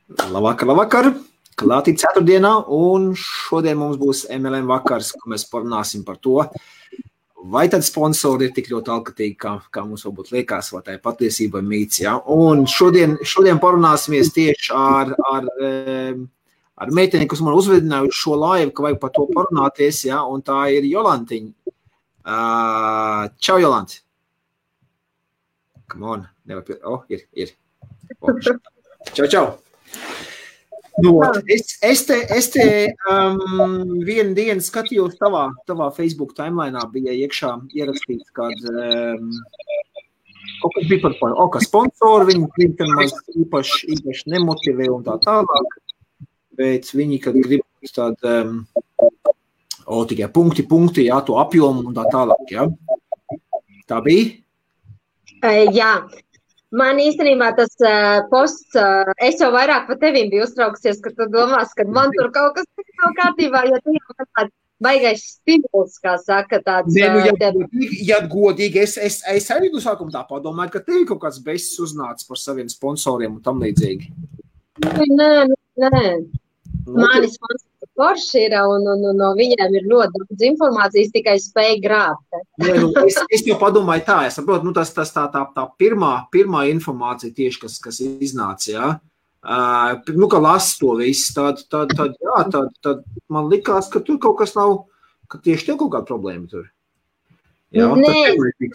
Labvakar. Klātī ceturtdienā, un šodien mums būs MLM vakars, ko mēs parunāsim par to, vai tad sponsori ir tik ļoti alkatīgi, kā mums varbūt liekas, vai tā ir patiesība mīts, ja? Un šodien parunāsimies tieši ar meiteni, kas man uzvedināja uz šo laivu, ka vajag par to parunāties, ja? Un tā ir Jolantiņa. Čau, Jolanti! Come on, ir. Čau! Nu, es te vienu dienu skatījos tavā Facebook timelineā bija iekšā ierakstīts, kad kaut kas bija par ka sponsori, viņi maz īpaši nemotivē un tā tālāk, bet viņi, kad grib tikai punkti, jā, to apjomu un tā tālāk, jā. Tā bija? Jā. Man īstenībā tas posts, es jau vairāk par tevīm biju uztrauksies, ka tu domās, ka man tur kaut kas nav kārtībā, jo tu jau tāds baigais stimuls, kā saka, tāds... Ja godīgi, es arī no sākuma tā padomāju, ka tev kaut kāds besis uznācis par saviem sponsoriem un tam līdzīgi. Nē. Mani sponsori forši ir, un no viņiem ir ļoti daudz informācijas, tikai spēj grābt. Es jau padomāju tā, es saprotu, tas tā pirmā informācija tieši, kas iznāca, jā. Ka lasu to visu, tad man likās, ka tur kaut kas nav, ka tieši tev kaut kāda problēma tur. Jā,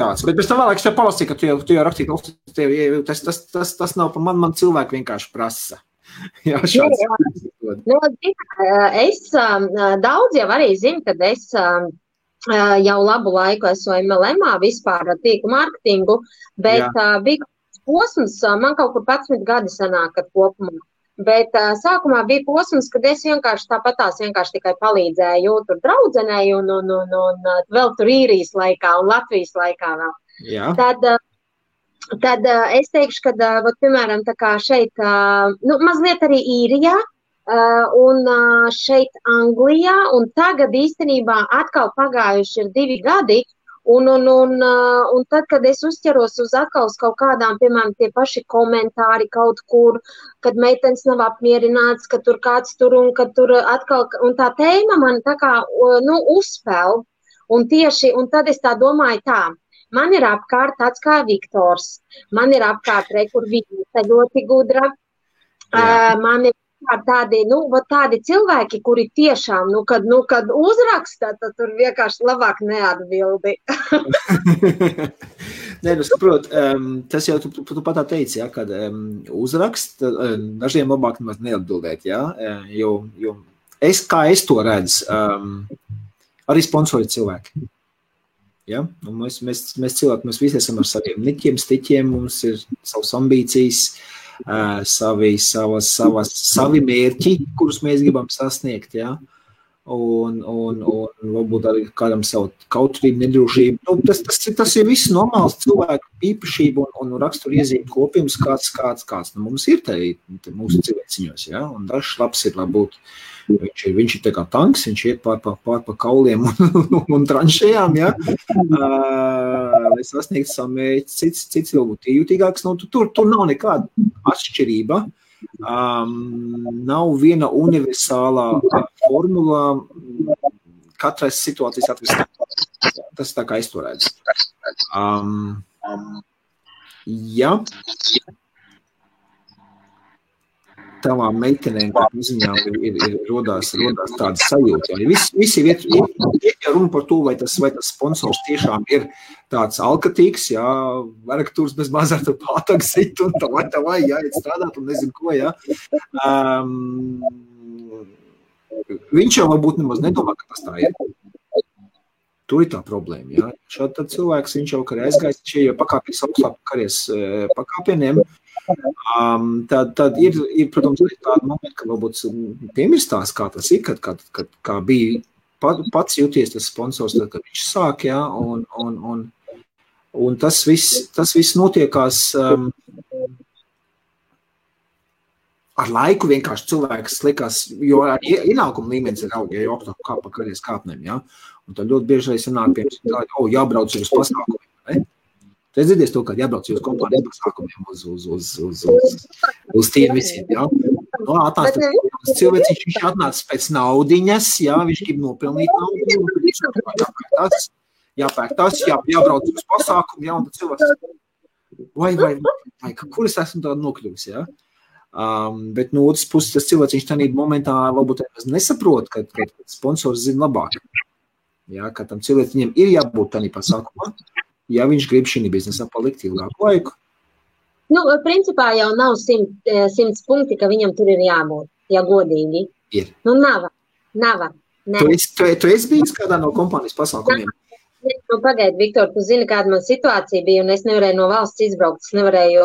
tāds. Bet pēc tam vēlāk es tev palasīju, ka tu jau rakstīji, tas nav pa man cilvēki vienkārši prasa. Jā, daudz jau arī zinu, kad es jau labu laiku esmu MLM-ā vispār tīklu mārketingu, bet bija posms, man kaut kur 11 gadi sanāk kopumā, bet sākumā bija posms, kad es vienkārši tikai palīdzēju tur draudzenei un vēl tur Īrijas laikā un Latvijas laikā vēl. Jā. Tad es teikšu, ka, piemēram, tā kā šeit, mazliet arī Īrijā un šeit Anglijā, un tagad īstenībā atkal pagājuši ir 2 gadi, un tad, kad es uzķeros uz atkal uz kaut kādām, piemēram, tie paši komentāri kaut kur, kad meitenes nav apmierināts, ka tur kāds tur un ka tur atkal, un tā tēma man tā kā, uzspēl, un tad es tā domāju tā. Man ir apkārt tāds kā Viktors, man ir apkārt kur viņa ļoti gudra, man ir tādi cilvēki, kuri tiešām, kad uzraksta, tad tur vienkārši labāk neatbildi. Nē, saprot, tas jau tu pat tā teici, ja, kad uzrakst, dažiem labāk nemaz neatbildēt, ja, jo kā es to redzu, arī sponsori cilvēki. Ja? Mēs cilvēki, mēs visi esam ar saviem niķiem, stiķiem, mums ir savas ambīcijas, savi mērķi, kurus mēs gribam sasniegt, ja? Un varbūt arī kādam savu kautrību, nedrošību. Tas ir viss normāls cilvēku īpašība un raksturiezīme kopījums, kāds mums ir mūsu cilvēciņos, ja? Un dažs labs ir labūt. Viņš ir tā kā tanks, viņš iet pār pa kauliem un tranšējām, ja? Lai sasniegtu savu mērķi, cits vēl būtu jūtīgāks. Tur nav nekāda atšķirība. Nav viena universālā formula katrai situācijas atrisināt. Tas tā kā es to redzu. Ja tavām meitenēm, kā ziņām, ir rodās tāda sajūta. Visi iet runa par to, vai tas sponsors tiešām ir tāds alkatīgs, jā, varakatūrs bez mazā tur pātāk sit un tā vai, jā, iet strādāt un nezinu ko, jā. Viņš jau varbūt nemaz nedomā, ka tas tā ir. Tur ir tā problēma, jā. Šādi tad cilvēks, viņš jau karē aizgājis, šie jau pakāpjas augstāk karēs pakāpieniem, tad ir, protams, tāda momenta, ka varbūt piemirstās, kā tas ir, kā bija pats jūties tas sponsors, tad, kad viņš sāk, jā, un tas viss notiekās ar laiku vienkārši cilvēks likās, jo ienākuma līmenis ir aug, ja jau augstāk kā pa karjeras kāpnēm, jā, un tad ļoti bieži arī sanāk, piemēram, jābrauc uz pasākumiem, ne? Tu esi dzirdējis to, ka jābrauc uz kompānijas pasākumiem uz tiem visiem, jā. Cilvēks viņš atnāca pēc naudiņas, jā, viņš grib nopelnīt naudu, jāpērk tas, jābrauc uz pasākumu, jā, un tad cilvēks, vai, kur es esmu tādu nokļuvis, jā? Bet no otras puses, tas cilvēks, viņš tādā momentā varbūt nesaprot, ka sponsors zina labāk. Jā, ka tam cilvēks viņam ir jābūt tādā pasākumā, ja viņš grib šī biznesā palikt ilgāku laiku. Nu, principā jau nav 100 punkti, ka viņam tur ir jābūt, ja godīgi. Ir. Nu, nav. Tu esi bijis kādā no kompānijas pasākumiem? Nu, pagaidi, Viktor, tu zini, kāda man situācija bija, un es nevarēju no valsts izbraukt, es nevarēju,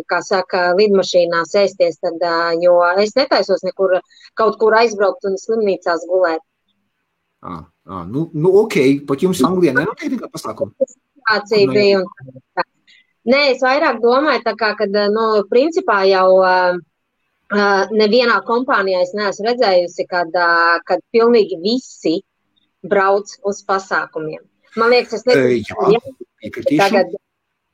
kā saka, lidmašīnā sēsties, tad, jo es netaisos nekur kaut kur aizbraukt un slimnīcās gulēt. Nu, ok, pat jums Anglijā nenotiek nekā pasākuma? Situācija bija un tā. Nē, es vairāk domāju, tā kā, kad, nu, principā jau nevienā kompānijā es neesmu redzējusi, kad pilnīgi visi brauc uz pasākumiem. Man liekas, es nezinu,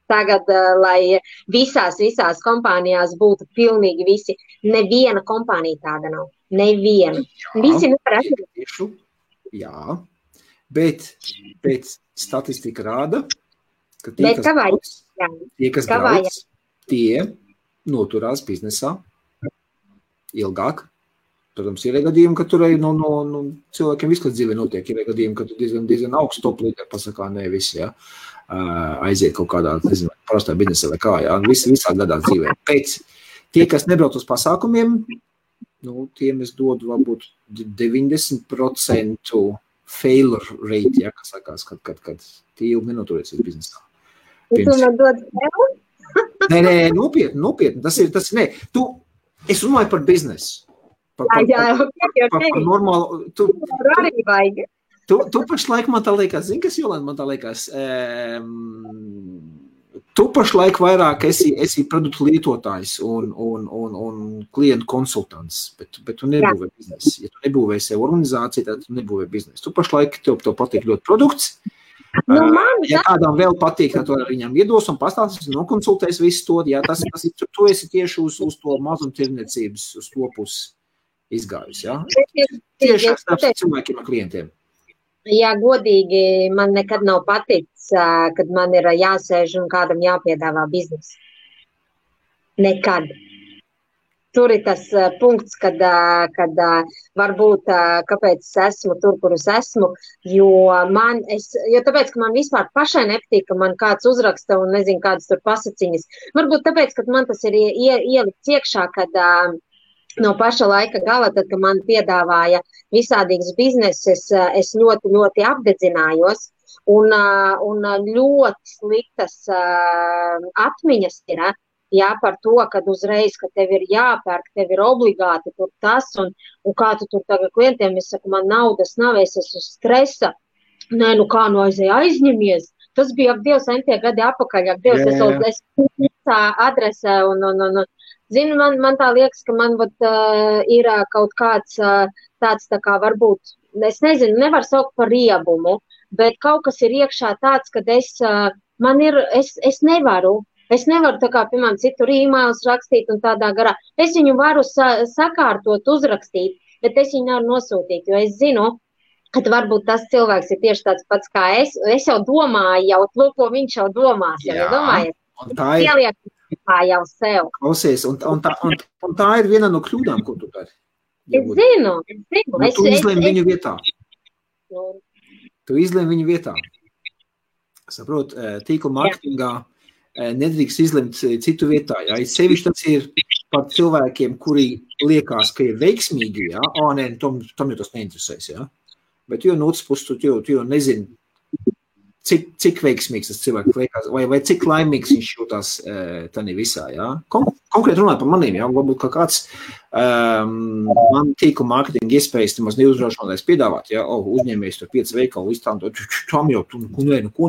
tagad, lai visās kompānijās būtu pilnīgi visi. Neviena kompānija tāda nav. Neviena. Visi nevar atrast. Jā, bet statistika rāda, ka tie, kas brauc, tie noturās biznesā ilgāk. Protams, ir gadījumi, ka tur cilvēkiem viss, kas dzīvē notiek, ir gadījumi, ka tu diezgan augsts top līderi pasakā, ne visi, jā, aiziet kaut kādā, nezinu, parastā biznesā vai kā, jā, visā gadā dzīvē. Pēc tie, kas nebrauc uz pasākumiem, nu, tiem es dodu varbūt 90% failure rate, jā, kas sakās, kad tie ilgi nenoturēs uz biznesā. Tu man dod fail? Nē, nopietni, tas ir, nē, es runāju par biznesu. Par normālu, tu pašlaik man tā liekas, zini, kas Jolanda man tā liekas, tu pašlaik vairāk esi produktu lietotājs un klientu konsultants, bet tu nebūvē biznesu. Ja tu nebūvē sev organizāciju, tad tu nebūvē biznesu. Tu pašlaik tev patīk ļoti produkts. Ja kādām vēl patīk, tad tu ar viņam iedos un pastāstīs, nokonsultēs visu to, ja tas tu esi tieši uz to mazumtirniecības, uz to pusi izgājusi, jā? Tieši ar cilvēkiem un klientiem. Jā, godīgi, man nekad nav paticis, kad man ir jāsēž un kādam jāpiedāvā biznesu. Nekad. Tur ir tas punkts, kad varbūt, kāpēc es esmu tur, kur es esmu, jo tāpēc, ka man vispār pašai nepatīk, ka man kāds uzraksta un nezinu, kādas tur pasaciņas. Varbūt tāpēc, ka man tas ir ielikts iekšā, kad no paša laika gala, tad, kad man piedāvāja visādīgas bizneses, es ļoti, ļoti apdedzinājos un ļoti sliktas atmiņas ir, jā, par to, kad uzreiz, ka tev ir jāpērk, tev ir obligāti tur tas un kā tu tur tagad klientiem, es saku, man naudas nav, es esmu stresa. Nē, nu kā, nu aizņemies. Tas bija Dievs entie gadi apakaļ, Dievs, es tā adresē un zinu, man tā liekas, ka man ir kaut kāds tāds tā kā varbūt, es nezinu, nevar saukt par riebumu, bet kaut kas ir iekšā tāds, kad es nevaru tā kā, piemēram, citur e-mails rakstīt un tādā garā. Es viņu varu sakārtot, uzrakstīt, bet es viņu nevaru nosūtīt, jo es zinu, ka varbūt tas cilvēks ir tieši tāds pats kā es. Es jau domāju, ko viņš jau domās. Jā, domājiet, un tā ir. Jau sev. Klausies, un tā ir viena no kļūdām, ko tu dari. Es zinu. Tu izlēmi viņu vietā. Tu izlēmi viņu vietā. Saprot, tīkla marketingā nedrīkst izlemt citu vietā. Jā. Sevišķi tas ir par cilvēkiem, kuri liekas, ka ir veiksmīgi. Jā. Nē, tam jau tas neinteresēs. Jā. Bet jo no otras puses, tu jau nezini, cik veiksmīgs tas cilvēks liekas, vai cik laimīgs viņš jūtās tādā visā, jā. Konkrēti runāt par maniem, jā, varbūt kā kāds man tīkla mārketinga iespējas nemaz neuzrašanās piedāvāt, jā, uzņēmējs tur 5 veikalu iztām, tam jau, ko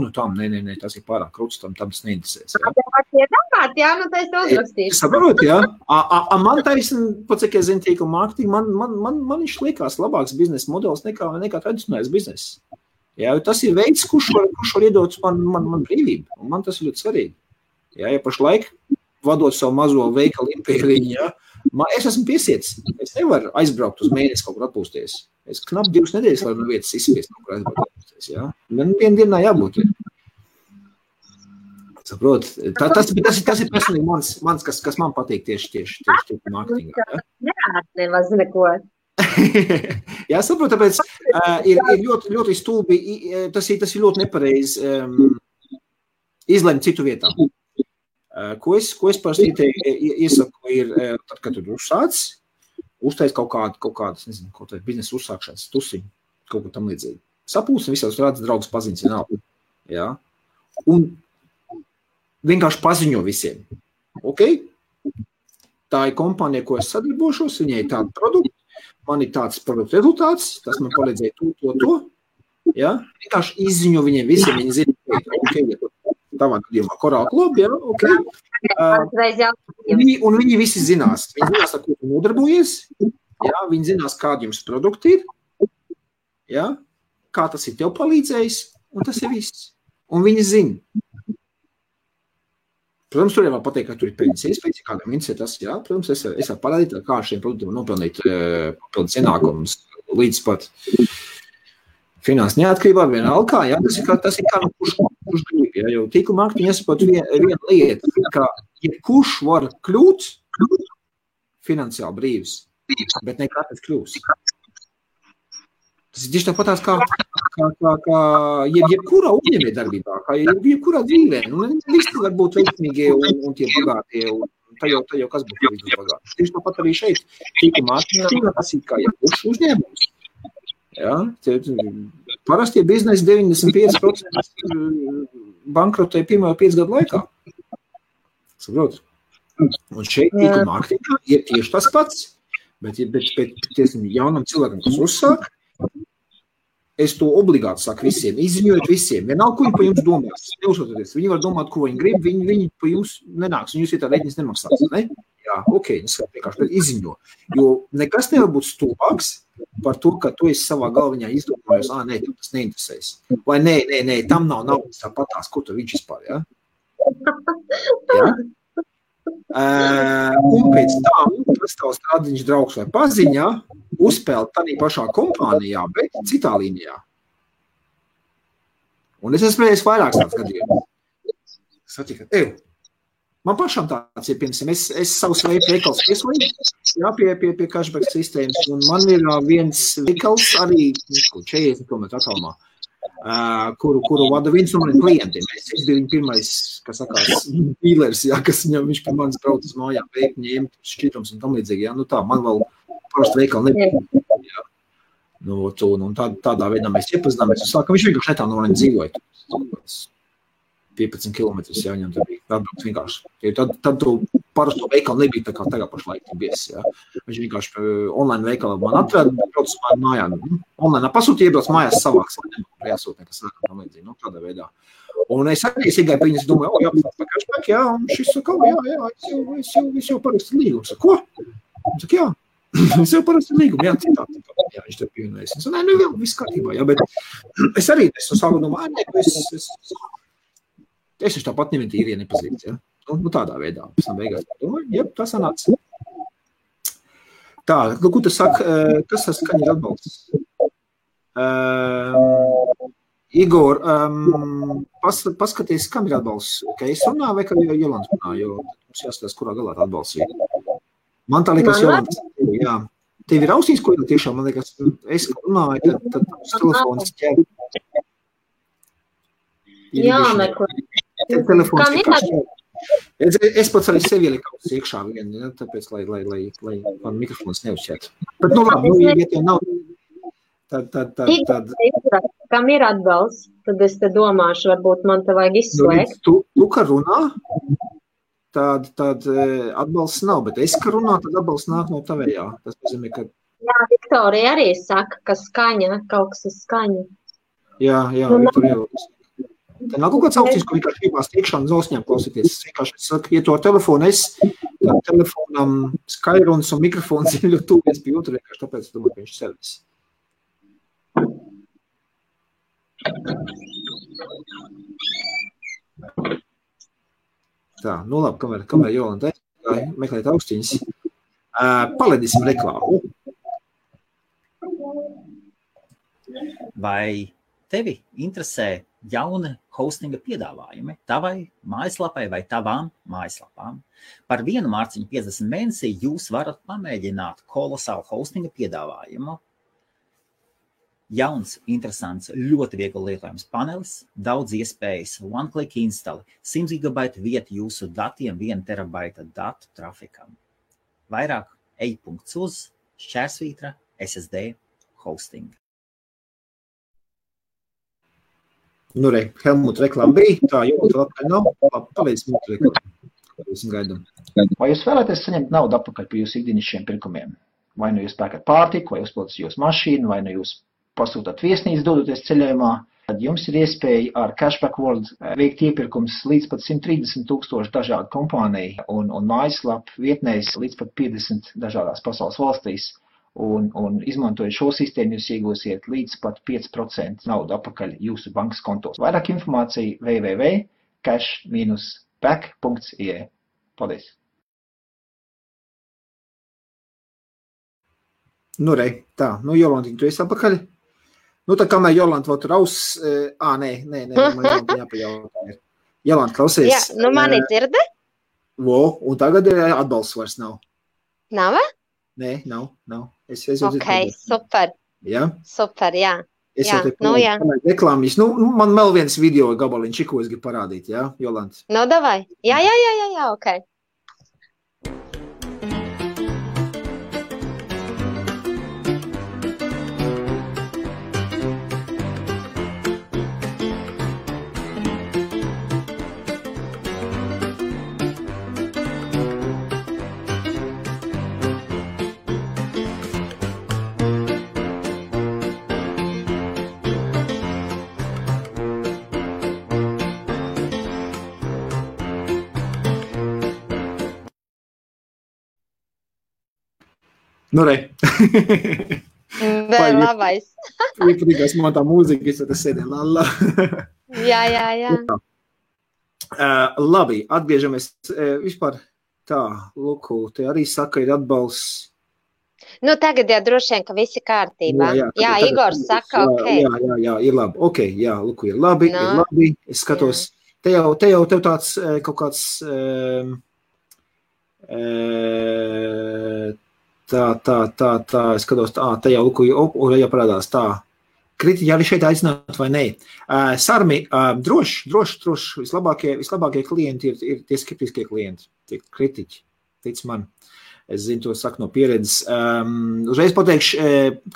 no tam, nē, tas ir pārāk krūts, tam tas neinteresēs, jā. Jā, nu tā es to uzrakstīšu. Saprot, jā. Man taisn, pat cik es zinu tīkla mārketinga, man viņš liekas labāks biznesa modelis nekā tradicionālais bizness. Jā, tas ir veids, kurš var iedot man brīvību, un man tas ir ļoti svarīgi. Jā, ja pašlaik vadot savu mazo veikalu impēriņu, ja, es esmu piesiets. Es nevaru aizbraukt uz mēnesi kaut kur atpūsties. Es knap 2 nedēļas varu no vietas izspiest kaut kur aizbraukt atpūsties, ja. Man vienu dienā jābūt. Saprot, tas ir personīgi mans kas man patīk tieši mārketingā. Ja? Nemaz neko. Jā, saprot, tāpēc ir ļoti stulbi, tas ir ļoti nepareizi izlemt citu vietā. Ko es parasti iesaku ir, tad, kad tu uzsāc, uztais kaut kādas, nezinu, kaut kāda biznesa uzsākšanas tusiņu, kaut ko tam līdzīgi. Sapūsim visās rādas draugus paziņas vienalga. Jā. Un vienkārši paziņo visiem. Ok? Tā ir kompānija, ko es sadarbošos, viņai ir tāda produkta, man ir tāds produktu rezultāts, tas man palīdzēja to. Ja? Vienkārši izziņo viņiem visiem, viņi zina, okay, tavā gadījumā Coral Club, ja? Ok. Un viņi visi zinās. Viņi zinās, ar ko tu nodarbojies, ja? Viņi zinās, kādi jums produkti ir, ja? Kā tas ir tev palīdzējis, un tas ir viss. Un viņi zina. Protams, tur jau pateikt, ka tur ir peļņas iespējas, kādam interesē tas, jā. Protams, es varu parādīt, kā šiem produktiem nopelnīt papildus ienākumus līdz pat finanses neatkarībā vienalga, jā. Tas ir kā no kurš grib, jā. Jo tīkla mārketinga jāsaprot viena lieta, ka jebkurš var kļūt finansiāli brīvs, bet ne katrs kļūs. Tas ir tieši tāpatās kā jebkurā uzņēmējdarbībā, kā jebkurā dzīvē. Visi var būt veiksmīgie un tie bagātie, un tā jau kas būtu bagāti. Tieši tāpat arī šeit, tīkla mārketingā, tas ir kā jebkurš uzņēmums. Ja? Parastie biznesi 95% bankrotē pirmajā 5 gadu laikā. Saprot? Un šeit tīkla mārketingā ir tieši tas pats, bet jaunam cilvēkam, kas uzsāk, es to obligāti saku visiem, izziņojot visiem. Vienalga, ko viņi pa jums domās. Neuzsototies. Viņi var domāt, ko viņi grib, viņi pa jums nenāks, un jūs ir tā reģinis nemaksās, ne? Jā, ok, vienkārši izziņo. Jo nekas nevar būt stulbāks par to, ka tu esi savā galviņā izdomājos, nē, tev tas neinteresēs. Vai nē, tam nav naudas tāpatās, ko tu viņš vispār, ja? Jā? Un pēc tam tas tavs strādiņš draugs vai paziņā uzspēlēt tādā pašā kompānijā, bet citā līnijā. Un es esmu vairāks tāds gadījums. Satika, man pašam tāds ir, piemēram, es savus veikals pieslēju, jā, pie cashback sistēmas, un man ir viens veikals arī 40 km attālumā, kuru vada viens no maniem klientiem. Es biju viņa pirmais, kas sakās, dīlers, jā, kas viņš pie manis brauc uz mājām, veikt, ņemt šķitrums un tam līdzīgi, jā, tā, man vēl parasti veikali nebija, jā. Un tādā veidā mēs iepazināmies un sākam, viņš vienkārši netā no maniem dzīvoja. 15 kilometrus, jā, viņam tā bija atbraukt vienkārši. Tad tu parasto veikalu nebija tā kā tagad pašlaik bies, jā. Viņš vienkārši online veikalā man atrada, brauc uz mājām. Online pasūtīja, iebrauc mājās savāks, jāsūt nekas sākam tam līdzīgi, tādā veidā. Un es arī iegāju pie viņas, domāju, jāpasāk pa cashback, jā, un šis saka, jā, es jau parakstu līgumu. Saka, ko? Viņš saka, jā. Es jau parasti līgumu, jā, citā, viņš te pievienojas. Es saku, nē, viss kārtībā, jā, bet es arī esmu sāku domāju, es tāpat nevienu īrija nepazīst, ja? Nu, tādā veidā. Pēc tam beigās domāju, jeb, tā sanāca. Tā, ko tu saki, kas tas skaņa ir atbalsts? Igor, paskaties, kam ir atbalsts? Ka es runāju vai ka Jolanta runāju, jo mums jāskatās, kurā galā tā atbalsts ir. Man tā liekas, Jolanta, jā. Tev ir ausīs, ko ir tiešām, man liekas, es runāju, tad telefons ķer. Jā, neko. Es pats arī sevi ieliku iekšā vienu, ja, tāpēc, lai man mikrofons neuzšķiet. Bet, labi, ja tev nav, tad... Kam ir atbalsts, tad es te domāšu, varbūt man te vajag izslēgt. Tu, ka runā, tad atbalsts nav, bet es, ka runā, tad atbalsts nāk no tavējā. Tas nozīmē, ka... Jā, Viktorija arī saka, ka skaņa, kaut kas ir skaņa. Jā, Viktorija jau... Tā nav kaut kāds augstīs, ko vienkārši gribās tiekšā un zosņām klausīties. Es vienkārši saku, ja to ar telefonu tad telefonam skairuns un mikrofons ir ļoti tuvies pie otru, vienkārši tāpēc es domāju, ka viņš servis. Tā, nu labi, kamēr Jolanta meklēt austiņas. Palaidīsim reklāmu. Vai tevi interesē jauni hostinga piedāvājumi tavai mājaslapai vai tavām mājaslapām? Par 1 mārciņu 50 mēnesī jūs varat pamēģināt kolosālu hostinga piedāvājumu. Jauns, interesants, ļoti viegli lietojams panelis, daudz iespējas, one-click instali, 100 GB vieta jūsu datiem, 1 terabaita datu trafikam. Vairāk ej.uz/SSD hosting. Nu, Helmut reklāma bija, tā Jolanta labkārt nav, palīdz mūsu reklāmu. Gaidam. Vai jūs vēlaties saņemt naudu atpakaļ par jūsu ikdienišķiem pirkumiem? Vai nu jūs pērkat pārtiku, vai uzpildat jūsu mašīnu, vai nu jūs pasūtāt viesnīcu dodoties ceļojumā, tad jums ir iespēja ar Cashback World veikt iepirkums līdz pat 130,000 dažādu kompāniju un mājaslapu vietnēs līdz pat 50 dažādās pasaules valstīs. Un izmantojot šo sistēmu, jūs iegūsiet līdz pat 5% naudu atpakaļ jūsu bankas kontos. Vairāk informācija www.cash-back.ie. Paldies! Nu, tā, Jolantiņ, tu esi apakaļ? Nu, tā kamēr Jolanta vēl tur nē, man jāpajautā. Jolanta, klausies. Jā, nu mani dzirde? Un tagad atbalsts vairs nav. Nav? Nē, nav. Ok, super. Jā? Super, jā. Es jau te reklāmīs. Man vēl viens video gabaliņš, ko es gribu parādīt, jā, Jolanta? Nu, davai. Jā, ok. Nu, Vēl labais. Iepatīkās man tā mūzika, es tas sēdēju lala. Jā. Labi, atgriežamies vispār tā, Luku, te arī saka, ir atbalsts. Nu, tagad jau droši vien, ka visi kārtībā. Jā, Igors saka, ok. Jā, ir labi. Ok, jā, Luku, ir labi, ir labi. Es skatos, te jau tev tāds kaut kāds tā, es skatos, te jau Luku, jau parādās tā. Kritiķi arī šeit aicināt vai nē. Sarmi, droši, vislabākie klienti ir tie skeptiskie klienti, tie kritiķi, tic man. Es zinu, to saku no pieredzes. Uzreiz pateikšu,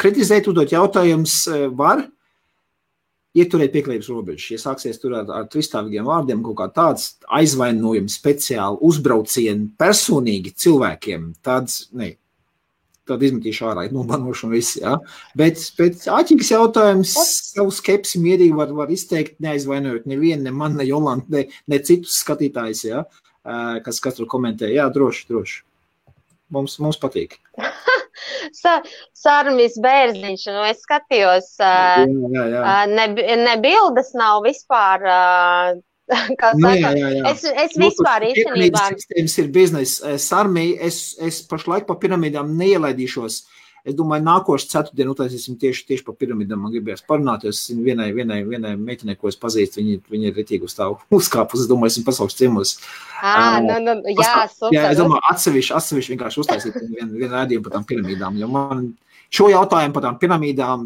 kritizēt, uzdot jautājums var ieturēt pieklājības robežas. Ja sāksies tur ar tristāvīgiem vārdiem, kaut kā tāds aizvainojumi speciāli uzbraucieni personīgi cilvēkiem, tāds, ne. Tad izmetīšu ārā, nobanošu un viss, jā. Bet āķīgs jautājums, savu skepsi mierīgi var izteikt, neaizvainojot nevienu, ne man, ne Jolantu, ne citus skatītājus, jā, kas tur komentē. Jā, droši. Mums patīk. Sarmis Bērziņš, es skatījos, ne bildes nav vispār, kā saka, es vispār īstenībā. Sistēmas ir biznesa. Sarmī, es pašlaik pa piramīdām neielaidīšos. Es domāju, nākošu ceturtdienu utaisīsim tieši pa piramīdām. Man gribējās parunāties vienai meitenei, ko es pazīstu. Viņa ir retīgi uz tā uzkāpus. Es domāju, esmu pasaules ciemos. Super. Jā, es domāju, atsevišķi vienkārši uztaisīt vienu rādījumu par tām piramīdām. Jo man šo jautājumu par tām piramīdām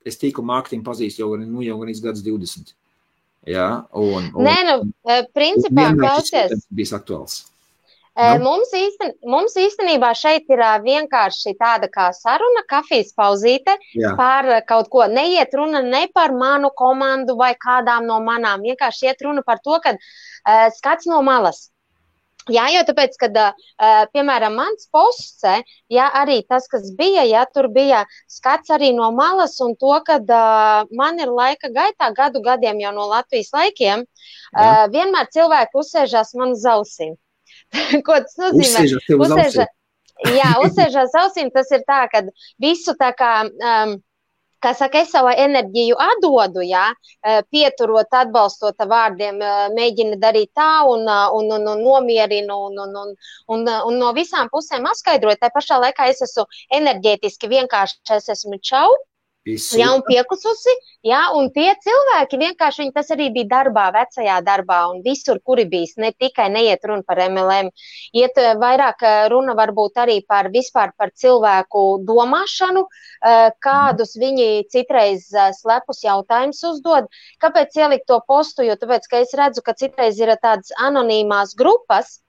es tīklu mārketingu pazīstu jau gan gadus 20. Jā, principā, klausies. Bijis aktuāls. Mums īstenībā šeit ir vienkārši tāda kā saruna, kafijas pauzīte par kaut ko. Neiet runa ne par manu komandu vai kādām no manām. Vienkārši iet runa par to, ka skats no malas. Jā, jo tāpēc, kad, piemēram, mans posts, arī tas, kas bija, tur bija skats arī no malas un to, kad man ir laika gaitā, gadiem jau no Latvijas laikiem, vienmēr cilvēki uzsēžās man uz ausīm. Ko tas nozīmē? Uzsēžās ausīm, tas ir tā, ka visu tā kā kā saka, es savu enerģiju atdodu, jā, pieturot, atbalstot vārdiem, mēģina darīt tā un nomierinu un no visām pusēm apskaidroju. Tā pašā laikā es esmu enerģētiski vienkārši, es esmu čau. Jā, un piekususi, jā, un tie cilvēki vienkārši, viņi tas arī bija darbā, vecajā darbā, un visur, kuri bijis, ne tikai neiet runa par MLM, iet vairāk runa varbūt arī par vispār par cilvēku domāšanu, kādus viņi citreiz slepus jautājumus uzdod. Kāpēc ielikt to postu? Jo tāpēc, ka es redzu, ka citreiz ir tādas anonīmās grupas,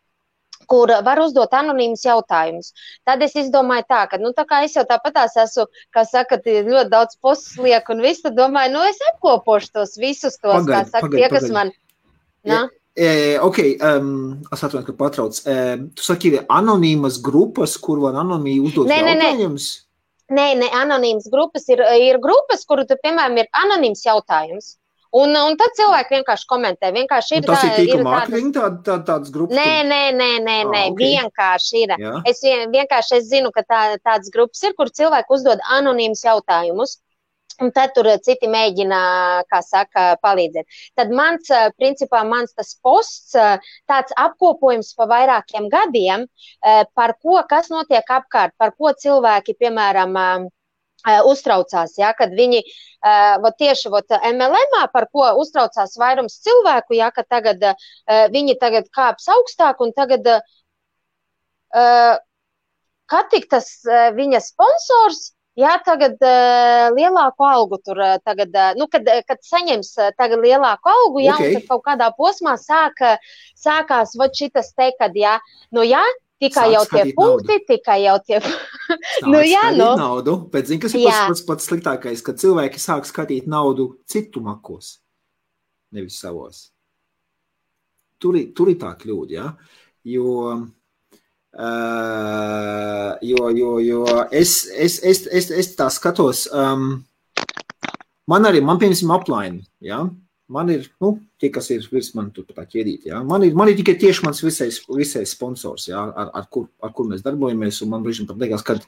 kur var uzdot anonīmus jautājumus. Tad es izdomāju tā, ka, tā kā es jau tāpatās esmu, kā saka, ļoti daudz postus lieku un visu, tad domāju, es apkopošu tos visus tos, kā saka, tie, kas man... Ok, es atvainu, ka patrauc. Tu saki, ir anonīmas grupas, kur var anonīmi uzdot jautājumus? Nē, anonīmas grupas ir grupas, kuru tu, piemēram, ir anonīms jautājums. Un tad cilvēki vienkārši komentē. Vienkārši ir tas ir tīkla mārketing tādas grupas? Nē, okay. Vienkārši ir. Jā. Es zinu, ka tādas grupas ir, kur cilvēki uzdod anonīmus jautājumus. Un tad tur citi mēģina, kā saka, palīdzēt. Tad principā mans tas posts, tāds apkopojums pa vairākiem gadiem, par ko, kas notiek apkārt, par ko cilvēki, piemēram, uztraucās, ja, kad viņi tieši MLM-ā, par ko uztraucās vairums cilvēku, ja, ka tagad viņi tagad kāps augstāk un tagad kad tik tas viņa sponsors, jā, tagad lielāku algu tur tagad, kad saņems tagad lielāku algu, jā, okay. Un tad kaut kādā posmā sākās šitas te, kad, jā, jā, tikai jau tie punkti, tikai jau tie... naudu, bet zini, kas ir pats sliktākais, kad cilvēki sāk skatīt naudu citu makos, nevis savos. Tur ir tā kļūda, ja? Jo es tā skatos, man piemēram upline, ja? Man ir, tie, kas ir virs man tur tā ķēdīt, ja? Man ir tikai tieši mans visais sponsors, ja? ar kur mēs darbojamies, un man brīžam pat liekas, kad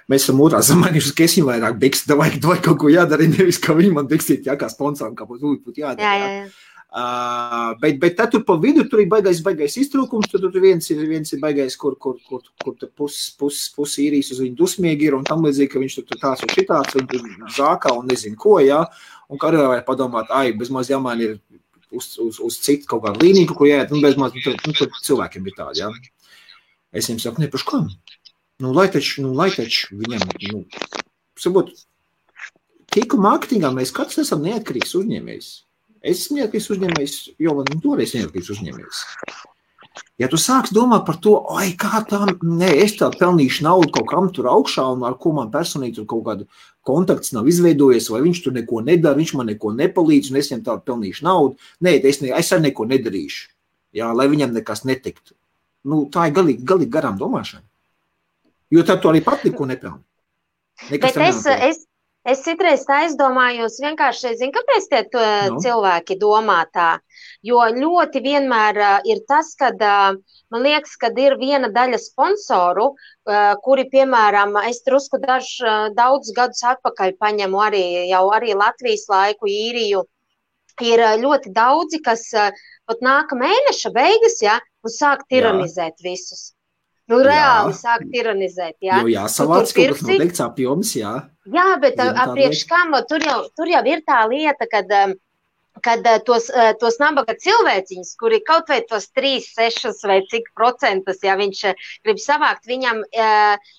mēs esam otrā samainījuši, ka es viņam vairāk bikst, vai kaut ko jādara, nevis, ka viņi man bikstīt, ja, kā sponsoram, kā būtu jādara. Jā. Bet tad tur pa vidu, tur ir baigais iztrūkums, tur viens ir baigais, kur pus īrijas uz viņu dusmīgi ir, un tam līdzīgi, ka viņš tur tās un šitāds, un tur zākā un nezinu ko, ja? Un kā arī vajag padomāt, bezmaz jāmaina ir uz citu kaut kādu līniju, ko jāiet, bezmaz, tur cilvēkiem ir tādi, ja. Es viņam saku, par kam? Lai taču viņam, sabot, tīku mārketingā mēs katrs esam neatkarīgs uzņēmējs. Es esmu neatkarīgs uzņēmējs, jo man toreiz neatkarīgs uzņēmējs. Ja tu sāks domāt par to, kā tā, es tā pelnīšu naudu kaut kam tur augšā, un ar ko man personīgi tur kaut kādu kontakts nav izveidojies, vai viņš tur neko nedara, viņš man neko nepalīdz, un es viņam tā pelnīšu naudu. Nē, es arī neko nedarīšu, jā, lai viņam nekas netiktu. Tā ir galīgi garām domāšana. Jo tad tu arī pat neko nepelni. Bet es citreiz tā aizdomājos vienkārši, zinu, kāpēc tie cilvēki domā tā, jo ļoti vienmēr ir tas, kad man liekas, kad ir viena daļa sponsoru, kuri, piemēram, es drusku daudz gadus atpakaļ paņemu arī Latvijas laiku, īriju, ir ļoti daudzi, kas pat nāka mēneša beigas, ja, un sāk tiranizēt visus. Reāli sāk tiranizēt, jā. Jo jāsavāc kaut kas noteikts apjoms, jā. Jā, bet apriekš kam, tur jau ir tā lieta, kad tos nabaga cilvēciņus, kuri kaut vai tos 3, 6 vai cik procentus, ja viņš grib savākt, viņam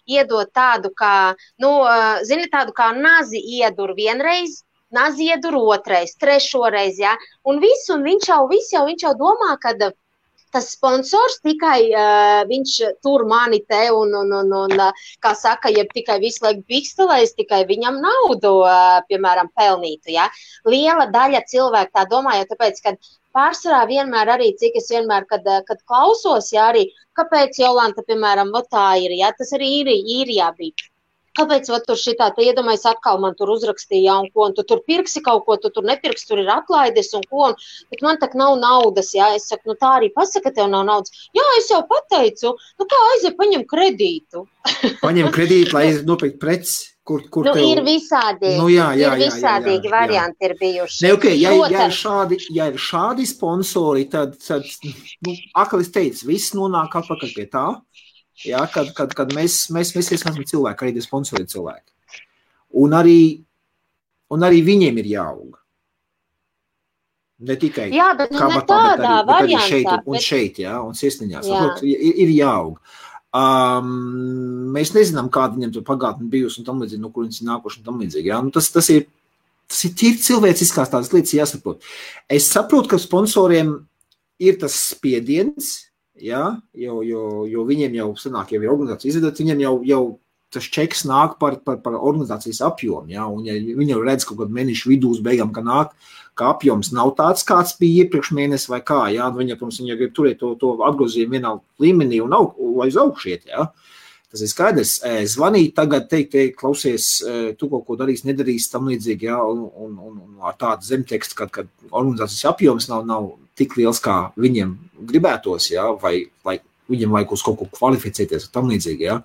iedot tādu kā, tādu kā nazi iedur vienreiz, nazi iedur otrais, trešoreiz, ja, un viņš jau domā, kad tas sponsors tikai viņš tur mani te un kā saka, ja tikai visu laiku bikstelēs, tikai viņam naudu, piemēram, pelnītu, ja. Liela daļa cilvēku tā domā, jo tāpēc, kad pārsvarā vienmēr arī, cik es vienmēr, kad klausos, ja arī, kāpēc Jolanta, piemēram, tā ir, ja, tas arī īrijā bija. Kāpēc tur šitā, te iedomājas atkal man tur uzrakstīja, un ko, un tu tur pirksi kaut ko, tu tur nepirksi, tur ir atlaides, un ko, bet man tak nav naudas, jā, es saku, tā arī pasaka, tev nav naudas. Jā, es jau pateicu, kā aiziet, paņem kredītu. Paņem kredītu, lai nopirkt preci. Kur ir visādīgi, visādīgi varianti ir bijuši. Ne, okay, ja ir šādi sponsori, tad akalis teica, viss nonāk atpakaļ pie tā, kad mēs esam cilvēki, arī tie sponsori cilvēki. Un arī viņiem ir jāaug. Ne tikai kabatā, bet arī šeit, un sirsniņās. Ir jāaug. Mēs nezinām, kāda viņam tur pagātne bijusi un tam līdzīgi, no kur viņas ir nākuši un tam līdzīgi. Ja? Tas ir tīri cilvēciskās tādas lietas jāsaprot. Es saprotu, ka sponsoriem ir tas spiediens, ja? jo viņiem jau sanāk, jau ir organizācija izvedot, viņiem jau tas čeks nāk par organizācijas apjomu, ja? Un ja viņi jau redz kaut kādu mēnešu vidū uz beigām, ka apjoms nav tāds, kāds bija iepriekš mēnesi vai kā, ja? Viņa, protams, viņa grib turēt to atgrozījumu vienā līmenī un aiz augšiet, ja? Tas ir skaidrs. Zvanīt tagad, teikt, klausies, tu kaut ko darīs, nedarīs, tam līdzīgi, ja? Un ar tādu zemtekstu, kad organizācijas apjoms nav tik liels, kā viņiem gribētos, ja? Vai viņiem vajag uz kaut ko kvalificēties, tam līdzīgi, ja?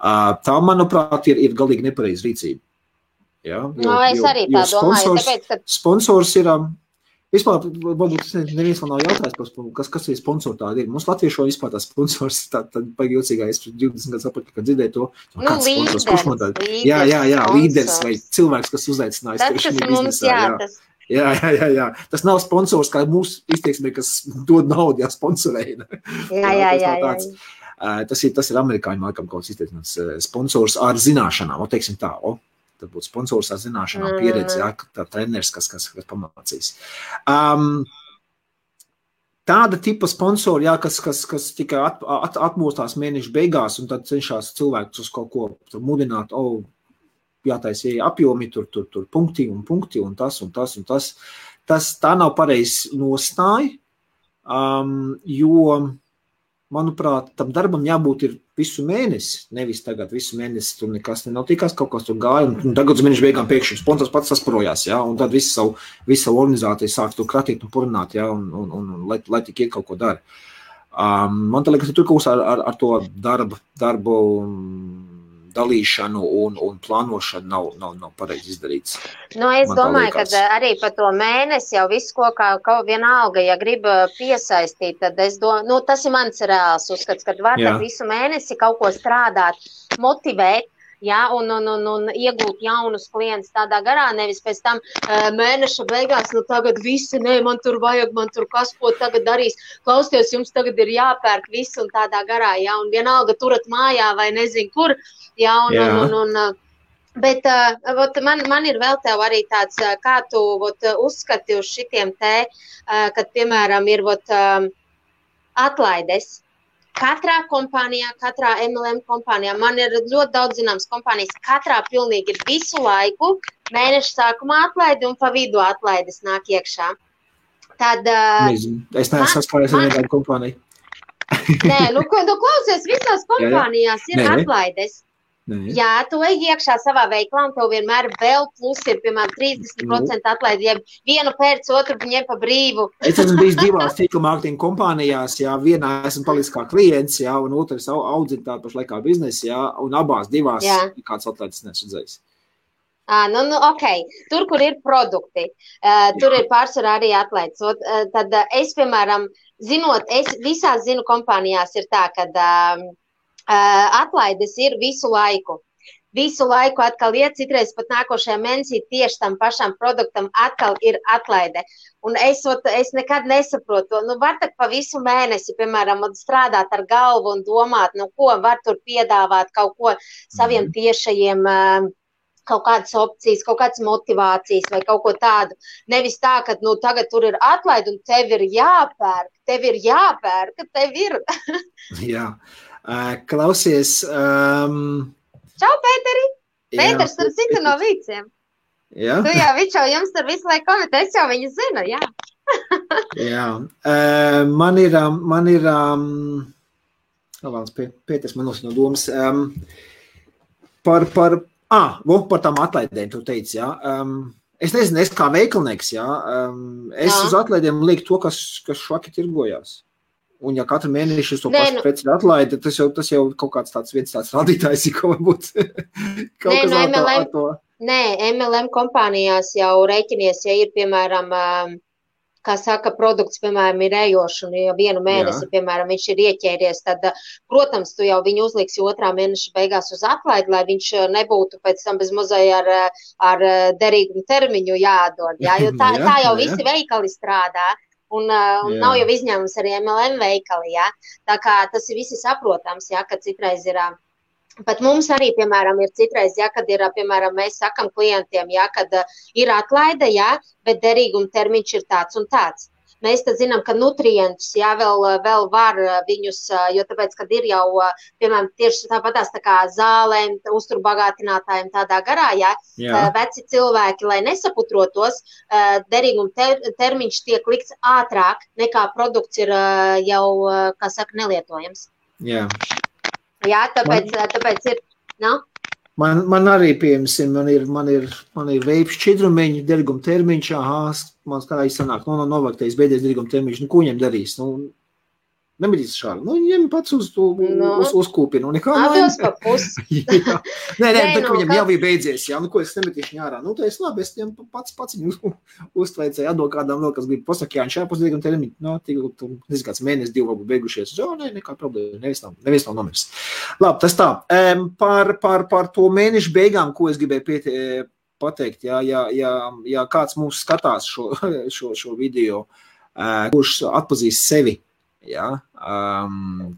Tā, manuprāt, ir galīgi nepareiza rīcība. Ja? Es arī tā domāju. Tāpēc, ka... Sponsors ir, vispār, varbūt neviens man nav jautājis, kas ir sponsori tādi ir. Mums latviešu vispār tā sponsors, tad paigi jocīgā, es 20 gadus atpakaļ, kad dzirdēju to. Kāds sponsors, kurš man tādi? Jā, līderis vai cilvēks, kas uzaicinājis. Tas, kas mums jātas. Jā. Tas nav sponsors, kā mūsu izteiksmē, kas dod naudu, sponsorēja. Jā. Tas ir amerikāņu laikam kaut kāds izteicināts sponsors ar zināšanām, teiksim tā, tad būtu sponsors ar zināšanām, pieredzi, tā treneris, kas pamācīs. Tāda tipa sponsori, kas tikai atmostās mēneša beigās un tad cenšas cilvēkus uz kaut ko mudināt, jātaisa apjomi, tur punkti un tas. Tā nav pareizi nostāja, jo manuprāt, tam darbam jābūt ir visu mēnesi, nevis tagad visu mēnesi tur nekas nenotikās, kaut kas tur gāja, un tagad uz mēnešu beigām pēkšņi sponsors pats sasparojās, ja, un tad visu savu organizāciju sāk tur kratīt un purināt, ja, un lai tik iet kaut ko dara. Man tā liekas, tur kaut kas ar to darbu dalīšanu un plānošanu nav pareizi izdarīts. Es domāju, ka arī pa to mēnesi jau visu, ko vienalga, ja grib piesaistīt, tad tas ir mans reāls uzskats, kad var visu mēnesi kaut ko strādāt, motivēt, un iegūt jaunus klientus tādā garā, nevis pēc tam mēneša beigās, tagad visi, man tur vajag, man tur kas, ko tagad darīs, klausties, jums tagad ir jāpērk visu un tādā garā, un vienalga turat mājā vai nezinu kur, bet man ir vēl tev arī tāds, kā tu uzskati uz šitiem kad, piemēram, ir atlaides. Katrā kompānijā, katrā MLM kompānijā, man ir ļoti daudz zināmas kompānijas, katrā pilnīgi ir visu laiku mēneša sākumā atlaidi un pa vidu atlaides nāk iekšā. Tad... Es neesmu saskāries ar vienādu kompāniju. Nē, klausies, visās kompānijās ir atlaides. Jā, tu ej iekšā savā veiklā un tev vienmēr vēl plus ir, piemēram, 30% atlaidi, ja vienu pēc otru ņem pa brīvu. Es esmu bijis divās tīkla mārketinga kompānijās, vienā esmu palicis kā klients, un otrs audzina tādu pašlaikā biznesu, un abās divās kāds atlaides nesadzējis. Ok. Tur, kur ir produkti, tur ir pārsvarā arī atlaides. Tad es, piemēram, es visās zinu kompānijās ir tā, kad atlaides ir visu laiku. Visu laiku atkal iet, citreiz pat nākošajā mēnesī tieši tam pašam produktam atkal ir atlaide. Un es nekad nesaprotu, var tak pa visu mēnesi, piemēram, strādāt ar galvu un domāt, ko var tur piedāvāt kaut ko saviem tiešajiem, kaut kādas opcijas, kaut kādas motivācijas vai kaut ko tādu. Nevis tā, ka tagad tur ir atlaide un tev ir jāpērk, tev ir. Jā. Klausies. Čau, Pēteri! Pēters tur cita no Vīciem. Jā. Tu jau, viņš jau jums tur visu laiku komentē, es jau viņu zinu, jā. Jā. Man ir Pēters man nosaka no domas. Par tām atlaidēm tu teici, jā. Es nezinu, kā veikalnieks, jā. Es uz atlaidēm lieku to, kas švaki tirgojās. Un ja katru mēneši to pašu preci ir atlaide, tas jau kaut kāds tāds rādītājs, ko varbūt kaut kas ar to. Nē, MLM kompānijās jau rēķinies, ja ir, piemēram, kā saka, produkts, piemēram, ir ejošs, un ja vienu mēnesi, piemēram, viņš ir ieķēries, tad, protams, tu jau viņu uzliksi 2. mēneša beigās uz atlaidi, lai viņš nebūtu pēc tam bez mazai ar derīgumu termiņu jādod, jā, jo tā jau visi veikali strādā, un nav jau izņēmums arī MLM veikali, jā, tā kā tas ir visi saprotams, jā, ka citreiz ir... Pat mums arī, piemēram, ir citreiz, ja, kad ir, piemēram, mēs sakam klientiem, ja, kad ir atlaide, ja, bet derīguma termiņš ir tāds un tāds. Mēs tad zinām, ka nutrientus, ja, vēl var viņus, jo tāpēc, kad ir jau, piemēram, tieši tāpatās tā kā zālēm, uzturbagātinātājiem tādā garā, ja, veci cilvēki, lai nesaputrotos, derīguma termiņš tiek likts ātrāk, nekā produkts ir jau, kā saka, nelietojams. Jā. Jā, tāpēc ir, Man arī, piemēram, man ir veips šķidrumiņi, derīguma termiņš, man kā sanāk, novāktējis beidzies derīguma termiņš, ko viņam darīs? Nemitīs šādi. Viņam pats uz kūpinu. Atdos pa pusi. Nē, viņam jau bija beidzies, jā, ko es nemitīšu ārā. Tā es labi, es viņam pats viņu uztveicēju, atdod kādām vēl, kas grib pasaka, jā, šajā pusdīgam termiņu, nezinu, kāds mēnesis, 2 varbūt beigušies. Nekā problēma, nevis nav nomirs. Labi, tas tā. Par to mēnešu beigām, ko es gribēju pateikt, ja kāds mūs skatās šo video, kurš atpazīst sevi, jā,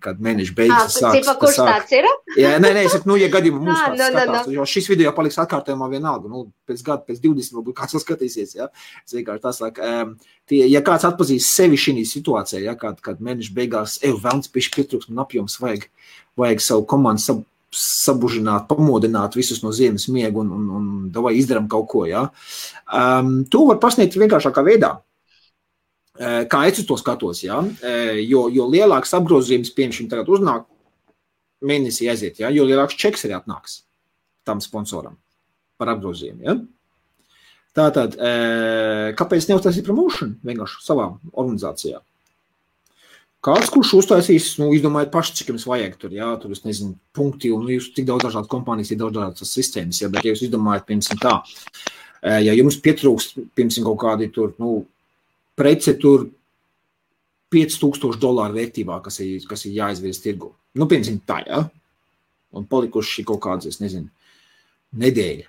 kad mēneši beigas sāks. Kurš tāds ir? Jā, nē, es saku, ja gadījumā mums kāds skatās, jo šis video paliks atkārtojumā vienalga, pēc gada, pēc 20 varbūt kāds skatīsies, jā. Es vienkārši tā saku, ja kāds atpazīst sevi šī situācijā, jā, kad mēneši beigās, velns pišķi pietrūks un apjoms vajag savu komandu sabužināt, pamodināt visus no ziemas miegu un davai izdaram kaut ko, jā. To var pasniegt vienkāršākā veidā. Kā es uz to skatos, jā, jo lielāks apgrozījums, piemēram, tagad uznāk, mēnesī aiziet, jā, jo lielāks čeks arī atnāks tam sponsoram par apgrozījumu, jā. Tātad, kāpēc neuztaisīt promotion vienkārši savā organizācijā? Kāds, kurš uztaisīs, izdomājiet paši, cik jums vajag tur, jā, tur, es nezinu, punkti, un jūs tik daudz dažādas kompānijas, ir daudz dažādas sistēmas, jā, bet ja jūs izdomājat, piemēram, tā, ja jums pietrūkst, piemēram, kaut kādi tur, prece tur $5,000 vērtībā, kas ir jāizvirs tirgu. Piemēram, tā, jā. Un palikuši kaut kāds, es nezinu, nedēļa.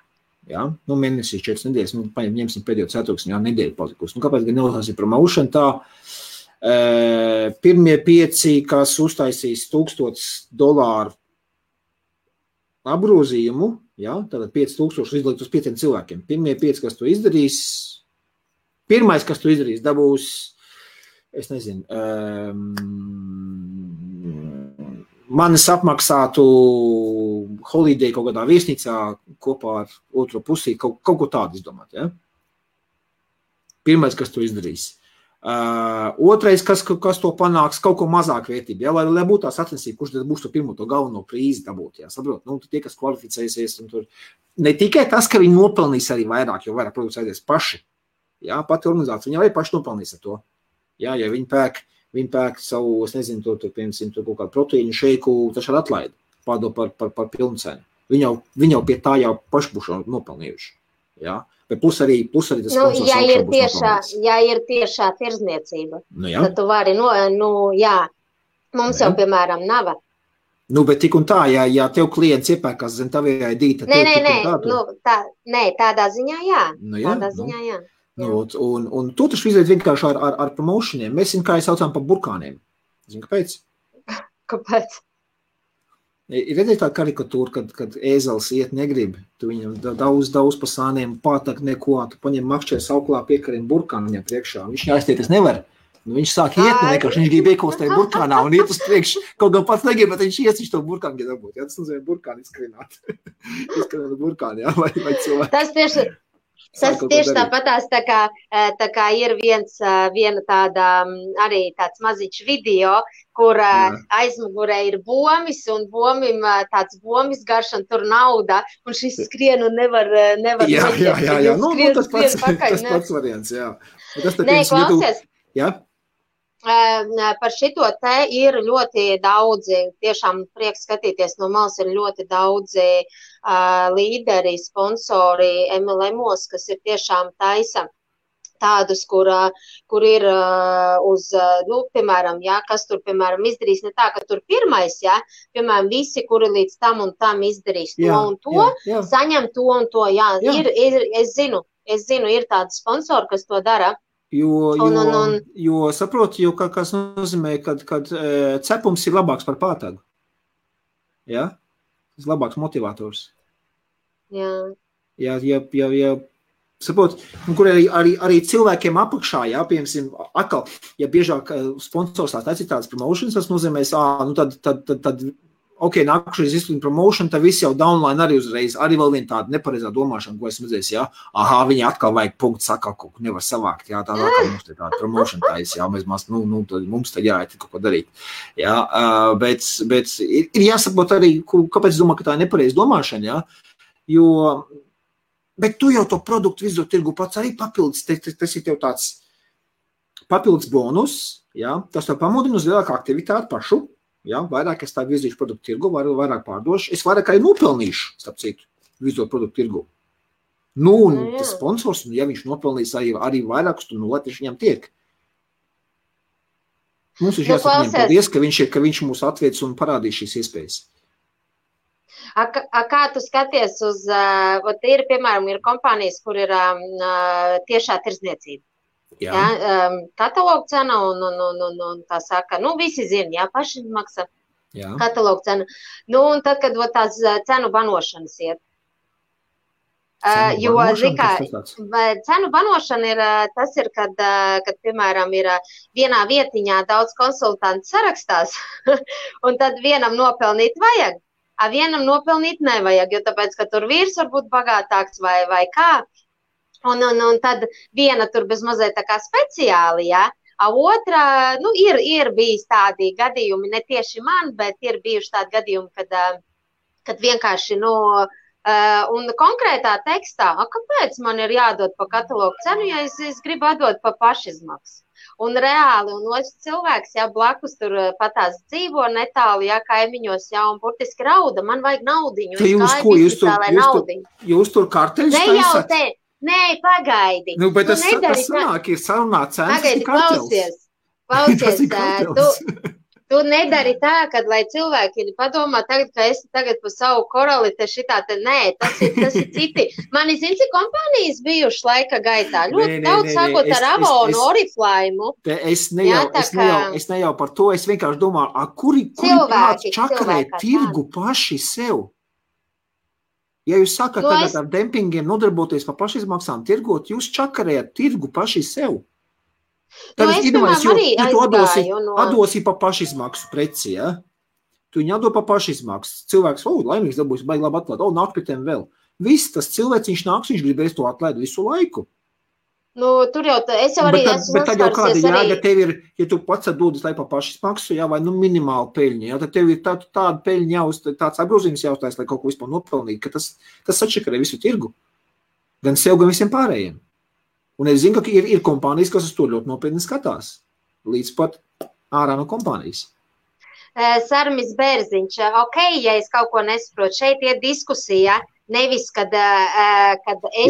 Jā. Mēnesī 4 nedēļas, ņemsim pēdējo ceturksni, jā, nedēļa palikusi. Kāpēc gan neuztaisīt promotion tā? Pirmie 5, kas uztaisīs $1,000 apgrozījumu, jā, tātad 5,000 izlikt uz 5 cilvēkiem. Pirmie 5, kas to izdarīs, pirmais, kas to izdarīs, dabūs, es nezinu, manis apmaksātu holiday kaut kādā viesnīcā kopā ar otro pusī, kaut ko tādu izdomāt, ja? Pirmais, kas to izdarīs. Otrais, kas to panāks, kaut ko mazāk vērtību, ja? Lai būtu tā sacensība, kurš tad būs to pirmo to galveno prīzi dabūt, ja? Saprot, tie, kas kvalificēsies, un tur ne tikai tas, ka viņi nopelnīs arī vairāk, jo vairāk produkts aizies paši. Jā, pati organizācija, viņi arī paši nopelnīs ar to. Jā, ja viņi pērk savu, es nezinu, piemēram, kaut kādu proteīnu šeiku, taču ar atlaidi, pārdod par pilnu cenu. Viņi jau pie tā jau paši būs nopelnījuši. Jā, bet plus arī tas sponsors augšā būs nopelnīts. Ja ir tiešā tirzniecība, tad tu vari, jā, mums jau, piemēram, nav. Bet tik un tā, ja tev klients iepērkās zem tavējā dīta, tādā ziņā, jā. Tādā ziņā, jā. Un to taču izveic vienkārši ar promotioniem. Mēs zinām, kā saucām par burkāniem. Zini, kāpēc? Kāpēc? Ir redzēt tā karikatūra, kad ēzels iet negrib. Tu viņam daudz pa sāniem, pātak neko, tu paņem makšķē sauklā piekariem burkānu viņam priekšā. Viņš jāiztieties nevar. Viņš sāk iet, vienkārši viņš grib iekostēt burkānā un iet uz priekšu. Kaut gan pats negrib, bet viņš to burkānu grib dabūt. Jā, tas nozīmē burkānu izskrināt. Izskrināt burkānu, jā, vai cilvēki. Tas tieši tāpatās tā kā ir viena tāda arī tāds maziņš video, kur aizmugurē ir bomis un bomim tāds bomis garš un tur nauda un šis skrien un nevar Jā, tas pats variants, jā. Nē, klausies. Jā? Par šito te ir ļoti daudzi, tiešām prieks skatīties no malas, ir ļoti daudzi līderi, sponsori MLM-os, kas ir tiešām taisa tādus, kur ir uz, piemēram, kas tur, piemēram, izdarīs ne tā, ka tur pirmais, piemēram, visi, kuri līdz tam un tam izdarīs to un to, saņem to un to, es zinu, ir tādi sponsori, kas to dara. Jo saproti, kas nozīmē, kad cepums ir labāks par pātagu. Ja? Tas ir labāks motivators. Ja saproti, kur arī cilvēkiem apakšā, piemēram, atkal, ja biežāk sponsors tās ir tādas promotions, tas nozīmēs, tad ok, nākušies izsludina promotion, tad viss jau downline arī uzreiz, arī vēl viena tāda nepareizā domāšana, ko esmu redzējis, viņi atkal vajag punktu sakā, kaut ko nevar savākt, tā atkal mums te tāda promotion taisa, mums tad jāiet kaut ko darīt. Bet ir jāsaprot arī, kāpēc es domāju, ka tā ir nepareiza domāšana, bet tu jau to produktu visu tirgu pats arī papildus, tas ir tev tāds papildus bonus, tas tev pamudina uz lielāku aktivitāti pašu, vairāk es tā virzīšu produktu tirgu, vairāk pārdošu, es vairāk arī nopelnīšu, starp citu, virzot produktu tirgu. Un tas sponsors, ja viņš nopelnīs arī vairākus, tad lai tieši viņam tiek. Mums ir jāsaka viņam paldies, ka viņš mūs atviec un parādīs šīs iespējas. Kā tu skaties uz, piemēram, ir kompānijas, kur ir tiešā tirdzniecība? Katalogu cena un tā saka, visi zina, pašizmaksa katalogu cena. Un tad, kad tās cenu banošanas iet. Cenu banošana ir, tas ir, kad kad, ir vienā vietiņā daudz konsultantu sarakstās, un tad vienam nopelnīt vajag, vienam nopelnīt nevajag, jo tāpēc, ka tur vīrs var būt bagātāks vai kā. Un tad viena tur bez mazliet tā kā speciāli, otra, ir bijis tādi gadījumi, ne tieši man, bet ir bijuši tādi gadījumi, kad vienkārši, un konkrētā tekstā, kāpēc man ir jādod pa katalogu cenu, ja es gribu atdot pa pašizmaksu? Un reāli, un otrs cilvēks, blakus tur patās dzīvo netālu, kaimiņos, un burtiski rauda, man vajag naudiņu, jūs tur karteļus taisat? Nē, pagaidi. Bet tas sanāk, ir sarunā cenas, pagaidi, klausies, tu nedari tā, kad, lai cilvēki padomā tagad, ka esi tagad pa savu korali, nē, tas ir citi. Mani zini, cik kompānijas bijuši laika gaitā, ļoti daudz sākot ar Avonu, Oriflaimu. Es ne jau par to, es vienkārši domāju, kuri cilvēki čakarē tirgu paši sev? Ja jūs sakat tagad ar dempingiem nodarboties pa pašizmaksām tirgot, jūs čakarējat tirgu paši sev. Tad es domāju, tu atdosi pa pašizmaksu preci, Tu viņu atdo pa pašizmaksu. Cilvēks, laimīgs dabūs, baigi labi atklāt, nāk pie tiem vēl. Viss tas cilvēks, viņš nāks, viņš gribēs to atlaid visu laiku. Tur jau, es jau arī esmu bet tad jau kāda jēga tev ir, ja tu pats atdodas lai pa pašizmaksu, vai minimāli peļņa, tad tev ir tāda peļņa tāds apgrozījums jāuztais, lai kaut ko vispār nopelnīt, ka tas sačakarē visu tirgu. Gan sev, gan visiem pārējiem. Un es zinu, ka ir kompānijas, kas uz to ļoti nopietni skatās. Līdz pat ārā no kompānijas. Sarmis Bērziņš, ja es kaut ko nesaprotu, šeit ir diskusija, nevis, kad es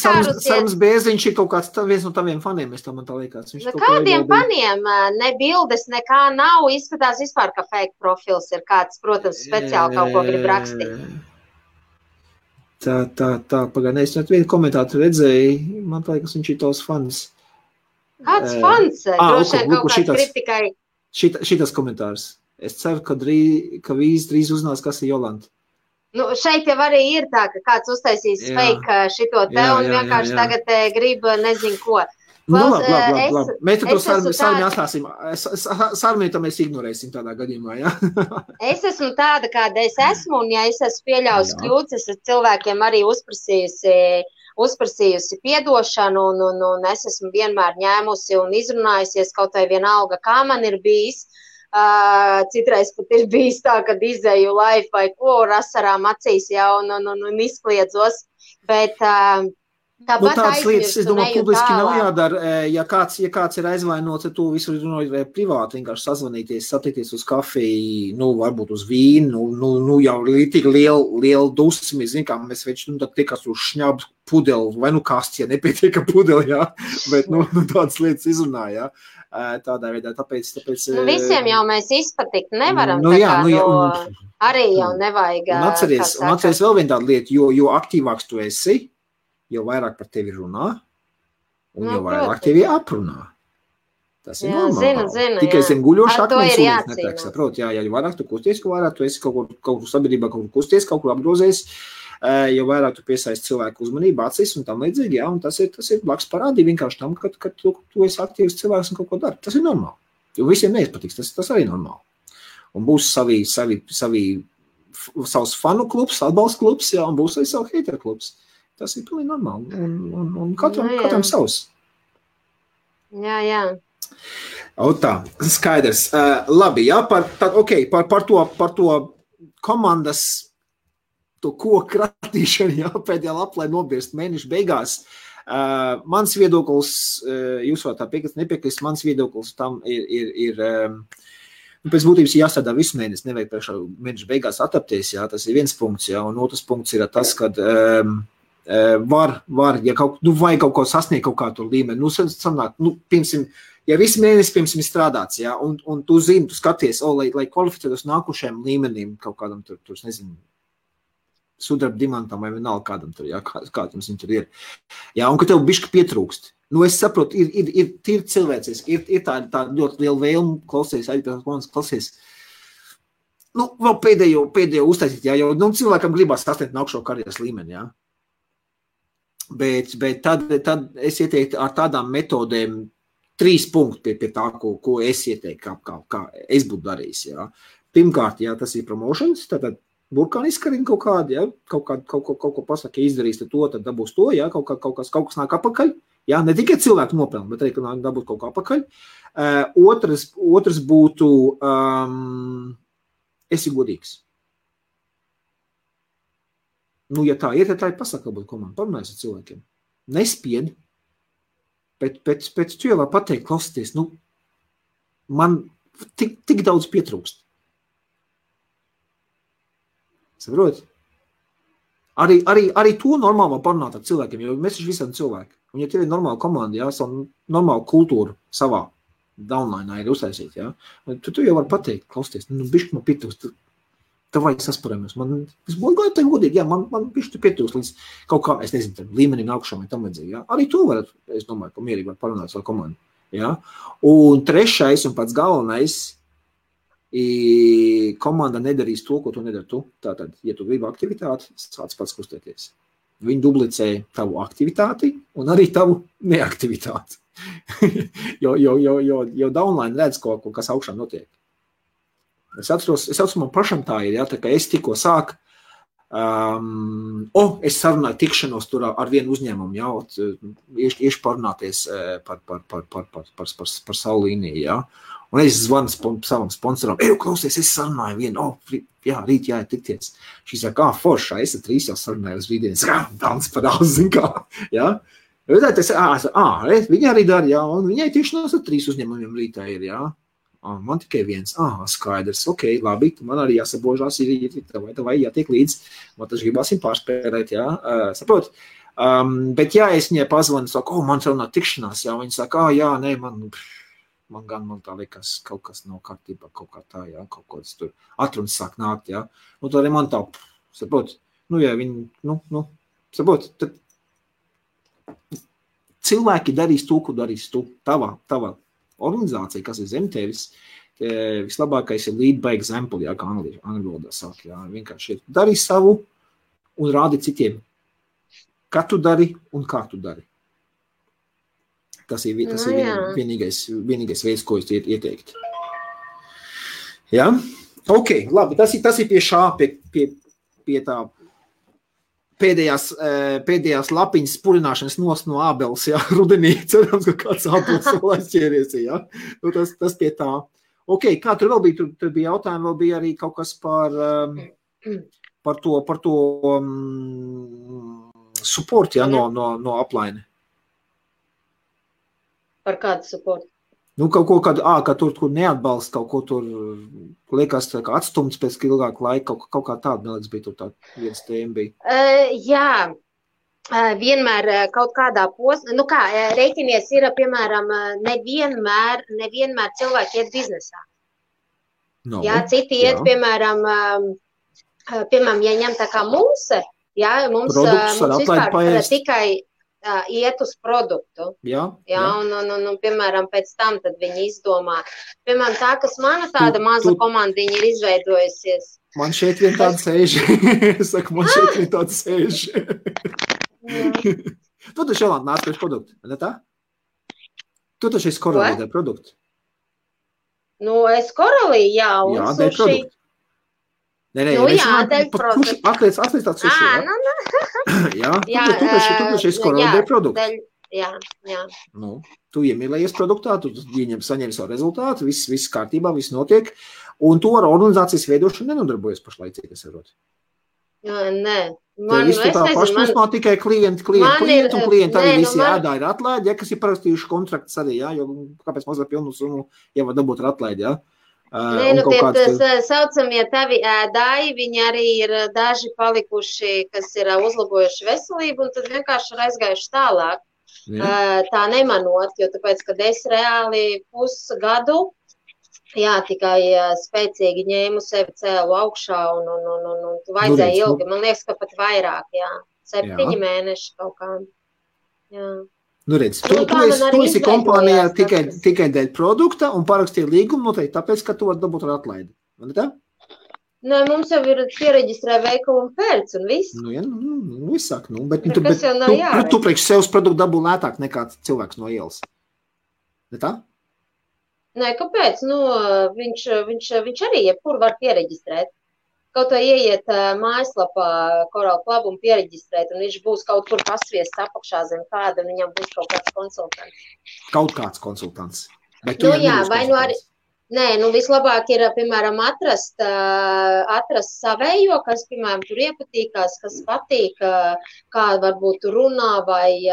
Sarmis Bērziņš ir kaut kāds viens no taviem faniem, man tā liekas. Kādiem faniem? Ne bildes, nekā nav, izskatās vispār, ka fake profils ir kāds, protams, speciāli kaut ko grib rakstīt. Tā, pagaidām, es vienu komentātu redzēju, man liekas, viņš ir tavs fans. Kāds fans? Droši vien kaut kāds kritikai. Šitas komentārs. Es ceru, ka vīz drīz uzzinās, kas ir Jolanta. Šeit jau arī ir tā, ka kāds uztaisīs fake šito te un vienkārši tagad grib nezinu ko. Labi. Mēs to sarunu atstāsim. Sarunu mēs ignorēsim tādā gadījumā, Es esmu tāda, kāda es esmu, un ja es esmu pieļaujusi kļūdas, es esmu cilvēkiem arī uzprasījusi piedošanu, un es esmu vienmēr ņēmusi un izrunājusies kaut vai vienalga, kā man ir bijis. Citreiz pat ir bijis tā, kad izēju live vai ko ar asarām acīs un izkliedzos, bet Tāpat tādas lietas, es domāju, aizmirstu, publiski nav neju tālāk. jādara. Ja kāds ir aizvainots, tad tu visur runāji privāti, vienkārši sazvanīties, satikties uz kafiju, varbūt uz vīnu, jau ir tik liela dusmi, zin kā mēs veči, tad tiekas uz šņabu pudeli, vai kasts, ja nepietiek pudeli, jā, bet, tādas lietas izrunāja, tādā veidā, tāpēc... Visiem jau mēs izpatikt nevaram, arī jau nevajag... Un atceries vēl viena tāda lieta, jo aktīvāks tu esi, jo vairāk par tevi runā, un jo vairāk tevi aprunā. Tas ir normāli. Zinu, tikai zem guļošu akmens ūdens netiek, saprot, jo vairāk tu kusties, jo vairāk tu esi kaut kur sabiedrībā, kaut kur kusties, kaut kur apgrozies, jo vairāk tu piesaisti cilvēku uzmanību, acis un tam līdzīgi, jā, un tas ir blakus parādīja vienkārši tam, ka tu esi aktīvs cilvēks un kaut ko dari. Tas ir normāli. Jo visiem neizpatiks, tas arī normāli. Un būs savs fanu klubs, atbalsta klubs, jā, un būs arī savu hateru klubs. Tas ir pilnīgi normāli, un katram savs. Jā. Tā, skaidrs. Labi, jā, par to komandas, to koku kratīšanu, jā, pēdējā lapā, lai nobirst mēneša beigās. Mans viedoklis, jūs varat tā piekrist, nepiekrist, mans viedoklis tam ir pēc būtības jāstrādā visu mēnesi, nevajag priekšā mēneša beigās atapties, jā, tas ir viens punkts, jā, un otrs punkts ir tas, kad var, ja vajag kaut ko sasniegt kaut kādu līmeni, sanāk, piemēram, ja visu mēnesi, piemēram, strādāts, jā, un tu zini, tu skaties, lai kvalificētos nākušajam līmenim, kaut kādam tur, nezinu, sudraba dimantam vai vienalga kādam tur, jā, kādam viņš tur ir. Jā, un ka tev bišķi pietrūkst. Es saprotu, ir tīri cilvēcis, ir tā ļoti liela vēlme klausies, klausies. Vēl pēdējo uztaisīt, jā, jo cilvēkam gribās sasniegt nākušo karjeras līmeni, jā. Bet tad es ieteiktu ar tādām metodēm 3 punkti pie tā, ko es ieteiktu, kā es būtu darījis, jā. Pirmkārt, jā, tas ir promotions, tātad burkāni izkarina kaut kādu, jā, kaut ko pasaka, ja izdarīs to, tad dabūs to, jā, kaut kas nāk apakaļ, jā, ne tikai cilvēku nopelni, bet arī, ka dabūt kaut kā apakaļ. Otrs būtu, esi godīgs. Ja tā ir, tad tā ir pasaka, būt komanda, parunājas ar cilvēkiem. Nespied, bet pēc tu jau var pateikt, klausieties, man tik daudz pietrūkst. Saprot? Arī to normāli var parunāt ar cilvēkiem, jo mēs taču visam cilvēki. Un ja tev ir normāla komanda, jā, savu normālu kultūru savā downline ir uztaisīt, jā, tu jau var pateikt, klausieties, bišķi man pietrūkst, tev vajag sasparamies. Es būtu tev godīgi, jā, man bišķi pietrūkst līdz kaut kā, es nezinu, līmenim nākušām vai tam vajadzīgi, jā. Arī to var, es domāju, ka mierīgi var parunāt savu komandu, jā. Un trešais un pats galvenais, komanda nedarīs to, ko tu nedari tu. Tātad, ja tu gribi aktivitāti, sāc pats kustēties. Viņi dublicē tavu aktivitāti un arī tavu neaktivitāti. jo downline redz, kas augšā notiek. Es atceros, man pašam tā ir, jā, tā kā es tikko sāku, es sarunāju tikšanos tur ar vienu uzņēmumu, jā, iešu parunāties par savu līniju, jā. Un es zvanu savam sponsoram, klausies, es sarunāju vienu, jā, rīt jāiet tikties. Šī saka, foršā, es ar 3 jau sarunāju uz rītdienas, dans par daudz, zin kā, jā. Viņa arī dara, jā, un viņai tikšanos ar 3 uzņēmumiem rītā ir, jā. Man tikai viens, skaidrs, ok, labi, man arī jāsabožās, vai jātiek līdz, man taču gribāsim pārspērēt, jā, saprot. Bet jā, es viņai pazvanu, saku, man sarunā tikšanās, jā, viņa saka, jā, nē, man tā liekas, kaut kas nav kārtībā, kaut kā tā, jā, kaut kāds tur atrunas sāk nākt, jā. Tad arī man tā, saprot, jā, viņi, saprot, tad cilvēki darīs to, ko darīs tu, tava organizācija, kas ir zem tevis, vislabākais ir lead by example, jā, kā angļu valodā sāk, jā, vienkārši dari savu un rādi citiem, kā tu dari un kā tu dari. Tas ir vienīgais veids, ko es ieteiktu. Jā? Ok, labi, tas ir pie šā, pie tā pēdējās lapiņas spurināšanas no ābeles, jā, rudenī, cerams, ka kāds ābeles vēl aizķēries, jā. Tas pie tā. Ok, kā tur vēl bija? Tur bija jautājumi, vēl bija arī kaut kas par to support, ja, no upline. Par kādu supportu? Nu, kaut ko, ka tur neatbalsta, kaut ko tur liekas kā atstumts pēc ilgāka laika, kaut kā tāda, neliekas, bija tur tā viens tēma bija. Jā, vienmēr kaut kādā posmā, nu kā, rēķinies ir, piemēram, nevienmēr cilvēki iet biznesā. No, jā, citi iet, piemēram, ja ņem tā kā mums vispār tikai iet uz produktu. Jā. Un, piemēram, pēc tam tad viņi izdomā. Piemēram, tā, kas mana tāda maza komandiņa ir izveidojusies. Man šeit vien tāda sēž. Es saku, man šeit vien tāda sēž. Tu taču Jolanta nāc pēc produktu, ne tā? Tu taču esi korelīdē produktu. Nu, es korelī, jā, un jā, dēļ produktu. Nē, jā, dēļ produktu. Atliec tāds suši, jā? Jā, tu taču esi korelīdē produktu. Jā. Nu, tu iemīlējies produktā, tu saņem savu rezultātu, viss kārtībā, viss notiek, un tu ar organizācijas veidošanu nenodarbojies pašlaicīgi, es varu. Nē. Man, visu tā pašplūsmā tikai klienti un klienti arī visi ēdā ir atlaidi, ja, kas ir parakstījuši kontraktus arī, jā, jo kāpēc mazliet pilnu summu jau var dabūt ar atlaidi, jā. Nē, nu tie saucamie tavi ēdāji, viņi arī ir daži palikuši, kas ir uzlabojuši veselību, un tad vienkārši ir aizgājuši tālāk. Tā nemanot, jo tāpēc, kad es reāli pusgadu, jā, tikai spēcīgi ņēmu sevi cēlu augšā un vajadzēja ilgi. Man liekas, ka pat vairāk, jā. 7 mēneši kaut kā. Jā. Nu redz, tu esi kompānijā tikai dēļ produkta un parakstīja līgumu noteikti tāpēc, ka tu vari dabūt ar atlaidi. Man ir tā? Nē, mums jau ir piereģistrē veikalu un pērc un viss. Nu, jā, viss sāk, bet tu priekš sevs produktu dabū lētāk nekā cilvēks no ielas. Ne tā? Nē, kāpēc? Nu, viņš arī jebkur var piereģistrēt. Kaut vai ieiet mājaslapā Coral Club un piereģistrēt, un viņš būs kaut kur pasviests apakšā zem kāda, un viņam būs kaut kāds konsultants. Kaut kāds konsultants. Nu jā, vai nu arī... Nē, nu vislabāk ir, piemēram, atrast savējo, kas, piemēram, tur iepatīkās, kas patīk, kā varbūt runā vai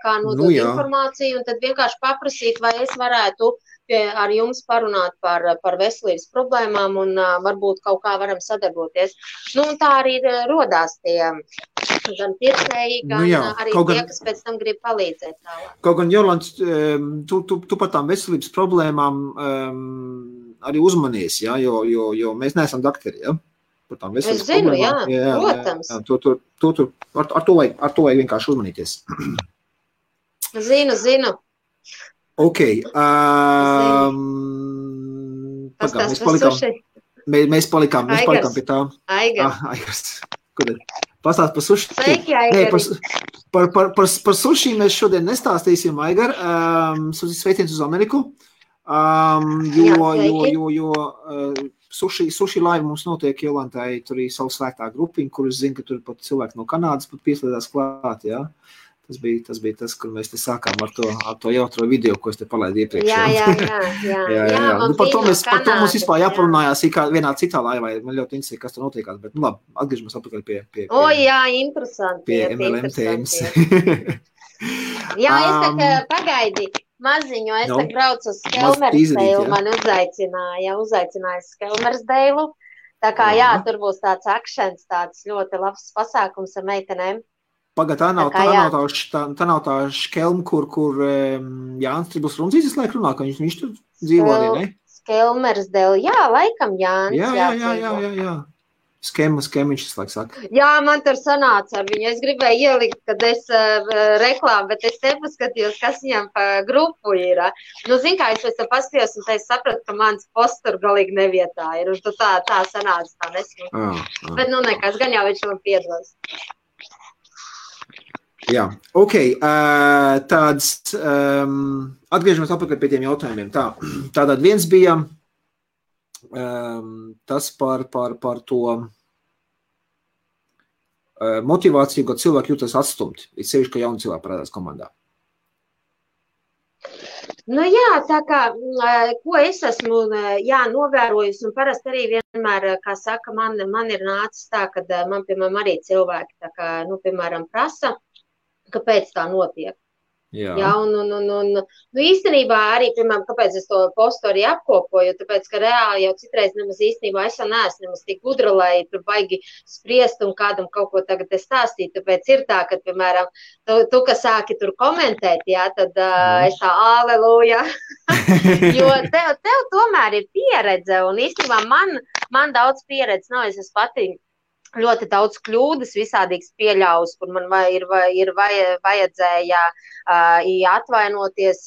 kā nodot informāciju, un tad vienkārši paprasīt, vai es varētu ar jums parunāt par veselības problēmām un varbūt kaut kā varam sadarboties. Nu, un tā arī rodās tie gan pircēji, gan arī tie, kas pēc tam grib palīdzēt tālāk. Kaut gan, Jolants, tu par tām veselības problēmām arī uzmanies, ja? Jo mēs neesam dakteri, ja? Par tām veselības problēmām. Es zinu, protams. Ar to vajag vienkārši uzmanīties. Zinu. Ok. Mēs palikām pie tā. Aigars. Pastāst par suši. Par suši mēs šodien nestāstīsim, Aigar. Sveiciens uz Ameriku. Jo suši laiva mums notiek Jolantai, tur ir savu svētā grupiņu, kur es zinu, ka tur pat cilvēki no Kanādas pat pieslēdās klāt, jā. Tas bija tas, kur mēs te sākām ar to jautro video, ko es te palaidu iepriekš. Jā. Nu, par to mums vispār jāparunājās vienā citā laivā. Man ļoti interesē, kas tur notiekās, bet nu labi, atgriežamies atpakaļ pie interesanti. Pie MLM tēmas. Jā, es tā pagaidi maziņu, es tā braucu uz Skelmersdeilu, man uzaicināja Skelmersdeilu. Tā kā jā, tur būs tāds akšens, tāds ļoti labs pasākums ar meitenēm. Pagad, tā nav tā škelma, kur Jānis Tribus Runzītis visu laiku runā, ka viņš tur dzīvo arī, ne? Skelmersdēļ, jā, laikam Jānis. Jā. Skema viņš visu laiku saka. Jā, man tur sanāca ar viņu. Es gribēju ielikt, kad es reklāmu, bet es nepaskatījos, kas viņam pa grupu ir. Nu, zin kā, es pēc tam paskatījos, un es sapratu, ka mans posts tur galīgi nevietā ir. Un tā sanāca, tā nesmu. Bet nu nekas, gan jau viņš man piedos. Jā, ok, tāds, atgriežamies atpakaļ pie tiem jautājumiem. Tātad viens bija tas par to motivāciju, kad cilvēki jūtas atstumti, ir sevišķi, ka jauni cilvēki parādās komandā. Nu jā, tā kā, ko es esmu novērojusi, un parasti arī vienmēr, kā saka, man ir nācis tā, ka man, piemēram, arī cilvēki, tā kā, piemēram, prasa, kāpēc tā notiek. Jā, un īstenībā arī, piemēram, kāpēc es to postu arī apkopoju, tāpēc, ka reāli jau citreiz nemaz īstenībā es jau neesmu nemaz tik gudra, lai tur baigi spriest un kādam kaut ko tagad stāstīt, tāpēc ir tā, ka, piemēram, tu kas sāki tur komentēt, jā, tad es tā, aleluja, jo tev tomēr ir pieredze, un īstenībā man daudz pieredze nav, es esmu pati ļoti daudz kļūdas visādīgas pieļaus, kur man ir vajadzēja atvainoties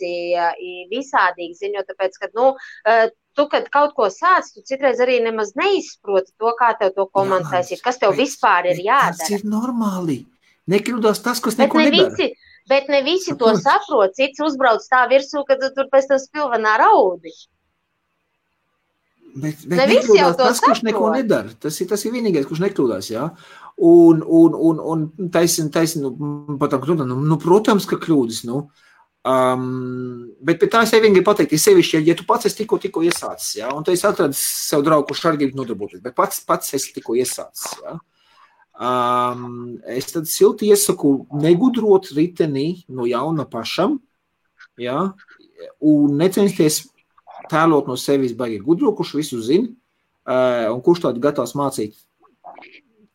visādīgi ziņot, tāpēc, ka, tu, kad kaut ko sāc, tu citreiz arī nemaz neizproti to, kā tev to komentēs, kas tev vispār ir jādara. Tas ir normāli. Nekļūdās tas, kas neko nedara. Bet ne visi to saprot, cits uzbrauc tā virsū, ka tu tur pēc tam spilvenā raudi. Bet nekļūdās tas, kurš neko nedara. Tas ir vienīgais, kurš nekļūdās, jā. Un taisn, protams, ka kļūdas, bet tā es vienīgi pateikt, sevišķi, ja tu pats esi tikko iesācis, jā, un tu esi atradis sev draugu, kurš arī grib nodarboties, bet pats esi tikko iesācis, jā. Es tad silti iesaku negudrot riteni no jauna pašam, jā, un necensties tēlot no sevis baigi gudro, kurš visu zina, un kurš tādi gatavs mācīt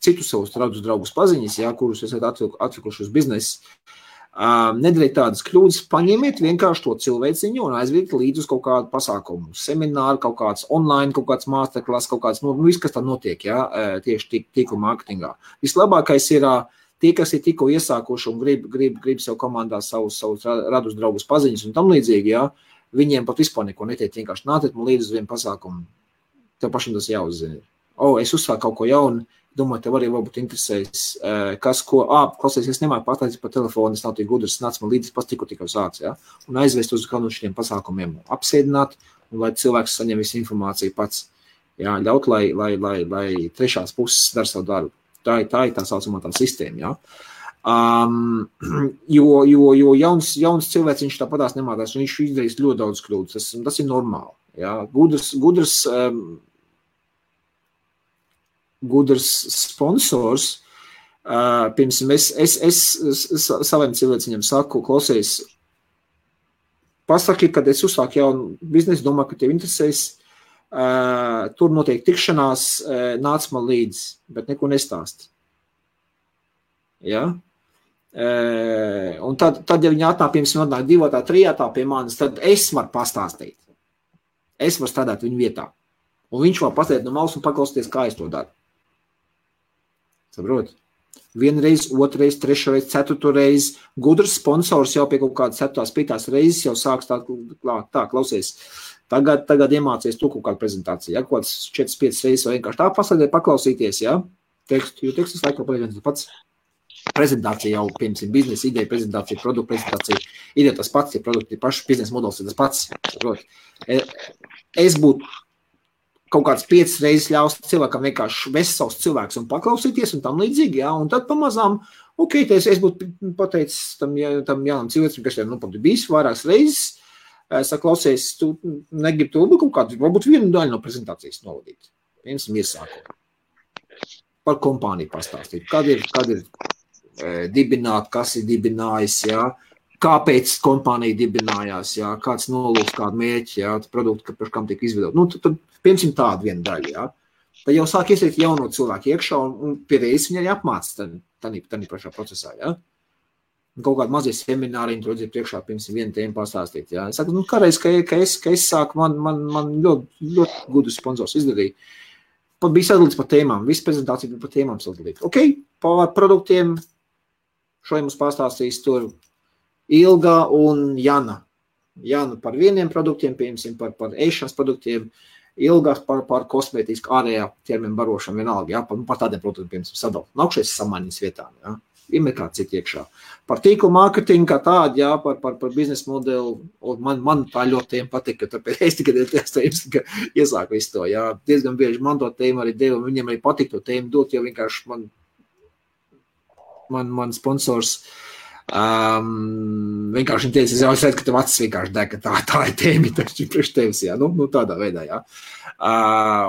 citus savus draugus paziņas, jā, kurus esat atlikuši uz biznesu. Nedariet tādas kļūdas, paņemiet vienkārši to cilvēciņu un aizviet līdz uz kaut kādu pasākumu, semināru, kaut kāds online, kaut kāds masterclass, kaut kāds, viss, kas tā notiek, jā, tieši tīkla mārketingā. Vislabākais ir tie, kas ir tikko iesākuši un grib sev komandā savus radus draugus paziņas un tam līdzīgi, jā, viņiem pat vispār neko netiek, vienkārši nāciet man līdz uz vienu pasākumu. Tev pašam tas jāuzzina. Es uzsāku kaut ko jaunu, domāju, tev arī varbūt interesēs, kas, ko, klausies, es nemāju pateicis pa telefonu, es nav tik gudrs, nāc man līdz pas tikko sāc, ja? Un aizvest uz kādu no šiem pasākumiem, apsēdināt, un lai cilvēks saņem visu informāciju pats, jā, ļaut, lai trešās puses dar savu darbu. Tā ir tā saucamā tā sistēma, jā. Jo jauns cilvēks viņš tāpatās nemācās, un viņš izdarīs ļoti daudz kļūdas, tas ir normāli, jā. Gudrs sponsors, piemēram, es saviem cilvēciņiem saku, klausies, pasaki, kad es uzsāku jaunu biznesu, domāju, ka tev interesēs, tur notiek tikšanās, nāc man līdzi, bet neko nestāst. Ja? Un tad, ja viņi atnāk, piemēram, atnāk 2, 3 pie manis, tad es varu pastāstīt. Es varu strādāt viņu vietā. Un viņš var pastāstīt no malas un paklausīties, kā es to daru. Saprot? 1 reizi, 2 reizi, 3 reizi, 4 reizi. Gudrs sponsors jau pie kaut kādas 7, 5 reizes jau sāks tā klausies. Tagad iemācies tu kaut kādu prezentāciju. Ja? Kaut kāds 4-5 reizes vai vienkārši tā paslēdē paklausīties, ja? Jo tekstus laikā paliek viens pats. Prezentācija jau, piemēram, biznesa ideja, prezentācija, produktu prezentācija, ideja tas pats, ja produkti ir paši, biznesa modelis ir tas pats. Saprot? Es būtu kaut kāds 5 reizes ļaus cilvēkam vienkārši vest savus cilvēkus un paklausīties un tam līdzīgi, jā, un tad pamazām, es būtu pateicis tam jaunam cilvēcim, kas jau pat bijis vairākas reizes, saklausies, tu negribi to kaut kādu, varbūt vienu daļu no prezentācijas novadīt. Piemēram, iesākumu. Par kompāniju pastāstīt, kad ir dibināt, kas ir dibinājis, jā, kāpēc kompānija dibinājās, jā, kāds nolūks, kādu mērķi, jā, produktu, par kam tiek izvedot. Tad piemēram, tādu vienu daļu, jā. Tad jau sāk iesaistīt jauno cilvēku iekšā un pie reizes viņi arī apmāca tādā pašā procesā, jā. Un kaut kādu mazie semināriņu tur redzēt priekšā, piemēram, vienu tēmu pastāstīt, jā. Es saku, kādreiz, ka es sāku, man ļoti gudrs sponsors izdarīja. Pat bija sadalīts par tēmām, visa prezentācija bija par tēmām sadalīta. Par produktiem šodien mums pastāstīs tur Ilga un Jana. Jana par vieniem produktiem, piemēram, par ēšanas produktiem, Ilga par kosmētisku ārējā ķermeņa barošanu vienalga, jā, par tādiem produktiem, piemēram, sadalīt. Nākšais samaiņas vietām, jā. Vienmēr kā citi iekšā. Par tīklu mārketingu kā tādu, jā, par biznesa modeli, un man tā ļoti tēma patika, tāpēc es tikai iesāku visu to, jā. Diezgan bieži man to tēmu arī devu, un viņiem arī patika to tēmu dot, jo vienkārši man sponsors Vienkārši viņi teica, es redzu, ka tev acis vienkārši deg, ka tā ir tēmi priekš tevis, jā, nu tādā veidā, jā.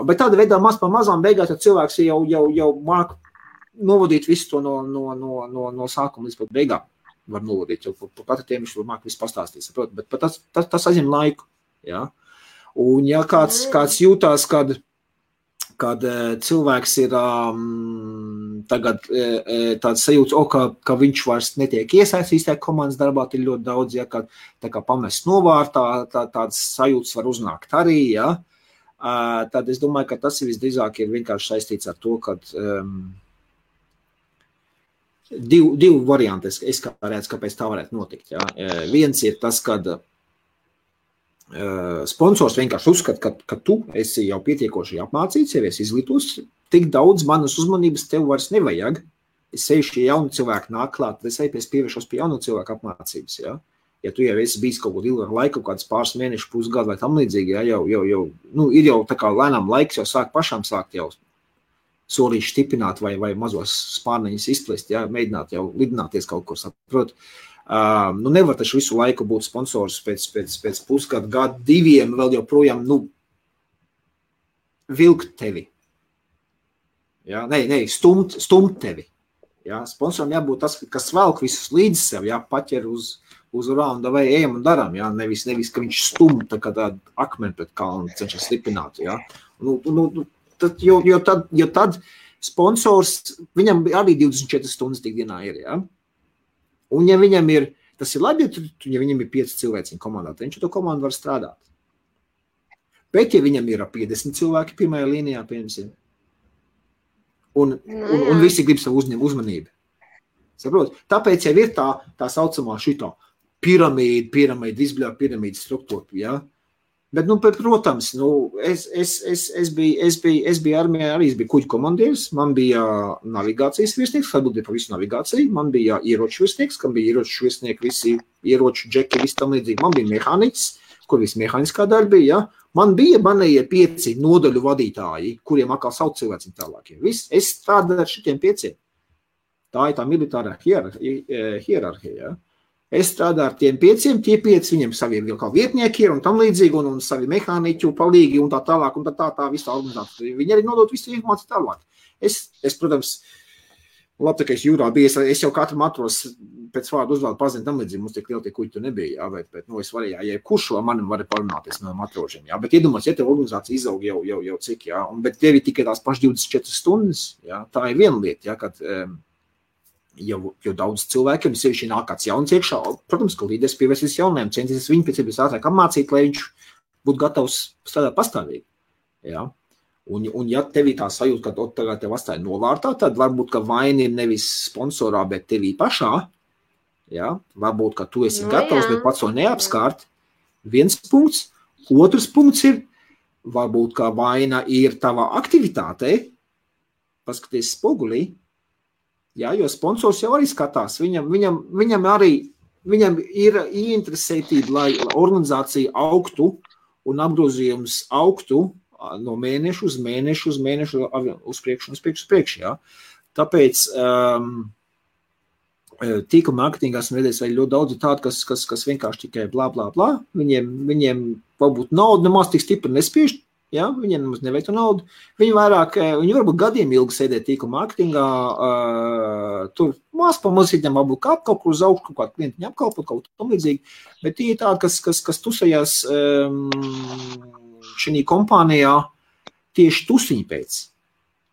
Bet tāda veidā maz pa mazām beigās, ja cilvēks jau māk novadīt visu to no sākuma līdz pat beigām, var novadīt, jo par katru tēmu viņš var māk visu pastāstīt, saprot, bet tas aizņem laiku, jā. Un ja kāds jūtās, kad cilvēks ir tagad tāds sajūts, ka viņš vairs netiek iesaistīts tajā komandas darbā, ir ļoti daudz, ja, kad tā kā pamest novārtā, tāds sajūts var uznākt arī, ja. Tad es domāju, ka tas visdrīzāk ir vienkārši saistīts ar to, kad divi varianti, es kā redzu, kāpēc tā varētu notikt, ja. Viens ir tas, kad sponsors vienkārši uzskata, ka tu esi jau pietiekoši apmācīts, jau esi izglītos, tik daudz manas uzmanības tev vairs nevajag. Es seju šie jauni cilvēki nāk klāt, es pievēršos pie jaunu cilvēku apmācības, ja. Ja tu jau esi bijis kaut kādu ilgu laiku, kāds pāris mēnešu, pusgadu vai tam līdzīgi, ja, ir jau tā kā lēnām laiks jau pašām sākt jau solīši stiprināt vai mazos spārneņus izplest, ja, mēģināt jau lidināties kaut kur, saprot. Nevar taču visu laiku būt sponsors pēc pusgadu, gadu, diviem, vēl joprojām, vilkt tevi. Ja? Stumt tevi. Ja? Sponsoram jābūt tas, kas velk visus līdz sev, ja? Paķer uz raunda vai ejam un daram, ja? Nevis, ka viņš stum tā kā tādu akmeni pret kalnu cenšas slipināt. Ja? Jo tad sponsors, viņam arī 24 stundas tik dienā ir, ja? Un ja viņam ir, tas ir labi, ja viņam ir 5 cilvēciņu komandā, tad viņš to komandu var strādāt. Bet ja viņam ir 50 cilvēki pirmajā līnijā, piemēram, un visi grib savu uzmanību. Saprot? Tāpēc jau ir tā saucamā šitā piramīda, visbļā piramīda struktūra, ja? Bet, protams, es biju armijā, arī es biju kuģu komandieris, man bija navigācijas virsnieks, atbildēja par visu navigāciju, man bija ieroču virsnieks, kam bija ieroču virsnieki, visi ieroču džeki, visi tam līdzīgi, man bija mehāniķis, kur visi mehāniskā daļa bija, ja? Man bija manējie 5 nodaļu vadītāji, kuriem atkal sauc cilvēci tālāk. Es strādāju ar šitiem 5. Tā ir tā militārā hierarhija, ja? Es strādāju ar tiem 5, tie 5 viņiem savi vēl kā vietnieki ir un tam līdzīgi, un savi mehāniķu palīgi un tā tālāk, un tā visā organizācija. Viņi arī nodot visu informāciju tālāk. Es, protams, labi, ka es jūrā biju, es jau katru matros pēc vārdu uzvārdu pazinu tam līdzīgi, mums tik liela tie kuģi tu nebija, jā, bet es varēju, ja kurš ar manim varēja parunāties no matrožiem, jā, bet iedomās, ja tev organizācija izaug jau cik, jā, bet tev ir tikai tās pašas 24 stundas, jā, tā ir viena lieta, jā, kad jau daudz cilvēkiem, sevišķi nāk kāds jauns iekšā, protams, ka līderis pievērsīs jauniem, centīsies viņu pēc iespējas ātrāk apmācīt, lai viņš būtu gatavs strādāt pastāvīgi. Ja? Un ja tev ir tā sajūta, ka tagad tev atstāja novārtā, tad varbūt, ka vaina ir nevis sponsorā, bet tevī pašā. Ja? Varbūt, ka tu esi gatavs, bet pats to neapskārt. Viens punkts. Otrs punkts ir, varbūt, ka vaina ir tavā aktivitātei. Paskaties spogulī. Jā, jo sponsors jau arī skatās, viņam ir ieinteresētība, lai organizācija augtu un apgrozījums augtu no mēnešu uz mēnešu, uz priekšu, jā. Tāpēc tīkla mārketingā esmu redzējis vēl ļoti daudz tādu, kas vienkārši tikai blā. Viņiem varbūt naudu nemaz tik stipri nespiež, ja, viņiem nemaz nevajag to naudu. Viņi varbūt gadiem ilgi sēdē tīkla mārketingā, tur mās pa mazītiem varbūt kāp kaut kur uz augšu, kaut kādu klientiņu apkalpot, kaut tam līdzīgi, bet tie ir tādi, kas tusējās šī kompānijā tieši tusiņi pēc.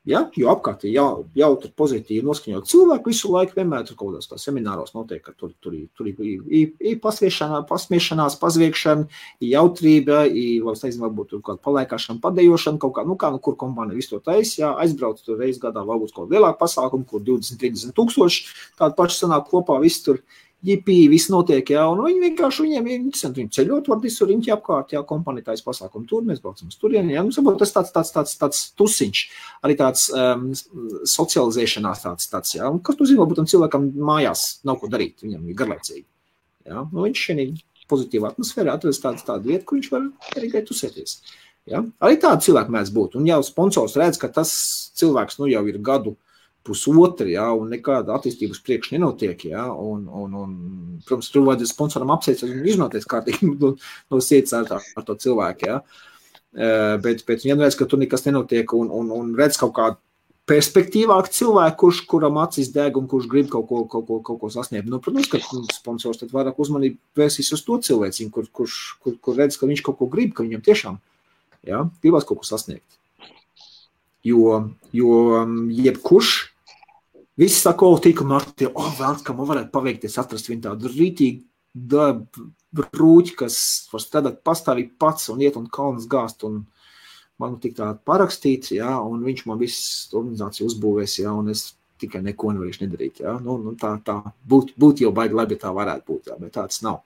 Ja? Jo apkārt ir jautri pozitīvi noskaņot cilvēku visu laiku, vienmēr tur kaut kādās semināros notiek, ka tur ir pasmiešanās, pazviekšana, ir jautrība, varbūt tur kāda palaikāšana, padejošana, kaut kā, kur kompānija visu to taisa, jā, aizbrauc tur reiz gadā, varbūt kaut lielāku pasākumu, kur 20-30 tūkstoši, tādu pašu sanāk kopā, viss tur jipī, viss notiek, jā, un viņi vienkārši, viņiem ir interesanti, viņi ceļot var visur, riņķi apkārt, jā, kompānija taisa pasākumu tur, mēs braucam uz turieni, jā, tas tāds tusiņš, arī tāds socializēšanās tāds, jā, un kas tu zini, varbūt tam cilvēkam mājās nav ko darīt, viņam ir garlaicīgi, jā, viņš šeit pozitīvā atmosfērā atrast tādu vietu, kur viņš var arī gai tusēties, jā, arī tādi cilvēki mēdz būt, un jau sponsors redz, ka tas cilvēks, jau ir gadu pusotri, ja, un nekāda attīstības priekš nenotiek, ja, un protams, tur vajadzēs sponsoram apsveic un iznoties kārtīgi no sirds ar to cilvēku, ja. Bet ja redz, ka tur nekas nenotiek un redz kaut kādu perspektīvāk cilvēku, kuram acis deg un kurš grib kaut ko sasniegt. Nu, protams, ka sponsors tad vairāk uzmanību vērsīs uz to cilvēciņu, kur redz, ka viņš kaut ko grib, ka viņam tiešām, ja, gribās kaut ko sasniegt. Jo jebkurš, visi saka, tīka Marti, vēlns, ka man varētu paveikties, atrast viņu tādu rītīgi brūķi, kas var strādāt pastāvīgi pats un iet un kalnas gāzt un man tik tā parakstīts, ja, un viņš man visu organizāciju uzbūvēs, ja, un es tikai neko nevarēšu nedarīt, ja. Nu tā būt jau baigi labi, ja tā varētu būt, ja, bet tāds nav.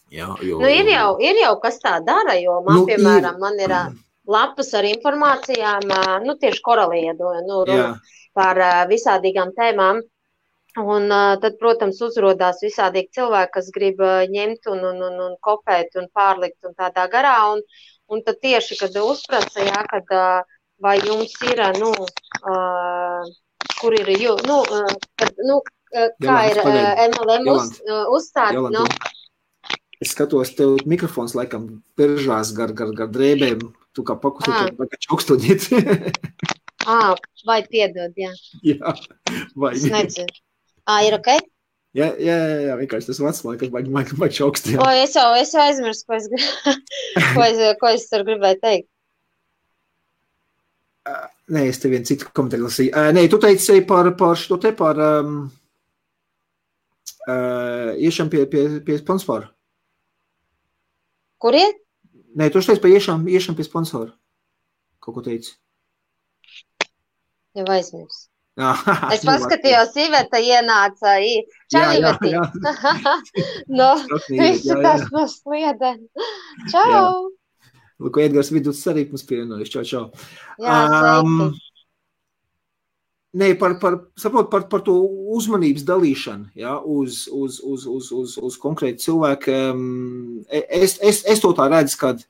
Ja, jo, ir jau kas tā dara, jo man, piemēram, man ir lapas ar informācijām, tieši koraliedoja, par visādīgām tēmām. Un tad, protams, uzrodās visādīgi cilvēki, kas grib ņemt un kopēt un pārlikt un tādā garā. Un tad tieši, kad uzprasa, jā, kad vai jums ir, kur ir, kā ir MLM uzstādi, Es skatos, tev mikrofons laikam peržās gar drēbēm, tu kā pakustīt, vai kā čaukstoņiet. Vai piedod, jā. Jā, vai. Es nedzinu. Ir ok? Jā, vienkārši tas vats, vai čaukstīt. Es jau aizmirstu, ko es tur gribēju teikt. Nē, es tev vienu citu komentāru lasīju. Nē, tu teici par šo te, par iešam pie sponsoru. Kur iet? Nē, tu teici par iešam pie sponsoru. Kaut ko teici? Jau aizmirstu. Es paskatījos, Iveta ienāca. Čau, Iveti! Visi tas no sliedēm. Čau! Lūk, Edgars Vidus arī mums pievienojas. Čau. Jā, sveiki. Nē, par to uzmanības dalīšanu, ja, uz konkrētu cilvēku. Es to tā redzu, kad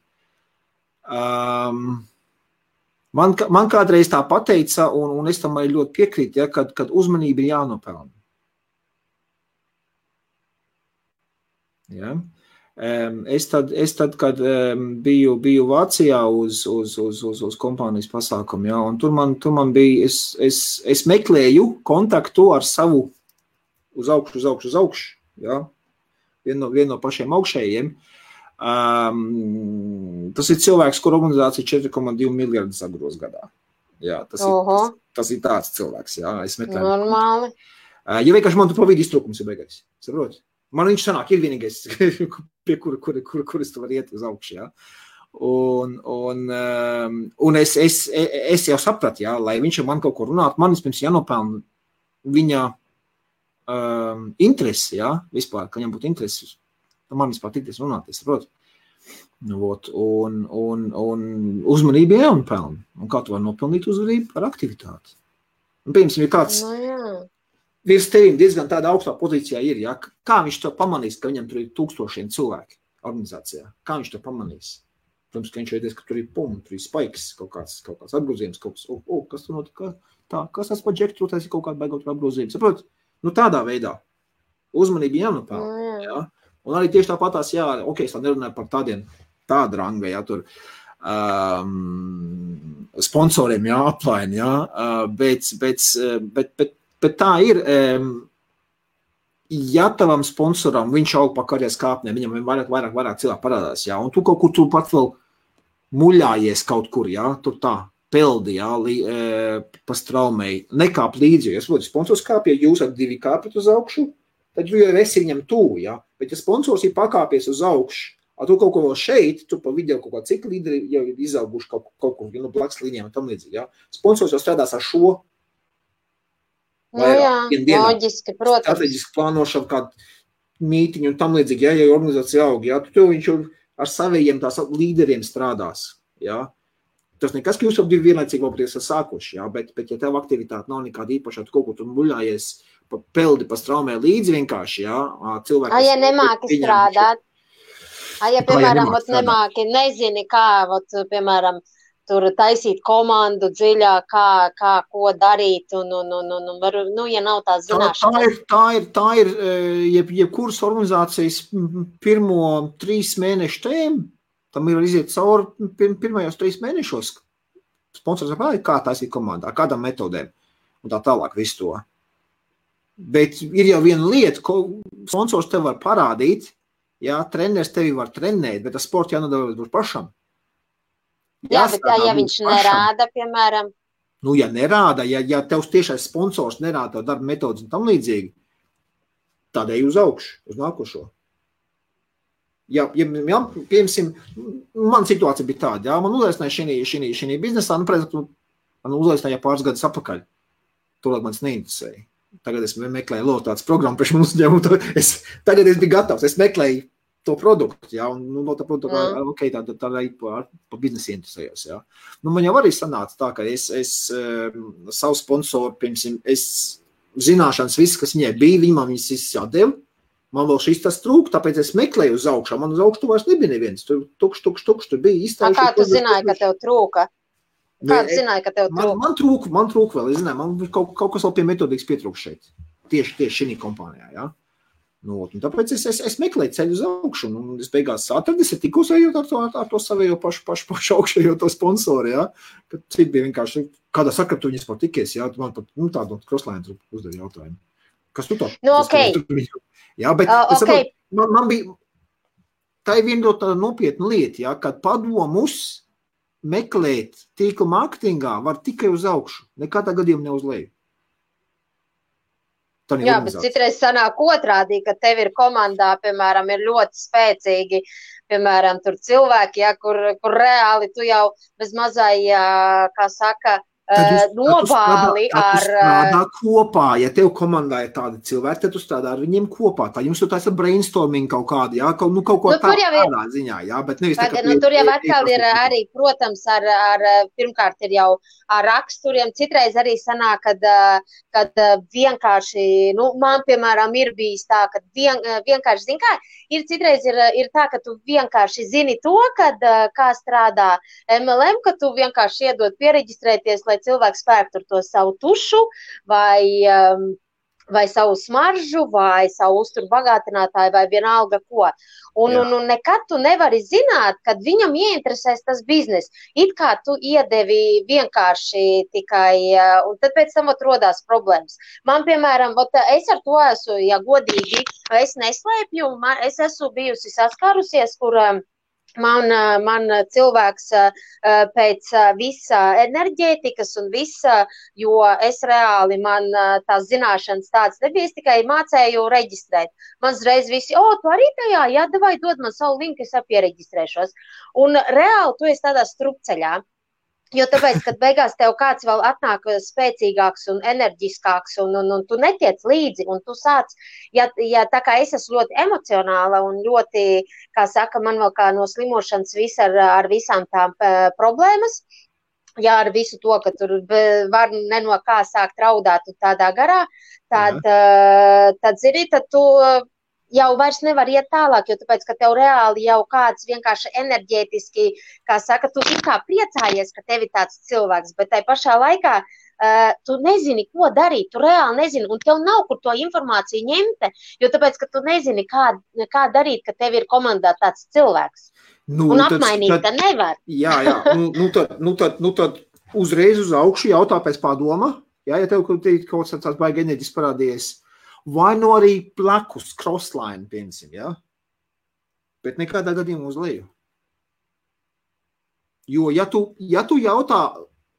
man kādreiz tā pateica, un es tam arī ļoti piekrītu, ja, kad uzmanība ir jānopelna. Ja. Es tad, kad biju Vācijā uz kompānijas pasākumu, ja, un tur man bija, es meklēju kontaktu ar savu uz augšu, ja, vienu no pašiem augšējiem. Tas ir cilvēks, kur organizācija 4,2 miljardi sagros gadā. Jā, tas ir tāds cilvēks, jā, es meklēju. Normāli. Ja vienkārši man tu pa vidu iztrūkums ir beigais, saproti? Man viņš sanāk, ir vienīgais, pie kuras tu var iet uz augšu, jā. Un es jau sapratu, jā, lai viņš man kaut ko runāt, man vispirms jānopelna viņa interesi, jā, vispār, ka viņam būtu interesi. Man vispār tikties runāt, es saprotu. Un uzmanība jānopelna. Un kā tu var nopelnīt uzmanību? Ar aktivitāti. Un, piemēram, ja kāds virs tevim diezgan tādā augstā pozīcijā ir, ja? Kā viņš to pamanīs, ka viņam tur ir 1000 cilvēki organizācijā? Kā viņš to pamanīs? Protams, ka viņš veidies, ka tur ir tur ir spaiks, kaut kāds apgrozījums, kas tur notika, kas tas pa džektu, tas ir kaut kāda baigot apgrozījums. Saprot? Tādā veidā. Uzmanība jānopelna, ja? Un arī tieši tāpatās, jā, es tā nerunāju par tādu rangu, jā, tur sponsoriem, jā, aplaini, jā, bet tā ir, ja tavam sponsoram viņš aug pa karjeras kāpnēm, viņam vairāk cilvēku parādās, jā, un tu kaut kur tu pat vēl muļājies kaut kur, jā, tur tā, peldi, jā, pa straumei, nekāp līdzi, jo, sponsors kāpja, jūs ar 2 kāpjat uz augšu, tad tu jau esi viņam tuvu, ja? Bet ja sponsors ir pakāpies uz augšu, tu kaut ko vēl šeit, tu pa video kaut kā cik līderi jau ir izauguši kaut kur, no blakus līnijām un tam līdzīgi, ja? Sponsors jau strādās ar šo loģiski, protams. Strateģiski plānošanu, kādu mītiņu un tam līdzīgi, ja organizācija aug, ja? Tu viņš jau ar savējiem tās līderiem strādās, ja? Tas nekas, ka jūs jau 2 vienlaicīgi vēl esat sākuši, ja? Bet ja tev aktivitāte nav nekāda īpašā, tu kaut ko tur muļājies, peldi pa straumē līdzi vienkārši, jā, cilvēki. Ja nemāki strādāt, ja, piemēram, nemāki, nezini, kā, piemēram, tur taisīt komandu dziļāk, kā ko darīt, un ja nav tās zināšanas. Tā ir jebkuras organizācijas pirmo 3 mēnešu tēma, tam ir iziet cauri pirmajos 3 mēnešos. Sponsors kā taisīt komandā, kādām metodēm, un tā tālāk visu to. Bet ir jau viena lieta, ko sponsors tev var parādīt, jā, treneris tevi var trenēt, bet tas sports jānodara būs pašam. Jā, bet ja viņš nerāda, piemēram. Nu, ja nerāda, ja tevs tiešais sponsors nerāda tev darba metodas un tam līdzīgi, tādēļ uz augšu, uz nākošo. Ja piemēram, man situācija bija tāda, jā, man uzaicināja šī biznesā, man uzaicināja pāris gadus apakaļ. Tolāk manis neinteresēja. Tagad es meklēju lotātas programmu priekš mums uzņēmumu, tagad es biju gatavs, es meklēju to produktu, jā, un no tā produkta, ok, tā pa biznesu interesējos, jā. Nu, man jau arī sanāca tā, ka es savu sponsoru, piemēram, es zināšanas viss, kas viņai bija, man viņas viss jādeva, man vēl šis tas trūk, tāpēc es meklēju uz augšā, man uz augšu tu vairs nebija neviens, tur tukš, tur bija izstājuši. Kā tu zināji, ka tev trūka? Kā tu zināji, ka tev trūka? Man trūka vēl, es zināju, man kaut kas vēl pie metodikas pietrūk šeit, tieši šī kompānijā, jā. Nu, un tāpēc es meklēju ceļu uz augšu, un es beigās atradu, es tikos ejot ar to savējo pašu augšējo to sponsoru, jā, kad citi bija vienkārši, kādā sakra tu viņas patikies, jā, man pat, tādu crosslēnu uzdevi jautājumu. Kas tu tā? Nu, ok. Jā, bet okay. Man bija, tā ir viena tāda nopietna lieta, jā, kad padomus meklēt tīkla mārketingā var tikai uz augšu, nekādā gadījumā ne uz leju. Jā, bet citreiz sanāk otrādi, ka tev ir komandā, piemēram, ir ļoti spēcīgi, piemēram, tur cilvēki, ja, kur reāli tu jau bez mazai, kā saka, nobāli ar... strādā kopā, ja tev komandā ir tādi cilvēki, tad tu strādā ar viņiem kopā. Tā jums tu taisa brainstorming kaut kādi, jā, kaut ko tādā ziņā, jā, bet nevis tā, ka... tur jau atkal ir arī, protams, pirmkārt ir jau ar raksturiem, citreiz arī sanāk, kad vienkārši, nu, man, piemēram, ir bijis tā, ka vienkārši, zin kā, citreiz ir tā, ka tu vienkārši zini to, kā strādā MLM, ka tu vienkārši iedod piereģistrēties, lai cilvēks spēr tur to savu tušu vai savu smaržu vai savu uzturu bagātinātāju vai vienalga ko. Un nekad tu nevari zināt, kad viņam ieinteresēs tas biznes. It kā tu iedevi vienkārši tikai, un tad pēc tam rodās problēmas. Man, piemēram, es ar to esmu, ja godīgi, es neslēpju, es esmu bijusi saskārusies, kur... Man cilvēks pēc visa enerģētikas un visa, jo es reāli, man tās zināšanas tādas nebija, es tikai mācēju reģistrēt. Man uzreiz visi, tu arī tajā, jā, davai dod man savu linku, es piereģistrēšos. Un reāli tu esi tādā strupceļā. Jo tāpēc, kad beigās tev kāds vēl atnāk spēcīgāks un enerģiskāks un tu netiec līdzi un tu sāc, ja tā kā es esmu ļoti emocionāla un ļoti, kā saka, man vēl kā no slimošanas ar visām tām problēmas, jā, ar visu to, ka tur var no kā sākt raudāt un tādā garā, tad zini, tad tu... jau vairs nevar iet tālāk, jo tāpēc, ka tev reāli jau kāds vienkārši enerģētiski, kā saka, tu it kā priecājies, ka tev ir tāds cilvēks, bet tai pašā laikā tu nezini, ko darīt, tu reāli nezini, un tev nav kur to informāciju ņemt, jo tāpēc, ka tu nezini, kā darīt, ka tev ir komandā tāds cilvēks. Un apmainīt tad nevar. Jā, tad uzreiz uz augšu jautā pēc padoma, jā, ja tev kaut tāds baigi enerģis parādījies, vai no arī plekus, crossline, piemēram, ja? Bet nekādā gadījumā uz leju. Jo, ja tu jautā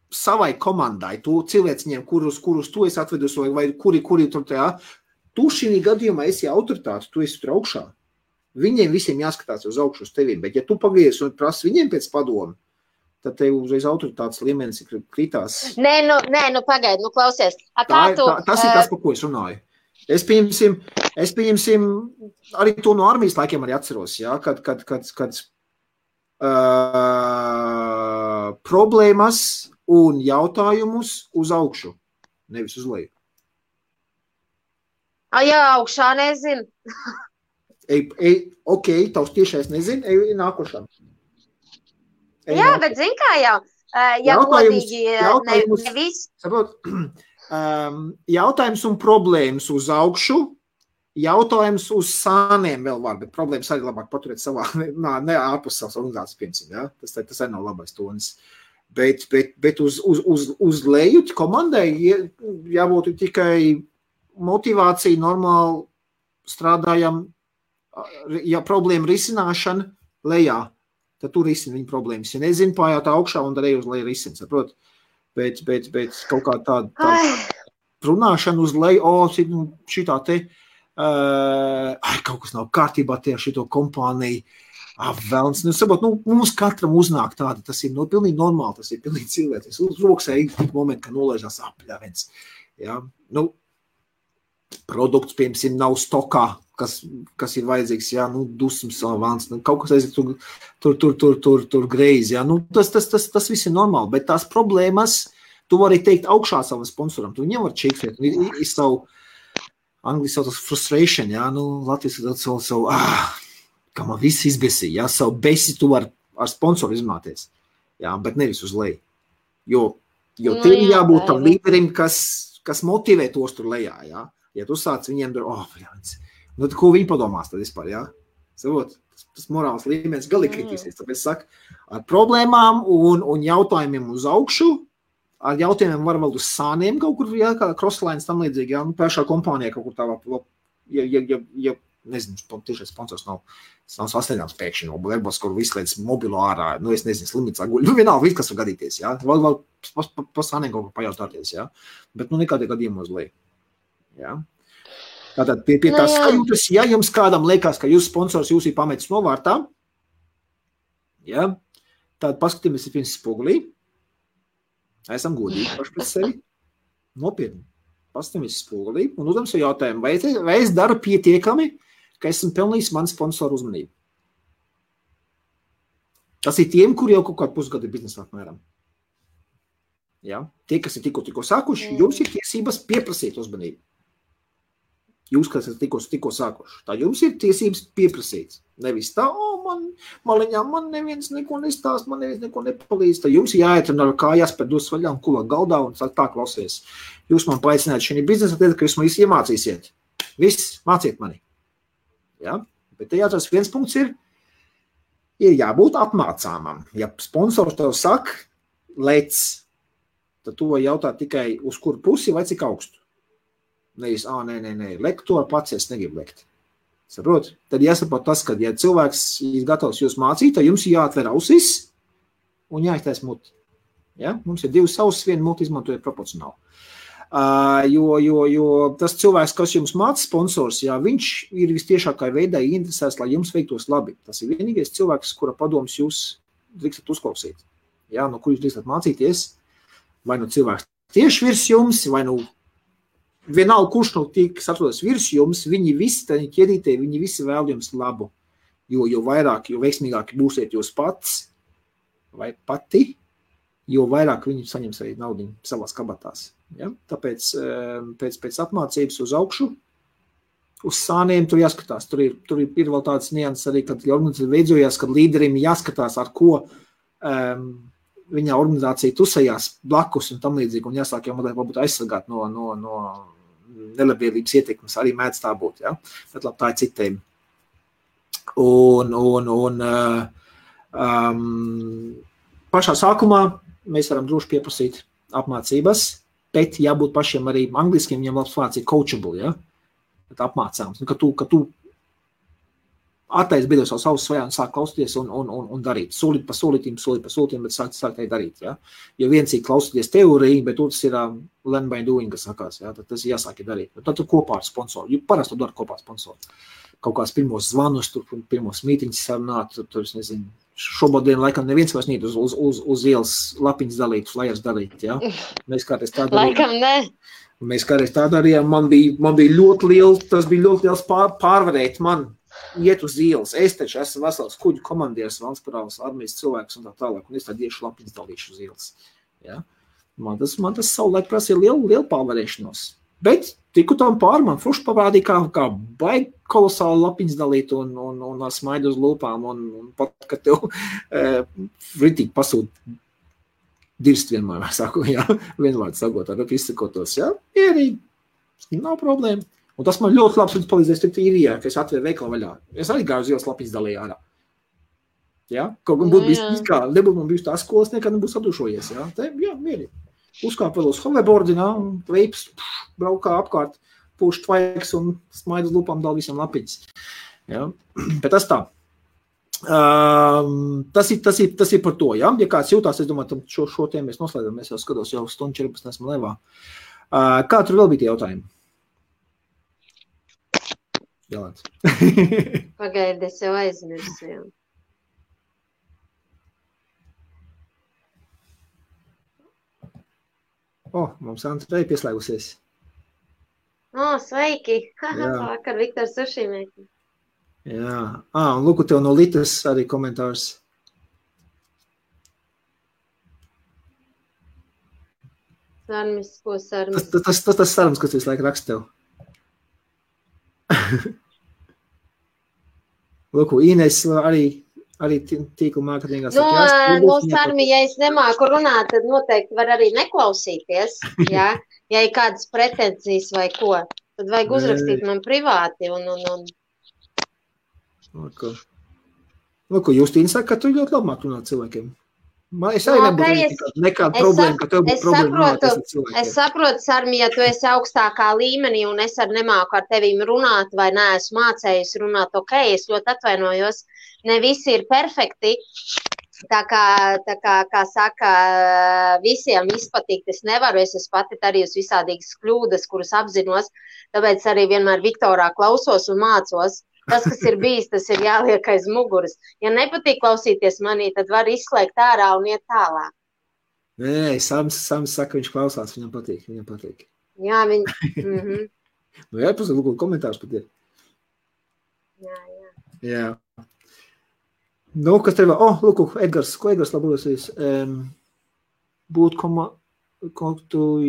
savai komandai, tu cilvēciņiem, kurus tu esi atvedus, vai kuri tur tajā, tu šī gadījumā esi autoritāte, tu esi tur augšā. Viņiem visiem jāskatās uz augšu uz tevim, bet ja tu pagries un prasi viņiem pēc padomu, tad tev uzreiz autoritātes līmenis kritās. Nē, pagaidi, klausies. Tas ir tas, par ko es runāju. Es pieņemsim arī to no armijas laikiem arī atceros, jā, kad problēmas un jautājumus uz augšu, nevis uz leju. Jā, augšā nezinu. Ok, tavs tiešais nezinu, ej nākošā. Jā, bet zin kā jau, Ja godīgi, nevis. Jautājums un problēmas uz augšu, jautājums uz sāniem vēl var, bet problēmas arī labāk paturēt savā, ne ārpus savas organizācijas, piemēram, ja? Tas arī nav labais tonis. Bet uz leju komandai jābūt tikai motivācija, normāli strādājam, ja problēma risināšana lejā, tad tu risini viņa problēmas. Ja nezinu, pājāt augšā un darēju uz leju risini, saprot? Bet kaut kā tāda runāšana uz leju, šitā te, kaut kas nav kārtībā tie šito kompāniju, velns. Mums katram uznāk tāda, tas ir pilnīgi normāli, tas ir pilnīgi cilvēks. Uz roksē ir tik momenti, ka nolaižās apļāviens. Ja? Produkts, piemēram, nav stokā, kas ir vajadzīgs, ja? Dusmas velns, kaut kas aiziet tur greizi. Ja? Tas viss ir normāli, bet tās problēmas, tu vari teikt augšā savam sponsoram, tu viņam var čekstēt, ir savu, angliski sauc tas frustration, ja? Latvijas savu, kā man viss izbesīja, ja? Savu besi tu var ar sponsoru izmāties, ja? Bet nevis uz leju. Jo tev jābūt tam līderim, kas motivē tos tur lejā, ja? Ja tu sāc viņiem tad ko viņi padomās tad vispār, ja? Savot, tas morāls līmenis galīgi kritīsies, tāpēc saku, ar problēmām un jautājumiem uz augšu, ar jautājumiem var vēl uz sāniem kaut kur, ja, kā crosslines tam līdzīgi, ja, pašā kompānijā kaut kur tā, ja nezinu, tiešais sponsors nav sasniedzams pēkšņi, varbūt, kur visu līdz mobilo ārā, es nezinu, slimnīcā guļ, vienalga, viss, kas var gadīties, ja, vēl pa sāniem kaut kur pajautāties, ja, bet, nekādī gadījumā uz leju. Ja? Tātad pie tās sajūtas, ja jums kādam liekas, ka jūs sponsors jūs ir pametis novārtā, ja? Tad paskatīmies pirms spogulī, esam godīgi paši pret sevi, nopietni, paskatīmies spogulī un uzdam savu jautājumu, vai es daru pietiekami, ka esmu pelnījis man sponsoru uzmanību. Tas ir tiem, kuri jau kaut kādu pusgadu ir biznesā apmēram. Ja? Tie, kas ir tikko sākuši, jums ir tiesības pieprasīt uzmanību. Jūs, kas esat tikko sākuši, tā jums ir tiesības pieprasīt. Nevis tā, man neviens neko nestāst, man neviens neko nepalīdz. Tā jums jāiet un ar kājās pēc dos vaļā un kulāt galdā un sāk tā klausies. Jūs man paaicināt šī biznesa, tad, ka jūs man visu iemācīsiet. Viss, māciet mani. Ja? Bet te jāatrast viens punkts ir jābūt apmācāmam. Ja sponsors tev saka, lec, tad tu vai jautāt tikai uz kuru pusi vai cik augstu. Nevis, nē, lekt to pats, es negribu lekt. Saprot? Tad jāsaprot tas, ka, ja cilvēks ir gatavs jūs mācīt, tad jums jāatver ausis un jāiztais muti. Ja? Mums ir divas ausis, viena muti izmantoja proporcionāli. Jo tas cilvēks, kas jums māca sponsors, ja, viņš ir vistiešākā veidā interesēts, lai jums veiktos labi. Tas ir vienīgais cilvēks, kura padoms jūs drīkstat uzklausīt. Ja? No kur jūs drīkstat mācīties? Vai no cilvēks tieši virs jums, vai no vienalga, kurš no tiek atrodas virs jums, viņi visi ķerītē, viņi visi vēl jums labu. Jo vairāk, jo veiksmīgāki būsiet jūs pats vai pati, jo vairāk viņi saņems arī naudiņu savās kabatās. Ja? Tāpēc pēc apmācības uz augšu, uz sāniem tur jāskatās. Tur ir vēl tāds nianses arī, kad organizācija veidojās, kad līderim jāskatās, ar ko viņa organizācija tusējās blakus un tam līdzīgi, un jāsāk jau varbūt aizsargāt no nelabvēlības ietekmes, arī mēdz tā būt, ja? Bet labi, tā ir citiem. Pašā sākumā mēs varam droši pieprasīt apmācības, bet jābūt pašiem arī angliskiem, viņam labs vārds ir coachable, ja? Bet apmācāms, ka tu attaisi beidos savu svajā un sāk klausīties un darīt. Solīt pa solītīm, bet sāk arī darīt. Ja? Jo viens ir klausīties teoriju, bet otrs ir learn by doing, kas sakās. Ja? Tad tas ir jāsāk darīt. Tad tu kopā ar sponsoru. Jo parasti tu dari kopā ar sponsoru. Kaut kāds pirmos zvanus, pirmos mītiņus sarunāt, tur es nezinu. Šobodien laikam neviens vairs nīt uz ielas lapiņas dalīt, flyers dalīt. Ja? Mēs kādreiz tā darījām. Laikam ne. Mēs kādreiz tā darījām. Man bija ļoti liels pārvarēt man. Iet uz ielas, es taču esmu vesels kuģu komandieris, valsts parāvas armijas cilvēks un tā tālāk, un es tā iešu lapiņas dalīšu uz ielas. Ja? Man tas savulaik prasīja lielu pārvarēšanos. Bet tiku tam pār, man fruši parādīja, kā baigi kolosāli lapiņas dalīt un ar smaidu uz lūpām, un pat, ka tev ritīgi pasūt dirst vienmēr, saku, jā, vienvārds sakot, ar izsakotos, jā, mierīgi, nav problēma. Un tas man ļoti labs palīdzēs tikt īrijā, ka es atvēru veikalu vaļā. Es arī gāju uz ielas lapiņas dalīju ārā. Ja? Kaut gan būtu bijis kā, nebūtu man bijis tā skolas, nekad nebūtu sadušojies. Ja? Te, jā, mierīgi. Uzkāp vēl uz hoverboardi, veips, braukā apkārt, pūš tvaiks un smaid uz lupām dal visam lapiņas. Ja? Bet tas tā. Tas ir par to, ja? Ja kāds jūtās, es domāju, šo tēmu mēs noslēdam, mēs jau skatos, jau stundu 14 esmu levā. Kā tur vēl bija tie jautājumi? Jālāc. Pagaidi, es jau aizmirsu, jā. Mums Andrei pieslēgusies. Sveiki! Vakar Viktors Sušīmēki. Jā. Un lūku tev no Litas arī komentārs. Sarmis, ko sarmis? Tas sarmis, kas visu laiku raksta tev. Lūku, Ines arī tīkla mārketingā saka, Sarmi, ja es nemāku runāt, tad noteikti var arī neklausīties, jā. Ja ir kādas pretenzijas vai ko, tad vajag uzrakstīt man privāti un... Lūku, Justīna saka, ka tu ļoti labāk runāt cilvēkiem. Es arī nebūtu nekāda problēma, ka tev būtu problēma runāt ar cilvēkiem. Es saprotu, Sarmi, ja tu esi augstākā līmenī un es arī nemāku ar tevīm runāt vai neesmu mācējusi runāt, ok, es ļoti atvainojos. Ne visi ir perfekti, tā kā saka, visiem izpatīk, es nevaru, es esmu pati arī uz visādīgas kļūdas, kuras apzinos, tāpēc arī vienmēr Viktorā klausos un mācos. Tas, kas ir bijis, tas ir jāliek aiz muguras. Ja nepatīk klausīties manī, tad var izslēgt ārā un iet tālāk. Nē, Sams saka, viņš klausās, viņam patīk. Jā, viņi... Jā, lūk, komentārs pat ir. Jā. Nu, kas tev vēl? Lūk, Edgars labosies.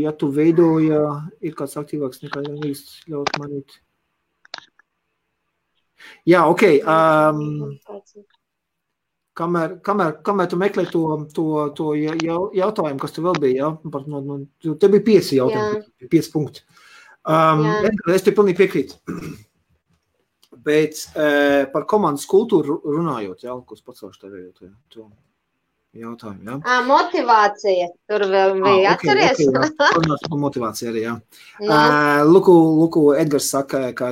Ja tu veidoja, ir kāds aktīvāks nekā īsti ļaut manīt. Jā, ok. Kamēr tu meklē to jautājumu, kas tu vēl bija, ja? Te bija 5 jautājumi, 5 punkti. Es te pilnīgi piekrītu. Bet par komandas kultūru runājot, jā, ko es pacelšu tev jautājumu, jā? Motivācija. Tur vēl bija, atceries? Runāt par motivāciju arī, jā. Lūku, Edgars saka, ka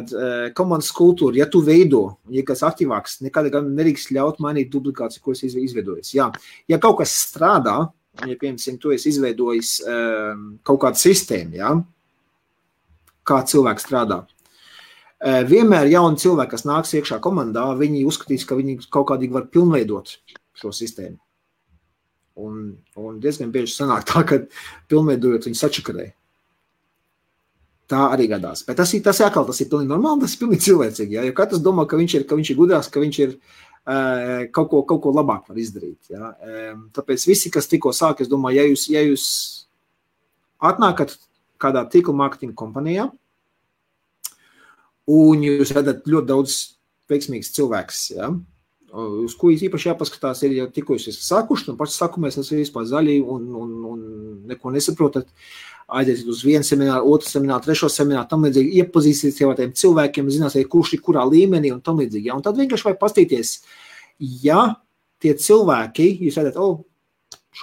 komandas kultūra, ja tu veido, ja kas aktīvāks, nekādā nerīkst ļaut mainīt duplikāciju, ko es izveidojis. Jā. Ja kaut kas strādā, ja, piemēram, tu esi izveidojis kaut kādu sistēmu, jā, kā cilvēks strādā, vienmēr jauni cilvēki, kas nāks iekšā komandā, viņi uzskatīs, ka viņi kaut kādīgi var pilnveidot šo sistēmu. Un diezgan bieži sanāk tā, ka pilnveidojot viņi sačakarē. Tā arī gadās. Bet tas ir pilnīgi normāli, tas ir pilnīgi cilvēcīgi. Ja? Jo katrs domā, ka viņš ir gudrāks, ka viņš ir kaut ko labāk var izdarīt. Ja? Tāpēc visi, kas tikko sāk, es domāju, ja jūs atnākat kādā tīkla mārketinga kompanijā, un jūs redzat ļoti daudz veiksmīgs cilvēks, ja? Uz ko īpaši jāpaskatās, ir jau tikko jūs esat sākuši, un paši sākumēs esat vispār zaļi un neko nesaprotat, aiziet uz vienu semināru, otru semināru, trešo semināru, tam līdzīgi iepazīsties jau ar tiem cilvēkiem, zināsiet, kurš ir kurā līmenī un tam līdzīgi. Ja? Un tad vienkārši vajag pastīties, ja tie cilvēki, jūs redzat,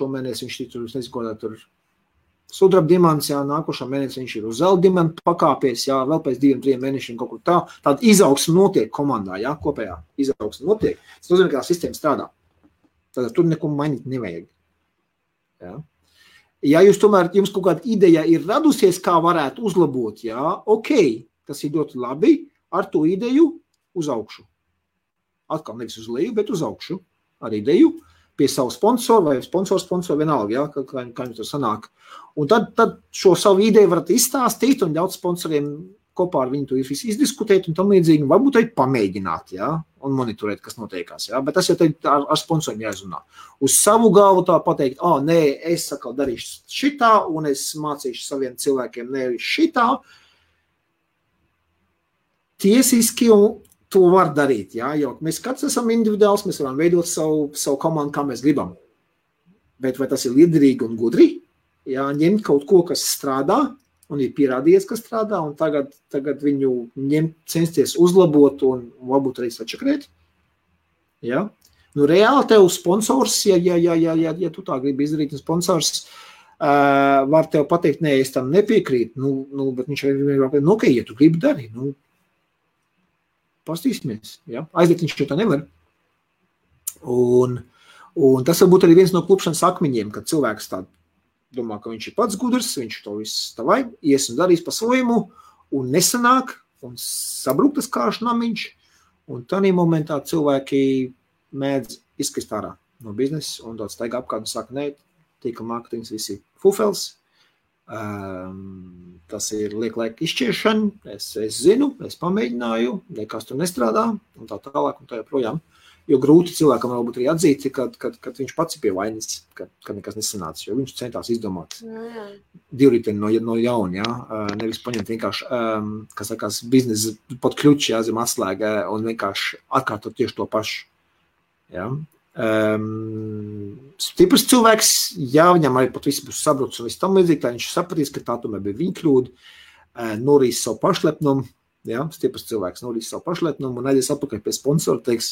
šomēnes viņš tur, es nezinu, ko tur sudraba dimants, jā, nākošā mēnesī viņš ir uz zelta dimantu pakāpies, jā, vēl pēc 2-3 mēnešiem kaut kur tā. Tāda izaugsme notiek komandā, jā, kopējā izaugsme notiek. Tas nozīmē, ka tā sistēma strādā. Tātad tur neko mainīt nevajag. Jā. Ja jums kaut kāda ideja ir radusies, kā varētu uzlabot, jā, ok, tas ir ļoti labi, ar to ideju uz augšu. Atkal nevis uz leju, bet uz augšu. Ar ideju pie savu sponsoru vai sponsor vienalga, ja, kā jums tur sanāk. Un tad šo savu ideju varat izstāstīt un ļaut sponsoriem kopā ar viņu to izdiskutēt un tam līdzīgi, varbūt arī pamēģināt, ja, un monitorēt, kas notiekās, ja, bet tas jau ar sponsoriem jāizrunā. Uz savu galvu tā pateikt, nē, es sakal darīšu šitā un es mācīšu saviem cilvēkiem nevis šitā. Tiesiski to var darīt, jā, jo mēs katrs esam individuāls, mēs varam veidot savu komandu, kā mēs gribam. Bet vai tas ir liederīgi un gudri? Jā, ņemt kaut ko, kas strādā, un ir pierādījies, ka strādā, un tagad viņu censties uzlabot un varbūt arī sačakrēt. Ja? Nu, reāli tev sponsors, ja tu tā gribi izdarīt, un sponsors var tev pateikt, nē, es tam nepiekrītu, bet viņš var pateikt, ok, ja tu gribi darīt, pastīsimies. Ja? Aiziet viņš tā nevar. Un tas varbūt arī viens no klupšanas akmeņiem, kad cilvēks tā domā, ka viņš ir pats gudrs, viņš to viss tavai, ies un darīs pa svojumu, un nesanāk, un sabruktas kāšu namiņš, un tādā momentā cilvēki mēdz izkrist ārā no biznesa, un daudz staigā apkārt un saka, nē, tīkla mārketings visi fufels, tas ir liek izšķiešana, es zinu, es pamēģināju, nekas tur nestrādā, un tā tālāk, un tā joprojām. Jo grūti cilvēkam varbūt arī atzīt, kad viņš pats ir pie vainas, kad nekas nesanāca, jo viņš centās izdomāt divriteni no jauna, nevis paņemt vienkārši, kas sakās, biznesa pat kļuči, zem atslēga un vienkārši atkārtot tieši to pašu. Ja? Stiprs cilvēks, viņam arī pat viss būs sabrucis un viss tam līdzīgi, tā viņš sapratīs, ka tā tomēr bija viņa kļūda, norīs savu pašlepnumu, stiprs cilvēks norīs savu pašlepnumu un aizies atpakaļ pie sponsora, teiks,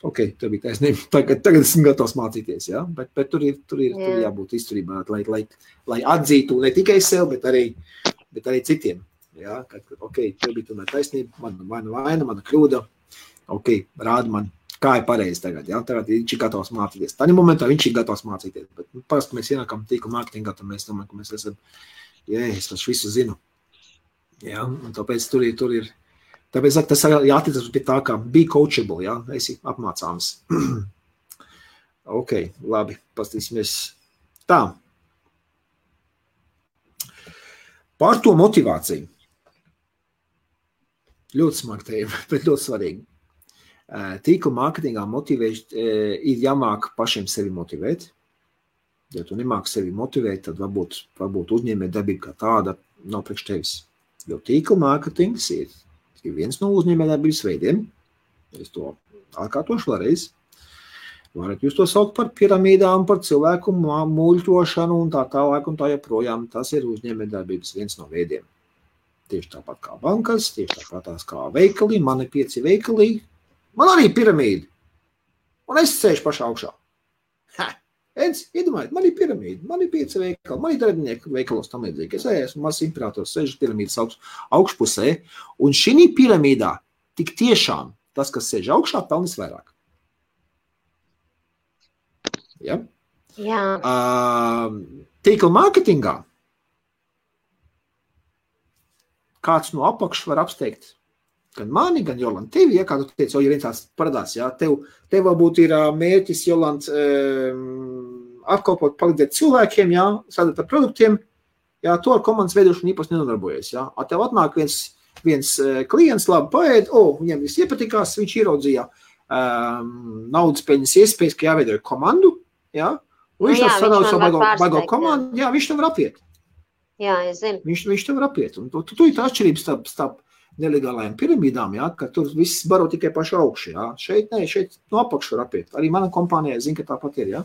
ok, tev bija taisnība, tagad esmu gatavs mācīties, ja? Bet tur ir jābūt izturībā, lai atzītu ne tikai sev, bet arī citiem. Ja? Ok, tev bija tomēr taisnība, mana vaina, mana kļūda, ok, rāda man, kā ir pareizi tagad, ja? Tagad viņš ir gatavs mācīties. Tādā momentā viņš ir gatavs mācīties, bet parasti mēs ienākam tīkla mārketingā, tad mēs domājam, ka mēs esam, es visu zinu. Ja? Un tāpēc tur ir Tāpēc tas jāattiecas pie tā, kā be coachable, ja? Esi apmācāms. Ok, labi, pastīsimies. Tā. Par to motivāciju. Ļoti smagi tēma, bet ļoti svarīgi. Tīkla mārketingā ir jāmāk pašiem sevi motivēt. Ja tu nemāki sevi motivēt, tad varbūt uzņēmē darbība kā tāda nav priekš tevis. Jo tīkla mārketings ir viens no uzņēmējdarbības veidiem. Es to atkārtošu vēlreiz. Varat jūs to saukt par piramīdām, par cilvēku muļķošanu un tā tālāk un tā joprojām. Tas ir uzņēmējdarbības viens no veidiem. Tieši tāpat kā bankas, tieši tāpat kā veikali, man ir 5 veikali, man arī piramīda. Un es sēžu pašā augšā. Iedomājiet, man ir piramīda, man ir 5 veikali, man ir darbinieki veikalos tam līdzīgi. Es esmu mazs imperators, sēžu piramīdas augšpusē, un šī piramīdā tik tiešām tas, kas sēž augšā, pelnīs vairāk. Ja? Jā. Tīkla mārketingā kāds no apakšas var apsteigt gan mani, gan Jolanta tevi, ja, kā tu teici, ja viens tāds parādās, ja, tev varbūt ir mērķis, Jolanta, apkalpot, palīdzēt cilvēkiem, ja, strādāt ar produktiem, ja, to ar komandas veidošanu īpaši nenodarbojies, ja. Tev atnāk viens klients, labi paēd, viņam viss iepatikās, viņš ieraudzīja naudas peļņas iespējas, ka jāveido komandu, ja, un viņš tā sadala savu baigo komandu, jā, viņš tev var apiet. Jā, es zinu. Viņš tev var apiet, un tu ir tā atšķirības starp nelegālajām piramīdām, ja, ka tur viss baro tikai pašu augšu, ja. Šeit no apakšu var apiet. Arī mana kompānija, zinu, ka tāpat ir, ja.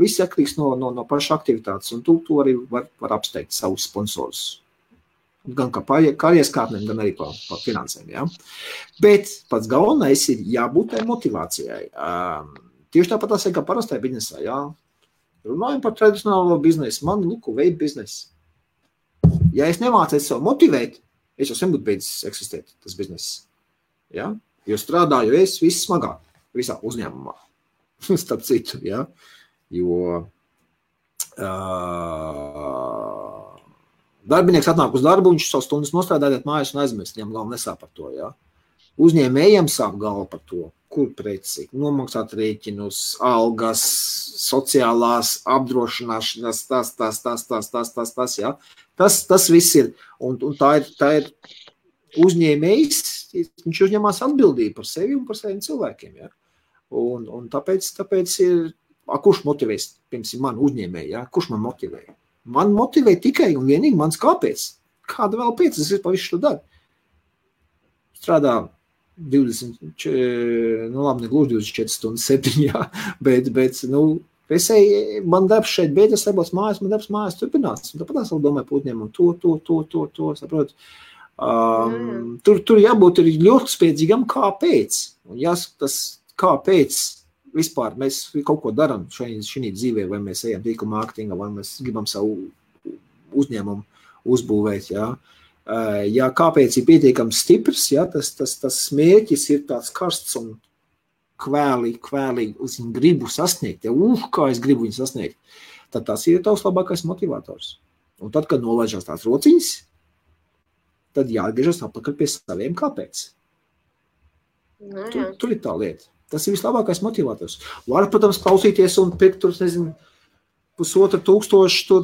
Viss atkarīgs no paša aktivitātes, un tu arī var apsteigt savus sponsorus. Gan kā karjeras kāpnēm, gan arī pa finansēm, ja. Bet pats galvenais ir jābūt tai motivācijai. Tieši tāpat tas ir kā parastai biznesā, ja. Runājam par tradicionālo biznesu, man, veidu biznesu. Ja es nemācēju sev motivēt, es jau sen būtu beidzis eksistēt, tas bizness. Ja? Jo strādāju es viss smagāk, visā uzņēmumā. Starp citu, ja? Jo darbinieks atnāk uz darbu, viņš savu stundas nostrādājot mājās un aizmirst, viņam galva nesāp par to. Ja? Uzņēmējiem sāp galva par to, kur preci, nomaksāt rēķinus, algas, sociālās apdrošināšanas, tas, ja? Tas viss ir, un tā ir uzņēmējs, viņš uzņemās atbildību par sevi un par saviem cilvēkiem, ja? Un tāpēc ir, kurš motivēs, piemēram, man uzņēmēji, ja? Kurš man motivē? Man motivē tikai un vienīgi mans kāpēc. Kāda vēl pēc, es pa visu to daru. Strādā 20, ne gluži 24 stundas 7, jā, bet Man darbs šeit beidzas, nebūs mājās, man darbs mājās turpinās. Un tāpat es vēl domāju par uzņēmumu to, saprot. Tur jābūt ir ļoti spēcīgam, kāpēc. Un jāskatās, kāpēc vispār mēs kaut ko daram šī dzīvē, vai mēs ejam tīkla mārketingā, vai mēs gribam savu uzņēmumu uzbūvēt, jā. Ja kāpēc ir pietiekams stiprs, jā, tas mērķis ir tāds karsts un kvēli uz viņu gribu sasniegt, ja, kā es gribu viņu sasniegt, tad tas ir tavs labākais motivators. Un tad, kad nolaižās tās rociņas, tad jāatgriežas atpakaļ pie saviem kāpēc. Tur ir tā lieta. Tas ir vislabākais motivators. Var, protams, klausīties un pirkt tur, nezinu, 1,500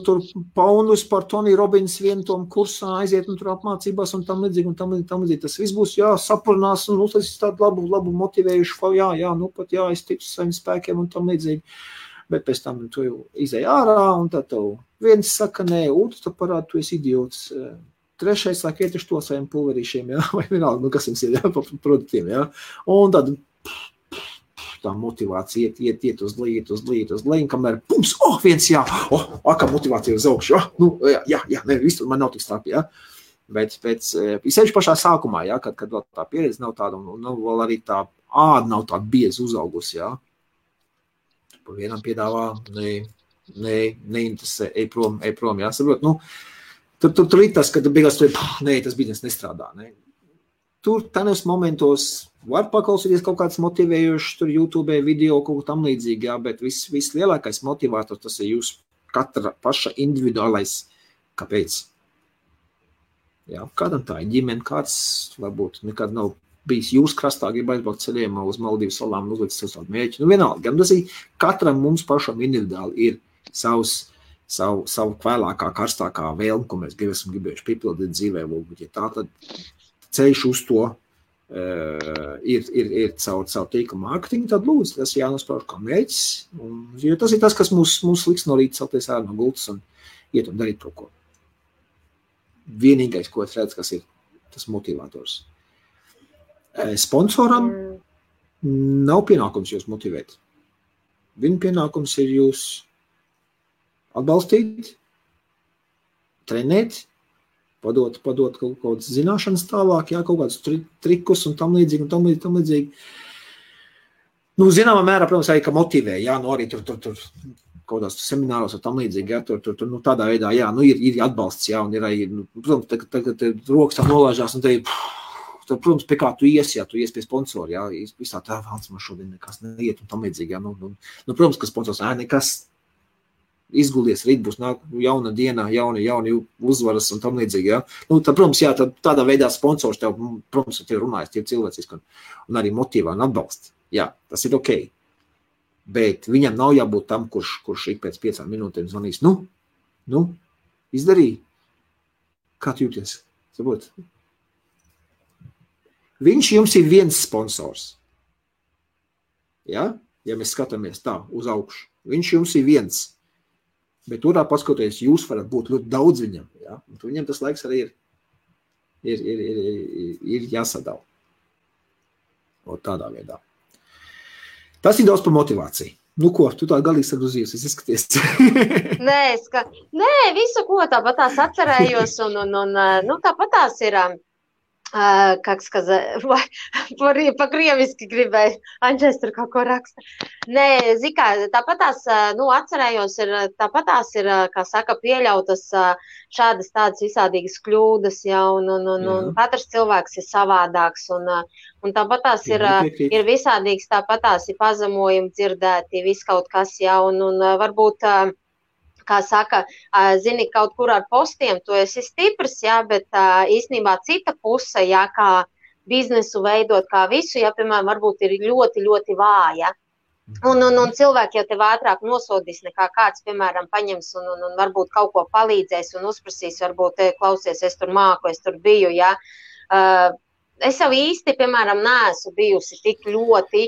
tur paundus par Tony Robbins vienu tom kursā aiziet un tur apmācībās un tam līdzīgi. Tas viss būs, sapurnās un uztaisīs tādu labu motivējušu, pat es ticu saviem spēkiem un tam līdzīgi. Bet pēc tam tu jau izēj ārā un tad tev viens saka, nē, otrs tu parādi, tu esi idiots. Trešais saka, iet uz to saviem pulverīšiem, vai vienalga, kas jums ir, par produktiem, Un tad tā motivācija iet uz leju, kamēr pums, viens kā motivācija uz augšu, viss man nav tik strāpi, Bet sevišķi pašā sākumā, kad vēl tā pieredze nav tāda, un vēl arī tā āda nav tāda bieza uzaugusi, Pa vienam piedāvā, neinteresē, ej prom, saprot, tur ir tas, kad beigās tas biznes nestrādā, Tur tādos momentos var paklausīties kaut kāds motivējošs, tur YouTube video, kaut tam līdzīgi, bet viss lielākais motivātors, tas ir jūs katra paša individuālais, kāpēc. Kādam tā ir ģimene, kāds varbūt nekad nav bijis jūs krastā, grib aizbraukt ceļiem uz Maldīvu salām un uzlikt savu mērķi. Vienalga, tas ir katram mums pašam individuāli ir savu kvēlākā, karstākā vēlme, ko mēs esam gribējuši piepildīt dzīvē, ja tā tad ceļš uz to ir caur tīkla mārketingu, tad lūdzu, tas jānosprauž kā mērķis, jo tas ir tas, kas mūs liks no rīta celties ārā no gultas un iet un darīt kaut ko. Vienīgais, ko es redzu, kas ir tas motivators. Sponsoram nav pienākums jūs motivēt. Viņa pienākums ir jūs atbalstīt, trenēt, padot kaut kādas zināšanas tālāk, kaut kādus trikus un tam līdzīgi. Zināmā mērā, protams, arī, ka motivē, arī tur kaut kādās semināros un tam līdzīgi, tur tādā veidā, ir atbalsts, un ir arī, protams, tagad rokas tā nolāžās, un tad, protams, pie kā tu ies, tu ies pie sponsori, visā tā valsts man šodien nekas neiet un tam līdzīgi, protams, ka sponsors, nekas, izgulies, rīt būs jauna diena, jauni uzvaras un tam līdzīgi, tad, protams, tādā veidā sponsors tev, protams, tev runājas, tie cilvēciski un arī motivā un atbalsta. Tas ir ok. Bet viņam nav jābūt tam, kurš ik pēc 5 minūtēm zvanīs. Izdarīja. Kā tu jūties? Saprot? Viņš jums ir viens sponsors. Ja mēs skatāmies tā uz augšu. Viņš jums ir viens. Bet turā paskatoties, jūs varat būt ļoti daudz viņam, un viņam tas laiks arī ir jāsadala. Un tādā veidā. Tas ir daudz par motivāciju. Ko, tu tā galīgi sagrūzījies, es izskaties. Nē, visu, ko tāpat tās atcerējos, un tāpat tās ir, как сказать, по-крieviski gribēju, Anģēs tur kaut ko raksta. Nē, zikā, tāpatās, atcerējos, tāpatās ir, kā saka, pieļautas šādas tādas visādīgas kļūdas, un katrs cilvēks ir savādāks, un tāpatās ir visādīgs, tāpatās ir pazemojumi dzirdēti, viss kaut kas, un varbūt, kā saka, zini, kaut kur ar postiem, tu esi stiprs, bet īstenībā cita puse, kā biznesu veidot, kā visu, piemēram, varbūt ir ļoti, ļoti vāja. Un cilvēki jau tev ātrāk nosodīs nekā kāds, piemēram, paņems un varbūt kaut ko palīdzēs un uzprasīs, varbūt, klausies, es tur māku, es tur biju, Es jau īsti, piemēram, neesmu bijusi tik ļoti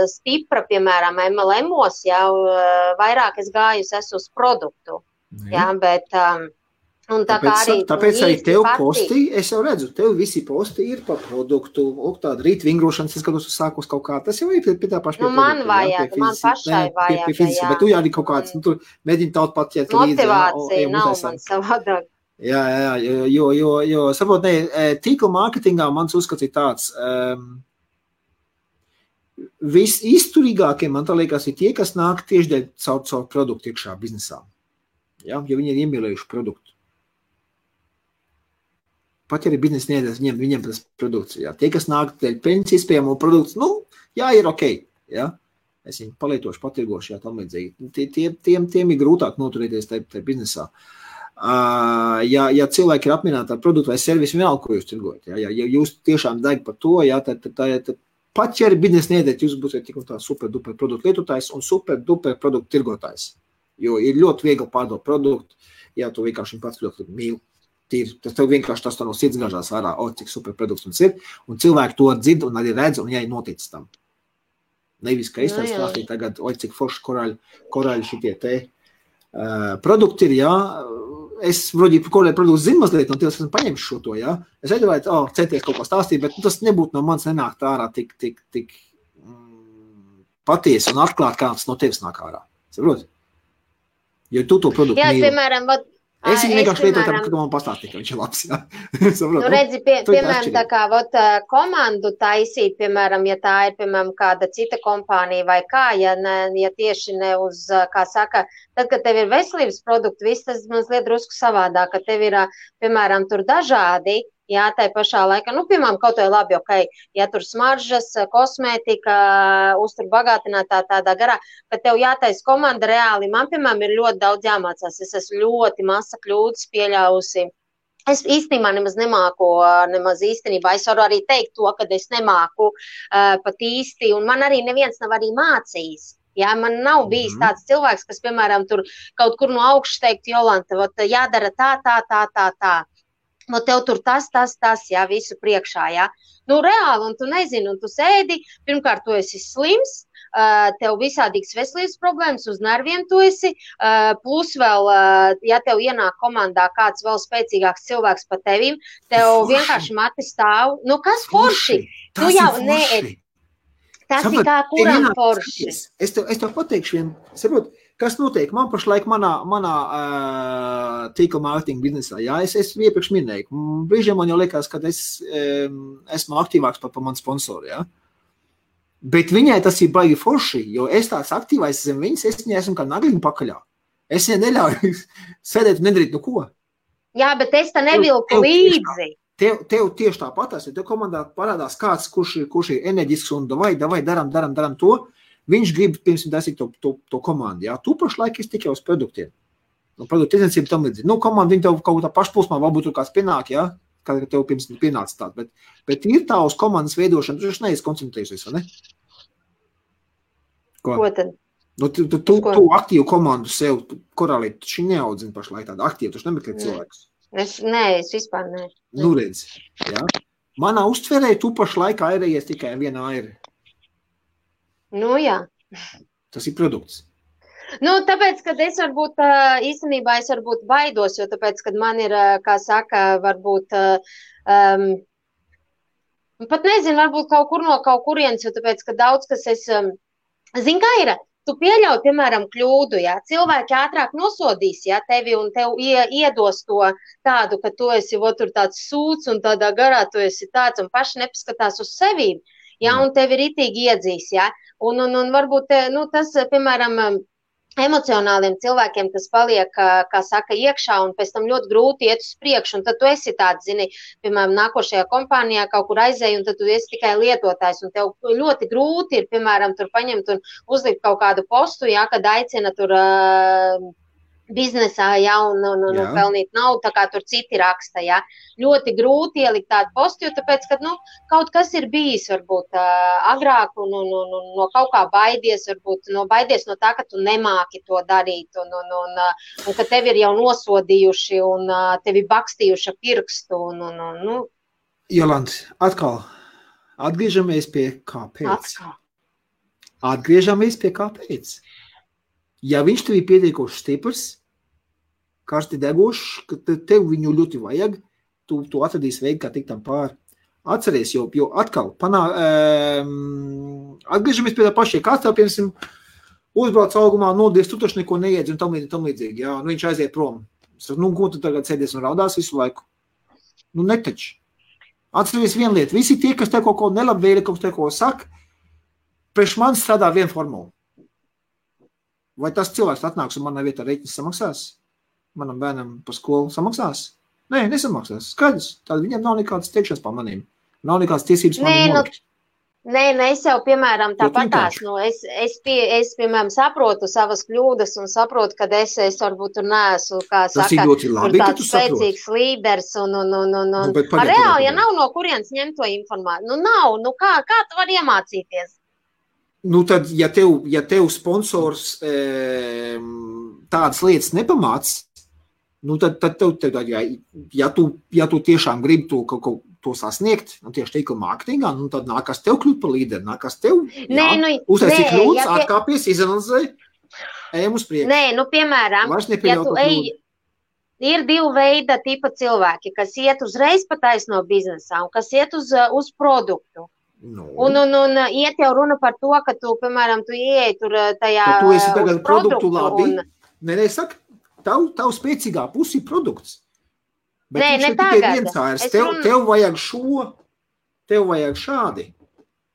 stipra, piemēram, MLM-os, vairāk es gājusi uz produktu, bet Un tāpēc arī tev posti, es jau redzu, tev visi posti ir par produktu, tāda rīt vingrošanas, es skatos uz sākos kaut kā, tas jau ir pie tā paša. Man vajag, man pašai vajag, jā. Bet tu arī kaut kāds, tur mēģini taut pat ķert līdzi. Motivācija nav man savādāk. Jā, jo saprot, tīkla mārketingā mans uzskats ir tāds, visizturīgākie, man tā liekas, ir tie, kas nāk tieši dēļ caur produktu iekšā biznesā. Ja, jo viņi ir iemīlējuši produktu. Pat ja arī biznesa niedēs, viņiem tas produkts. Ja. Tie, kas nāk dēļ peļņas iespējamo produktu, ir ok. Ja. Es viņu palietošu, patirgošu, jā, tam līdzīgi. Tiem ir grūtāk noturēties tajā biznesā. Ja cilvēki ir apmierināti ar produktu vai servisu, vienalga, ko jūs tirgojat. Ja jūs tiešām deg par to, ja, tad pat ja arī biznesa niedēt, jūs būsiet tik un tā super-duper produktu lietotājs un super-duper produktu tirgotājs. Jo ir ļoti viegli pārdot produktu, ja tu vienkārši pats ļoti mīli. Tas tev vienkārši tas no sirds gāžās ārā, cik super produkts mums ir, un cilvēki to dzird un arī redz, un jāi notic tam. Nevis, ka es tā stāstīju tagad, cik forši korāļi šitie te produkti ir, jā, es vroģi korāļi produktu zinu mazliet, un tev esmu paņemšu šo to, jā. Es aizdomāju, centies kaut ko stāstīt, bet tas nebūtu no manis nenākt ārā tik patiesi un atklāt, kā tas no tevis nāk ārā. Saproti? Jo tu to produktu mīli. Jā, piemēram, es viņu vienkārši lietoju, ka man pastāstīja, ka viņš ir labs, jā. Redzi, piemēram, tā kā komandu taisīt, piemēram, ja tā ir, piemēram, kāda cita kompānija vai kā, ja tieši ne uz, kā saka, tad, kad tev ir veselības produkti, viss tas mazliet drusku savādāk, ka tev ir, piemēram, tur dažādi, jā, tai pašā laikā, piemēram, kaut vai labi, ok, ja tur smaržas, kosmētika, uztur bagātinātā tādā garā, ka tev jātais komanda reāli, man, piemēram, ir ļoti daudz jāmācās, es esmu ļoti masa kļūdas pieļausi. Es īstenībā nemaz nemāku, es varu arī teikt to, ka es nemāku pat īsti, un man arī neviens nav arī mācījis. Jā, man nav bijis tāds cilvēks, kas, piemēram, tur kaut kur no augšas teikt, Jolanta, jādara tā. No tev tur tas, jā, visu priekšā, jā. Reāli, un tu nezini, un tu sēdi, pirmkārt, tu esi slims, tev visādīgas veselības problēmas, uz nerviem tu esi, plus vēl, ja tev ienāk komandā kāds vēl spēcīgāks cilvēks par tevim, tev vienkārši mati stāv. Kas forši? Tas ir forši. Tas ir kā kuram forši. Es tev pateikšu vienu, saprot, kas notiek man pašlaik manā tīkla mārketinga biznesā. Jā, es iepriekš minēju. Brīžiem man jau liekas, ka es esmu aktīvāks par manu sponsoru, jā. Bet viņai tas ir baigi forši, jo es tāds aktīvais zem viņas, es viņai esmu kā nagliņu pakaļā. Es viņai neļauju sēdēt un nedarīt ko. Jā, bet es tā nevilku līdzi. Tev tieši tāpatās, ja tev komandā parādās kāds, kurš ir enerģisks un davai, daram to, viņš grib pirms dasīt to komandu, jā. Tu pašlaik esi tikai uz produktiem. Produktu tirdzniecība tam līdzīgi. Komanda, viņi tev kaut tā pašplūsmā, varbūt tur kāds pienāk, jā, kā tev pirms pienāca tāda, bet ir tā uz komandas veidošana, tu neesi koncentrējusies, vai ne? Ko tad? Tu aktīvu komandu sev, korālī, tu šī neaudzini pašlaik tādu aktīvu, tu nemeklē cilvēkus. Es vispār ne. Redz, jā. Manā uztverē tu pašlaik airējies tikai viena aira. Jā. Tas ir produkts. Tāpēc, kad es varbūt, īstenībā es varbūt baidos, jo tāpēc, kad man ir, kā saka, varbūt, pat nezinu, varbūt kaut kur no kaut kurienes, jo tāpēc, ka daudz, kas es, zin kā ir, tu pieļauj, piemēram, kļūdu, jā, cilvēki ātrāk nosodīs, jā, tevi un tev iedos to tādu, ka tu esi tur tāds sūds un tādā garā tu esi tāds un paši nepaskatās uz sevīm, jā, un tevi ritīgi iedzīs, jā, un varbūt, tas, piemēram, emocionāliem cilvēkiem, kas paliek, kā saka, iekšā un pēc tam ļoti grūti iet uz priekšu, un tad tu esi tāds, zini, piemēram, nākošajā kompānijā kaut kur aizēji, un tad tu esi tikai lietotājs, un tev ļoti grūti ir, piemēram, tur paņemt un uzlikt kaut kādu postu, jā, kad aicina tur biznesā, jā, un pelnīt naudu, tā kā tur citi raksta, jā. Ļoti grūti ielikt tādu postu, jo tāpēc, ka, kaut kas ir bijis, varbūt, agrāk, un no kaut kā baidies, varbūt, baidies no tā, ka tu nemāki to darīt, un ka tevi ir jau nosodījuši, un tevi bakstījuši pirkstu, Jolanta, atkal, atgriežamies pie kāpēc. Atgriežamies pie kāpēc. Ja viņš tev ir pietiekoši stiprs, karsti degošs, ka tev viņu ļoti vajag, tu atradīsi veidu, kā tikt tam pāri. Atceries, jo atkal atgriežamies pie tā pašie, kāds tev, piemēram, uzbrauc augumā, nodies, tu taču neko neiedzi un tam līdzīgi, jā, nu viņš aiziet prom. Nu, ko tu tagad sēdies un raudās visu laiku? Nu, netaču. Atceries vienu lietu, visi tie, kas tev kaut ko nelabvēli, kas tev ko saka, priekš man strādā viena formula. Vai tas cilvēks atnāks un manā vietā reiķis samaksās? Manam bērnam par skolu samaksās? Nē, nesamaksās. Skaidrs. Tad viņam nav nekādas teikšanas par manīm. Nav nekādas tiesības manīm nolikt. Nē, es jau, piemēram, tāpatās, es, piemēram, saprotu savas kļūdas un saprotu, ka es varbūt tur neesmu, kā saka, tāds spēcīgs līderis un reāli, ja nav no kurienes ņemt to informāciju, nu nav, kā tu vari iemācīties? Nu tad, ja tev sponsors tādas lietas nepamāc, nu tad ja tu tiešām gribi to sasniegt, nu tieši tīkla mārketingā, nu tad nākas tev kļūt par līderi, nākas tev, uztaisīt kļūdas, atkāpies, izanalizē, ejam uz priekšu. Nē, nu piemēram, ja tu ir divi veida tipa cilvēki, kas iet uzreiz pa taisno biznesā un kas iet uz produktu. Un iet jau runa par to, ka tu, piemēram, tu ieej tur tajā tu esi tagad produktu labi. Nē, saka, tavu spēcīgā pusi ir produkts. Bet nē, ne tagad. Tev vajag tev vajag šādi.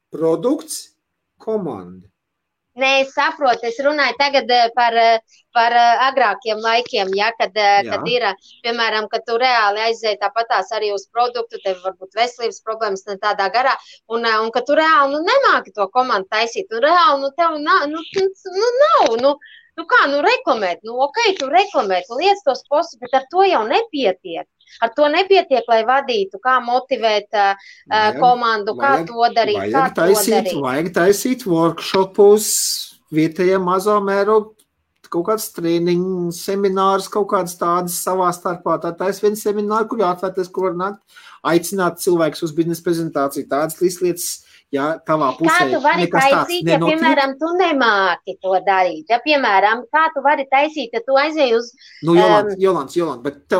Produkts, komanda. Nē, es saprotu, es runāju tagad par agrākiem laikiem, ja, kad ir, piemēram, kad tu reāli aizēji tāpatās arī uz produktu, tev varbūt veselības problēmas ne tādā garā, un ka tu reāli nemāki to komandu taisīt, un reāli tev nav, reklamēt, tu reklamēt, liec tos postus, bet ar to jau nepietiek. Ar to nepietiek, lai vadītu, kā motivēt komandu, kā to darīt, Vajag taisīt workshopus, vietējā mazā mēroga, kaut kāds trēniņu, seminārs, kaut kāds tādas savā starpā. Tā tais viens semināri, kur jāatvērties, kur var nākt, aicināt cilvēkus uz biznesa prezentāciju, tādas lietas, jā, tavā pusē. Kā tu vari taisīt, ja, piemēram, tu nemāki to darīt? Ja, piemēram, kā tu vari taisīt, ja tu aizēji uz... Nu, Jolants, bet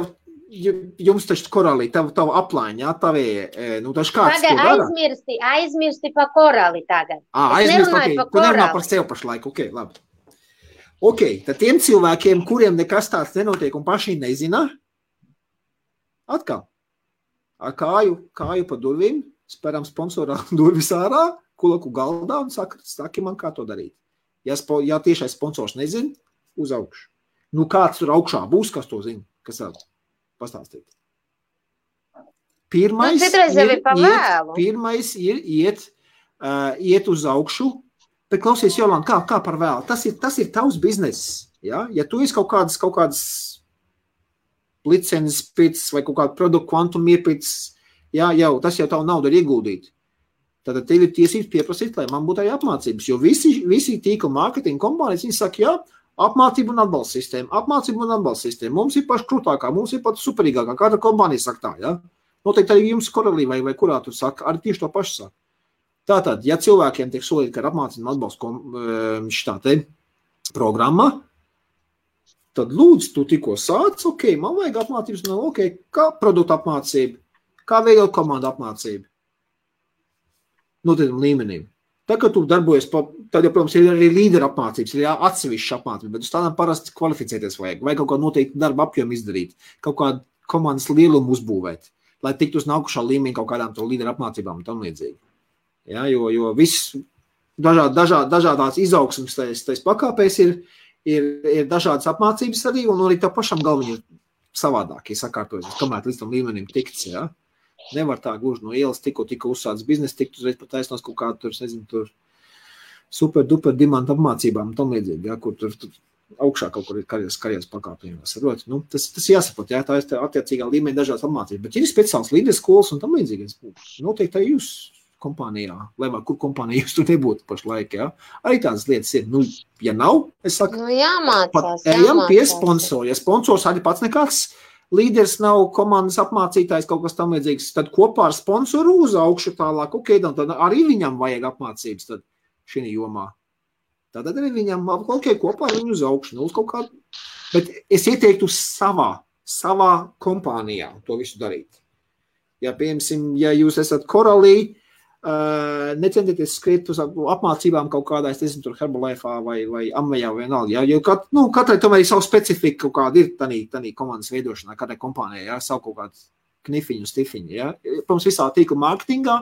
jums taču korālī, tavu aplāņi, jā, tavie, taču kāds to dara? Aizmirsti pa korāli tagad. Aizmirsti, tu nerunā par sev pašlaik, labi. Tad tiem cilvēkiem, kuriem nekas tāds nenotiek un paši nezina, atkal, ar kāju pa durvīm, speram sponsorā durvis ārā, kulaku galdā un saki man, kā to darīt. Ja tiešais sponsors nezina, uz augšu. Nu, kāds tur augšā būs, kas to zina, kas vēl? Pastāstīt. Pirmais ir iet uz augšu, bet klausies, Jolanta, kā par vēlu? Tas ir tavs bizness. Ja? Ja tu esi kaut kādas licences pēc vai kaut kādu produktu kvantumu iepēc, tas jau tavu naudu ir ieguldīt. Tad tev ir tiesības pieprasīt, lai man būtu arī apmācības, jo visi tīkla mārketinga kompānijas, viņi saka, apmācība un atbalsta sistēma. Mums ir paši krūtākā, mums ir pat superīgākā. Kāda kompānija saka tā, ja? Noteikti arī jums korelī vai kurā tur saka, arī tieši to pašu saka. Tātad, ja cilvēkiem tiek solīti, ka ir apmācība un atbalsta programma, tad lūdzu, tu tikko sāc, man vajag apmācības, kā produktu apmācība, kā veidot komandu apmācība. Noteiktam līmenim. Tā, kad tu darbojies, tad, protams, ir arī līdera apmācības, ir atsevišķa apmācība, bet uz tādām parasti kvalificēties vajag kaut kā noteikti darba apjomu izdarīt, kaut kādu komandas lielumu uzbūvēt, lai tiktu uz nākušā līmenī kaut kādām to līdera apmācībām un tam līdzīgi. Ja, jo viss dažādās izaugsmes tais pakāpēs ir dažādas apmācības arī, un arī tā pašam galviņi ir savādāk, ja sakārtojas, kamēr līdz tam līmenim tikts, ja. Nevar tā gluži no ielas tikko uzsācis biznesu, tikt uzreiz pat taisnos kaut kādu tur super duper dimanta apmācībām un tam līdzīgi, ja, kur tur augšā kaut kur ir karjeras pakāpienos. Tas jāsaprot, ja, tā ir attiecīgā līmeņa dažādas apmācības, bet ir speciāls līderis skolas un tam līdzīgi. Noteikti arī jūs kompānijā, lai vai kur kompānija jūs tur nebūtu pašlaik, ja. Arī tādas lietas ir. Nu, ja nav, es saku, ejam pie sponsora. Ja sponsors arī pats nekāds līderis nav komandas apmācītājs, kaut kas tam līdzīgs, tad kopā ar sponsoru uz augšu tālāk, tad arī viņam vajag apmācības tad šī jomā. Tad arī viņam, kopā ar viņu uz augšu, uz kaut kādu Bet es ieteiktu savā kompānijā to visu darīt. Ja, piemēram, ja jūs esat Koralī, necentieties skriet uz apmācībām kaut kādā, es nezinu, tur Herbalife'ā vai Amvejā vai vienalga. Ja, jo katrai tomēr ir savu specifiku kaut kāda ir tanī komandas veidošanā, katrai kompānijai, ja, savu kaut kādu knifiņu, stifiņu. Ja. Protams, visā tīkla mārketingā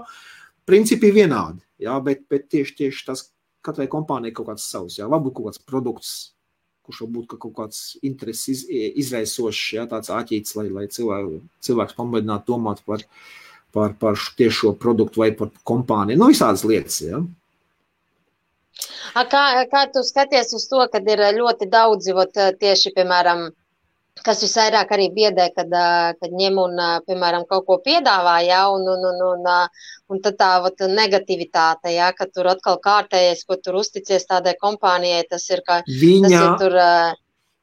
principi ir vienādi, ja, bet tieši tas katrai kompānijai kaut kāds savs, ja, varbūt kaut kāds produkts, kurš varbūt kaut kāds intereses izraisošs, ja, tāds āķīts, lai cilvēks pamēģinātu domāt par tiešo produktu vai par kompāniju. Nu, visādas lietas, ja. Kā tu skaties uz to, kad ir ļoti daudzi, tieši, piemēram, kas visvairāk arī biedē, kad ņem un, piemēram, kaut ko piedāvā, ja, un tad tā negativitāte, ja, ka tur atkal kārtējies, ko tur uzticies tādai kompānijai, tas ir tur...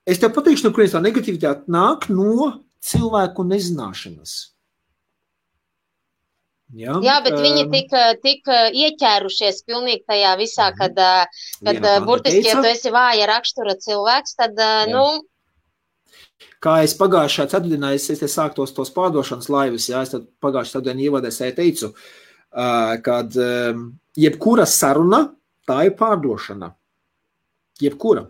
Es tev pateikšu, no kurienes tā negativitāte nāk no cilvēku nezināšanas. Jā, bet viņi tik ieķērušies pilnīgi tajā visā, kad burtiski, ja tu esi vāja rakstura cilvēks, tad, Kā es pagājušā ceturtdienā, es sāktos tos pārdošanas laivas, jā, es tad pagājušā ceturtdienā ievadēs teicu, kad jebkura saruna, tā ir pārdošana. Jebkura.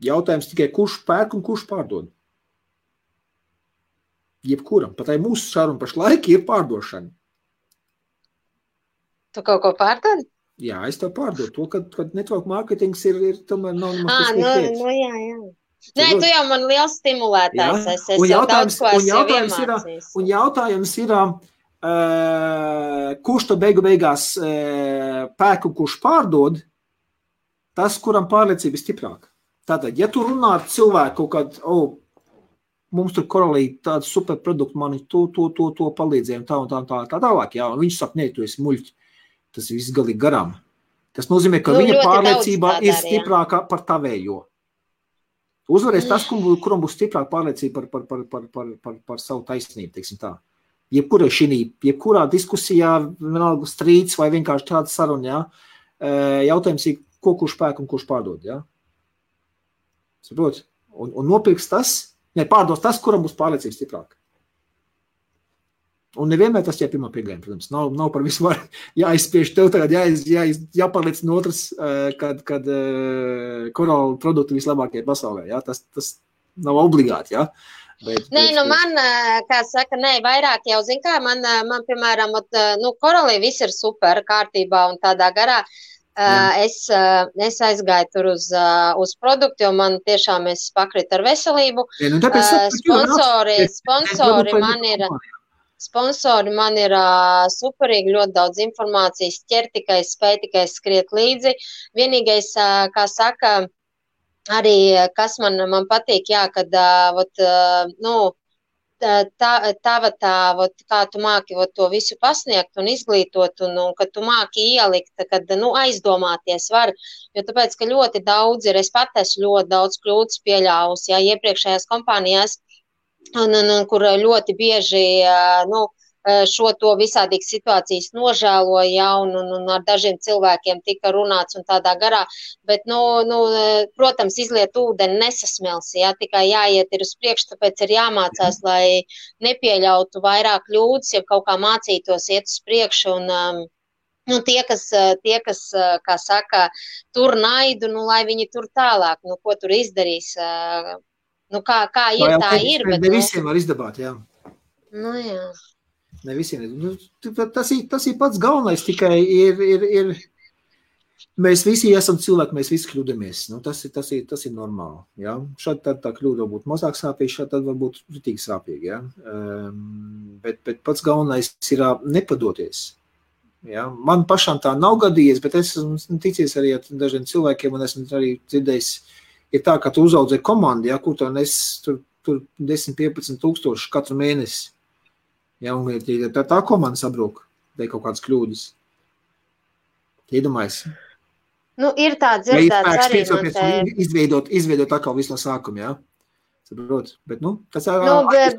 Jautājums tikai, kurš pērk un kurš pārdod. Jebkuram. Pat arī mūsu saruna pašlaik ir pārdošana. Tu kaut ko pārdod? Jā, es tev pārdodu to, kad network marketings ir tomēr nav jā. Nē, tu jau man liels stimulētājs. Es jau daudz ko esmu iemācījis. Un jautājums ir, kurš to beigās pērk un kurš pārdod, tas, kuram pārliecība ir stiprāka. Tātad, ja tu runā ar cilvēku, kad, mums tur Koralī tādu superproduktu, mani to palīdzēja un tā tālāk, jā, un viņš saka, nē, tu esi muļķi, tas viss galīgi garām. Tas nozīmē, ka viņa pārliecība ir stiprāka par tavējo. Uzvarēs tas, kuram būs stiprāka pārliecība par savu taisnību, teiksim tā. Jebkurā diskusijā, vienalga strīds vai vienkārši tāda saruna, jā, jautājums ir, ko kurš pērk un kurš pārdod, jā. Saprot? Un nopirks tas, pārdos tas, kuram būs pārliecība stiprāka. Un nevienmēr tas ir pirmā pieejama, protams. Nav par visu var jāizspiež tev tagad, jāpārliecina otrs, kad korāla produkti vislabākie pasaulē. Jā? Tas nav obligāti, jā. Nē, man, kā saka, vairāk jau zin kā, man piemēram, korālī viss ir super kārtībā un tādā garā. Es aizgāju tur uz produktu, jo man tiešām es pakritu ar veselību. Sponsori man ir superīgi, ļoti daudz informācijas, ķer tikai, spēj tikai skriet līdzi. Vienīgais, kā saka, arī kas man patīk, jā, kad, kā tu māki to visu pasniegt un izglītot, un kad tu māki ielikt, kad, aizdomāties var, jo tāpēc, ka ļoti daudz ir, es pat esmu ļoti daudz kļūdas pieļāvusi, jā, iepriekšējās kompānijās, un kur ļoti bieži, šo to visādīgas situācijas nožēloja, ja, un ar dažiem cilvēkiem tika runāts un tādā garā, bet, protams, izliet ūdeni nesasmels, ja, tikai jāiet ir uz priekšu, tāpēc ir jāmācās, lai nepieļautu vairāk kļūdas, ja kaut kā mācītos iet uz priekšu, un tie, kas, kā saka, tur naidu, lai viņi tur tālāk, ko tur izdarīs, kā ir, tā ir, bet... Ne visiem var izdabāt, jā. Jā. Ne visiem. Tas ir pats galvenais, tikai ir mēs visi esam cilvēki, mēs visi kļūdamies. Tas ir normāli, jā. Šādi tā kļūda būtu mazāk sāpīgi, šādi tad varbūt ritīgi sāpīgi, jā. Bet pats galvenais ir nepadoties. Jā. Man pašām tā nav gadījies, bet es esmu ticies arī ar dažiem cilvēkiem, un esmu arī dzirdējis, ir tā, ka tu uzaudzē komandu, ja, kur tu nes tur 10-15 tūkstoši katru mēnesi. Ja, un tā komanda sabrūk, dēļ kaut kādas kļūdas. Iedomājies. Ir tā dzirdēts arī no te. Izveidot atkal visu no sākuma, jā. Saprot, bet, tas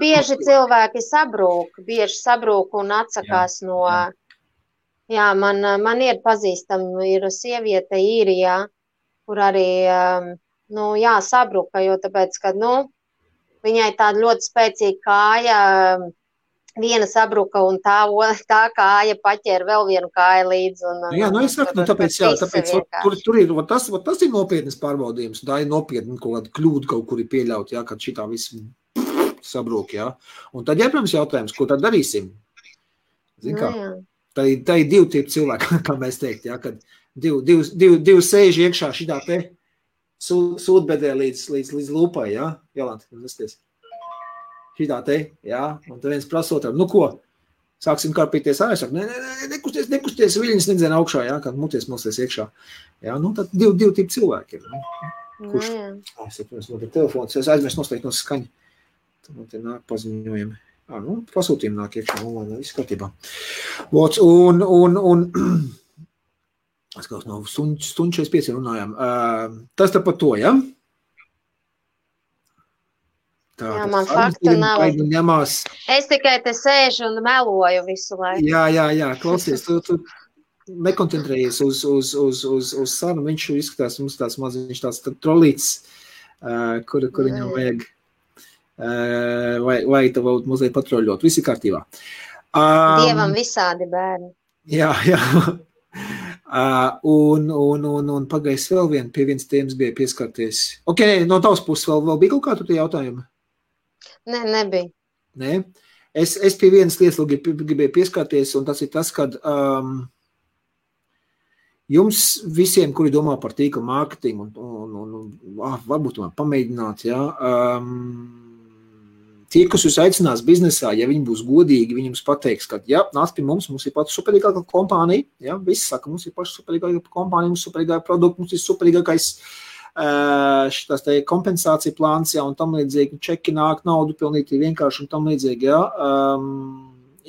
bieži cilvēki sabrūk un atsakās no. Jā, man ir pazīstama, ir sieviete Īrijā, kur arī sabruka, jo tāpēc, ka, viņai tāda ļoti spēcīga kāja, viena sabruka un tā kāja paķēra vēl vienu kāju līdzi. Es saku, tāpēc tur ir, tas ir nopietnas pārbaudījums, tā ir nopietna kaut kāda kļūda kaut kur ir pieļaut, kad šitā viss sabrūk, Un tad, protams, jautājums, ko tad darīsim? Zin kā? Tā ir divi tipi cilvēki, kā mēs teikt, kad divi sēž iekšā šitā te sūdbedē līdz lūpai, Jolanta, nesties. Šitā te, un tad viens prasot, ko? Sāksim karpīties ārā, saka, nekusties, viļņas nedzien augšā, kad muties mosties iekšā. Tad divi tipi cilvēki ir. Kurš? Es telefons, es aizmirst noslēgt no skaņa. Tad man te nāk paziņojumi. Pasūtījumi nāk iekšā, viss kārtībā. Un es kaut no stundu 45 runājām. Tas tā par to, Man faktu nav. Es tikai te sēžu un meloju visu laiku. Jā, klausies, tu nekoncentrējies uz sarunu, viņš izskatās, mums tāds maziņš tāds trolīts, kur viņam vajag, vai tev mazliet patroļot, visi kārtībā. Dievam visādi bērni. Jā. Un pagājis vēl pie vienas tēmas bija pieskarties. No tavas puses vēl bija kaut kā tu tie jautājumi? Nē, nebija. Nē? Es pie vienas lietas gribēju pieskarties, un tas ir tas, kad jums visiem, kuri domā par tīkla mārketingu, un varbūt tomēr pamēģināt, tie, kas jūs aicinās biznesā, ja viņi būs godīgi, viņi jums pateiks, ka, nāc pie mums ir pati superīgākā kompānija, visi saka, mums ir paši superīgākā kompānija, mums ir superīgākā produkta, mums ir superīgākais šitās te kompensācija plāns, un tam līdzīgi, čeki nāk, naudu pilnīgi vienkārši, un tam līdzīgi,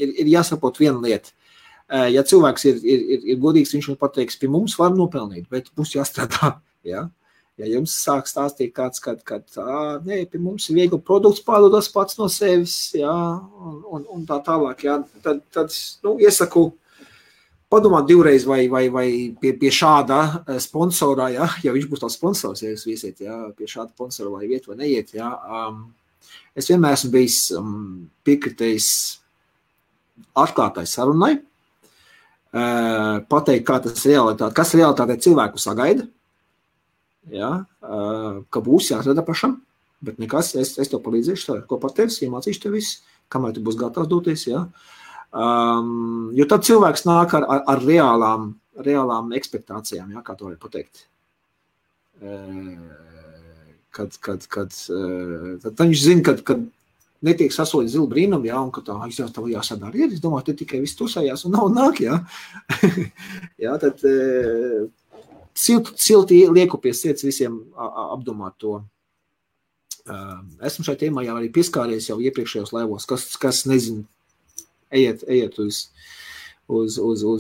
ir jāsaprot viena lieta. Ja cilvēks ir godīgs, viņš man pateiks, pie mums var nopelnīt, bet mums jāstrādā, Ja jums sāk stāstīt kāds, kad pie mums ir viegli produkts pārdodas pats no sevis, un tā tālāk, tad iesaku padomāt divreiz vai pie šāda sponsorā, ja viņš būs tās sponsors, ja jūs viesiet, pie šāda sponsora vai iet vai neiet, Es vienmēr esmu bijis piekritējis atklātai sarunai, pateikt, kas realitātē cilvēku sagaida, ka būs jāsada pašam, bet nekas, es tev palīdzēšu, ko par tevis, iemācīšu tev visu, kamēr tu būs gatavs doties, jo tad cilvēks nāk ar reālām ekspektācijām, kā to var pateikt. Tad viņš zina, kad netiek sasolīt zilu brīnumu, un ka tā jāsadara ir, es domāju, te tikai viss tusējās un nav nāk, tad silti lieku pie sirds visiem apdomāt to. Esmu šai tēmā jau arī pieskāries jau iepriekšējos laivos, kas nezinu, ejiet uz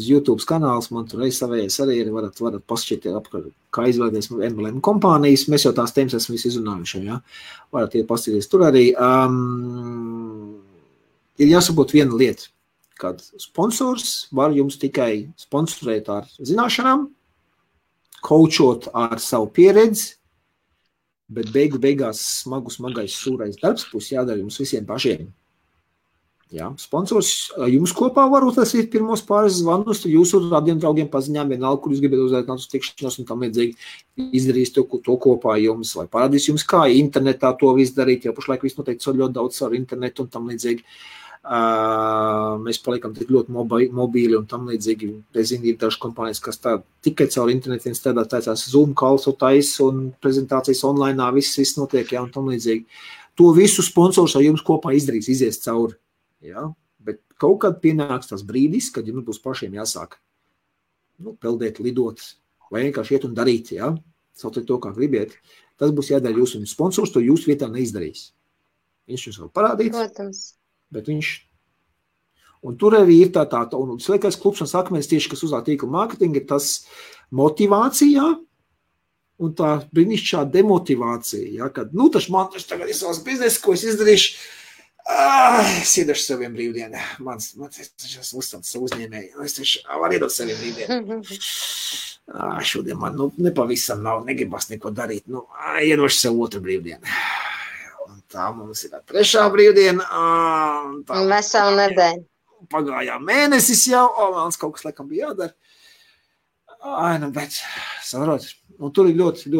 YouTube kanāls, man tur savējais arī ir, varat pašķiet apkārt, kā izvēlēties MLM kompānijas, mēs jau tās tēmas esam visi izrunājuši, varat iet paskatīties tur arī. Ir jāsabūt viena lieta, kad sponsors var jums tikai sponsorēt ar zināšanām, coachot ar savu pieredzi, bet beigās smagais sūrais darbs būs jādara jums visiem pašiem. Sponsors jums kopā varbūt tas ir pirmos pāris zvanus, tad jūsu tādiem draugiem paziņām vienalga, kur jūs gribat uzaicināt uz tikšanos un tam līdzīgi izdarīs to kopā jums, vai parādīs jums, kā internetā to visu darīt, jo pašlaik viss noteikti ļoti daudz ar internetu un tam līdzīgi. Mēs paliekam tik ļoti mobīli un tam līdzīgi. Es zinu, ir dažas kompānijas, kas tā tikai caur internetiem strādā, tācās Zoom calls un prezentācijas online, viss notiek, un tam līdzīgi. To visu sponsors ar jums kopā izdarīs, izies cauri. Bet kaut kad pienāks tas brīdis, kad jums būs pašiem jāsāk peldēt, lidot, vai vienkārši iet un darīt, sauciet to, kā gribiet. Tas būs jādara jūs, un sponsors to jūsu vietā neizdarīs. Viņš jums vēl parādīt, bet viņš... Un tur arī ir tā, un sliekais klubs un sakmēs tieši, kas uzlāk tīkla mārketinga, ir tas motivācijā, un tā brīnišķā demotivācija, kad, taču man tagad ir savs biznes, ko es izdarīšu, Es iedošu saviem brīvdienu. Es esmu uzstāts savu uzņēmēju. Es taču varu iedot saviem brīvdienu. Šodien man nepavisam nav, negribas neko darīt. Iedošu savu otru brīvdienu. Un tā mums ir trešā brīvdiena. Veselu nedēļu. Pagājā mēnesis jau, vēl kaut kas laikam bija jādara. Bet, saprot, tur ir ļoti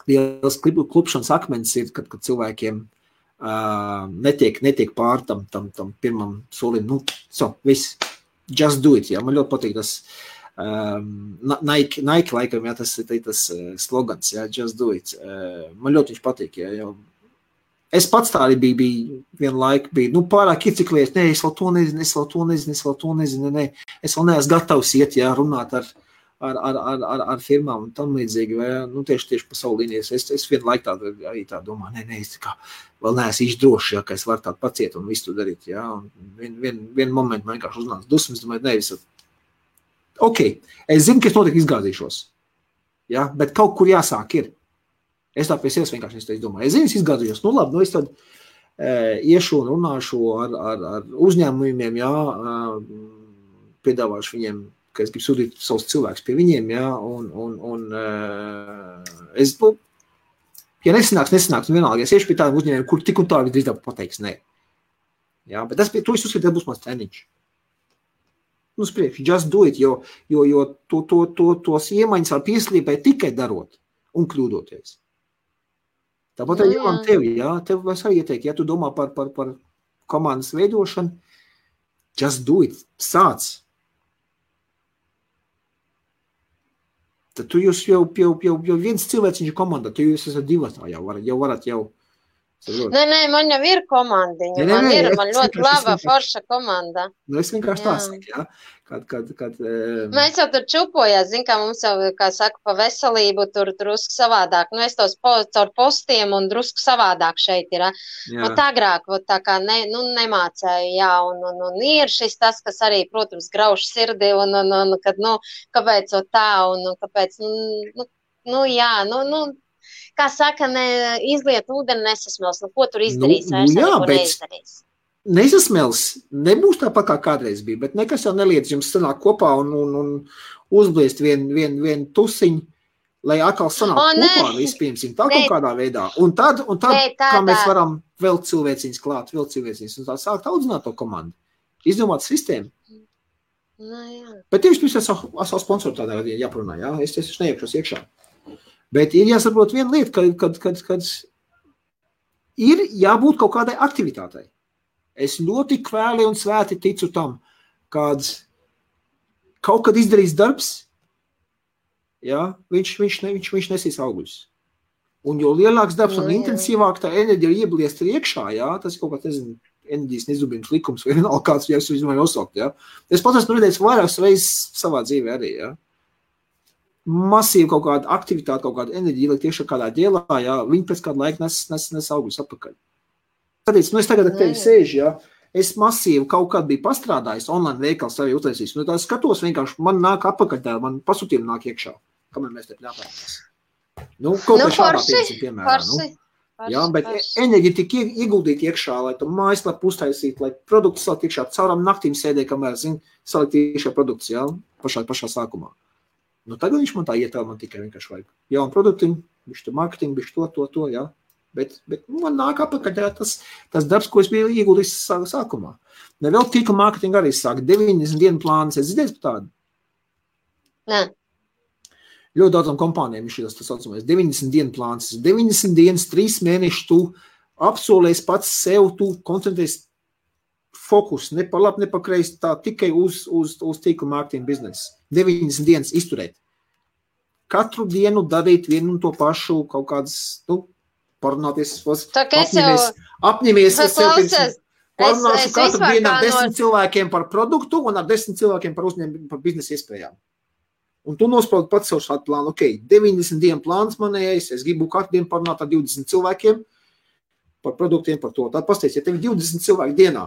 liels klupšanas akmens ir, kad cilvēkiem netiek pār tam pirmam solim. Viss, just do it, jā. Man ļoti patīk tas Nike laikam, jā, tas ir tas slogans, jā, just do it. Man ļoti viņš patīk, jā, jo es pats tā arī biju vienu laiku, pārāk ieciklējies, es vēl to nezinu, es vēl neesmu gatavs iet, jā, runāt ar firmām un tam līdzīgi, vai, tieši pa savu līnijas. Es vienu laiku arī tā domāju, es kā vēl neesmu īsti droši, jā, ka es varu tādu paciet un visu to darīt, jā, un vienu momentu man vienkārši uznāca dusmas, domāju, ok, es zinu, ka es noteikti izgāzīšos, jā, bet kaut kur jāsāk ir. Es tā pie sevis vienkārši domāju. Es zinu, es izgādījos. Labi, es tad iešu un runāšu ar uzņēmumiem, jā, piedāvāšu viņiem, ka es gribu sūtīt savus cilvēkus pie viņiem, jā, un es, ja nesanāks, vienalga, es iešu pie tādiem uzņēmumiem, kur tik un tā visdrīzāk pateiks nē. Jā, bet to es uzskatu, būs mans treniņš. Priekš, just do it, jo tos iemaņas var pieslīpēt tikai darot un kļūdoties. Tāpat arī jau tevi, jā, tev es arī ieteiktu, ja tu domā par komandas veidošanu, just do it, sāc. Tad tu jūs jau viens cilvēciņš komandā, tu jūs esat divatā, jau varat. Nē, man jau ir komandiņa, man ļoti laba forša komanda. Es vienkārši tā saku, jā. Kad mēs jau tur čupojās, kā mums jau, kā saka, pa veselību tur drusku savādāk. Es tos caur postiem un drusku savādāk šeit ir. Agrāk, tā kā nemācēju, jā, un ir šis tas, kas arī, protams, grauž sirdi, un kad, kāpēc tā, un kāpēc, jā, kā saka, izliet ūdeni nesasmels, ko tur izdarīs, neko neizdarīs. Nesasmels, nebūs tāpat kā kādreiz bija, bet nekas jau neliedz jums sanāk kopā un uzbliest vien tusiņu, lai atkal sanāk kopā vispirmsim, tā kaut kādā veidā. Un tad kā mēs varam vēl cilvēciņas klāt, un tā sākt audzināt to komandu, izdomāt sistēmu. Bet tieši es savu sponsoru tādā gadījumā jāprunā, jā, es neiekšos iekšā. Bet ir jāsaprot viena lieta, kad ir jābūt kaut kādai aktivitātei. Es ļoti kvēli un svēti ticu tam, kad kaut kad izdarīs darbs, jā, viņš nesīs augļus. Un jo lielāks darbs un intensīvāk tā enerģija iebliest iekšā, jā, tas kaut kā, enerģijas nezubības likums vai vienalga kāds, ja es viņu nosaukt, jā. Es pats esmu redzējis vairākas reizes savā dzīvē arī, jā. Masīvi kaut kāda aktivitāte, kaut kāda enerģija ielikt iekšā kādā ģēlā, jā, viņi pēc kādu laiku nes augļus atpakaļ. Tāpēc, es tagad ar tevi sēžu, jā, es masīvi kaut kādu biju pastrādājis, online veikals arī uztaisījis, tā skatos vienkārši, man nāk atpakaļ tā, man pasūtījumi nāk iekšā, kamēr mēs te ļāpāmies. Kaut kā šādā piemērā, jā, bet enerģija tik ieguldīt iekšā, lai tu mājaslapu uztaisīt, lai produktu salikt iekšā, cauram naktīm sēdē, kamēr, salikt iekšā produkts, jā, pašā sākumā. Tagad viņš man tā ietāl, man tikai vienkārši vajag jaunu produktiņu, bišķi marketingu, bišķi to, jā. Bet man nāk apakaļ tas darbs, ko es biju ieguldījis sākumā. Vēl tīkla mārketinga arī sāk 90 dienu plānas. Es dzirdēju par tādu? Nē. Ļoti daudzām kompānijām ir tas saucamais 90 dienu plāns. 90 dienas, 3 mēnešus tu apsolēs pats sev, tu koncentrēs fokus, ne pa labi, ne pa kreisi, tā tikai uz tīkla mārketinga biznesu. 90 dienas izturēt. Katru dienu darīt vienu un to pašu kaut kādas, parunāties, apņemies parunāšu katru dienu ar 10 cilvēkiem par produktu un ar 10 cilvēkiem par uzņēmumu, par biznesa iespējām. Un tu nospraudi pats savu šādu plānu, 90 dienu plāns manējais, es gribu katru dienu parunāt ar 20 cilvēkiem par produktiem, par to. Tad pasties, ja tev ir 20 cilvēki dienā.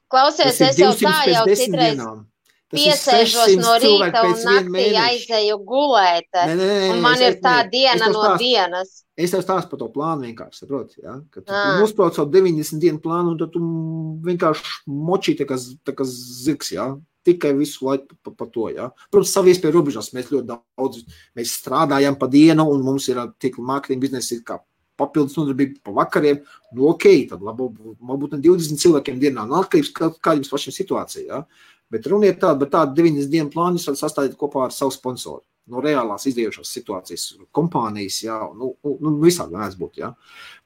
Klausies, es jau tā jau citreiz. piesēžos no rīta un naktī aizēju gulēt, un man ir tā diena no dienas. Es tev stāstu par to plānu vienkārši, saproti, ja? Kad tu nosprauc savu 90 dienu plānu, un tad tu vienkārši močī tā kā zirgs, ja? Tikai visu laiku par to, ja? Protams, savu iespēju robežās mēs ļoti daudz, mēs strādājam pa dienu, un mums ir tīkla mārketinga biznesa ir kā papildus nodarbība pa vakariem, nu okei, tad varbūt 20 cilvēkiem dienā, nu atkarības kā jums pašiem situācija, ja? Bet runa ir tāda, bet tāda 90 dienu plānu jūs varat sastādīt kopā ar savu sponsoru. No reālās izdējušās situācijas, kompānijas, jā, nu visādi varētu būt, jā.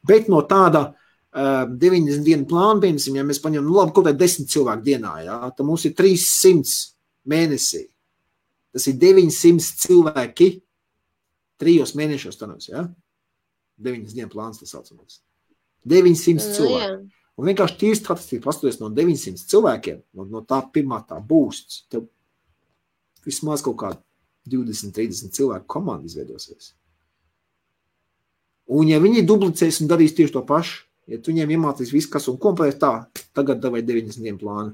Bet no tāda 90 dienu plāna, piemēram, ja mēs paņemam, nu labi, kaut kā 10 cilvēku dienā, jā, tad mums ir 300 mēnesī. Tas ir 900 cilvēki 3 mēnešos tanās, jā. 9 dienu plāns tas saucamais. 900 cilvēki. Un vienkārši tīri statistiski pastoties no 900 cilvēkiem, no tā pirmā tā būsts, tev vismaz kaut kāda 20-30 cilvēku komanda izveidosies. Un ja viņi duplicēs un darīs tieši to pašu, ja tu viņiem iemācīs visu, kas un kompleksi tā, tagad davai 90 dienu plānu,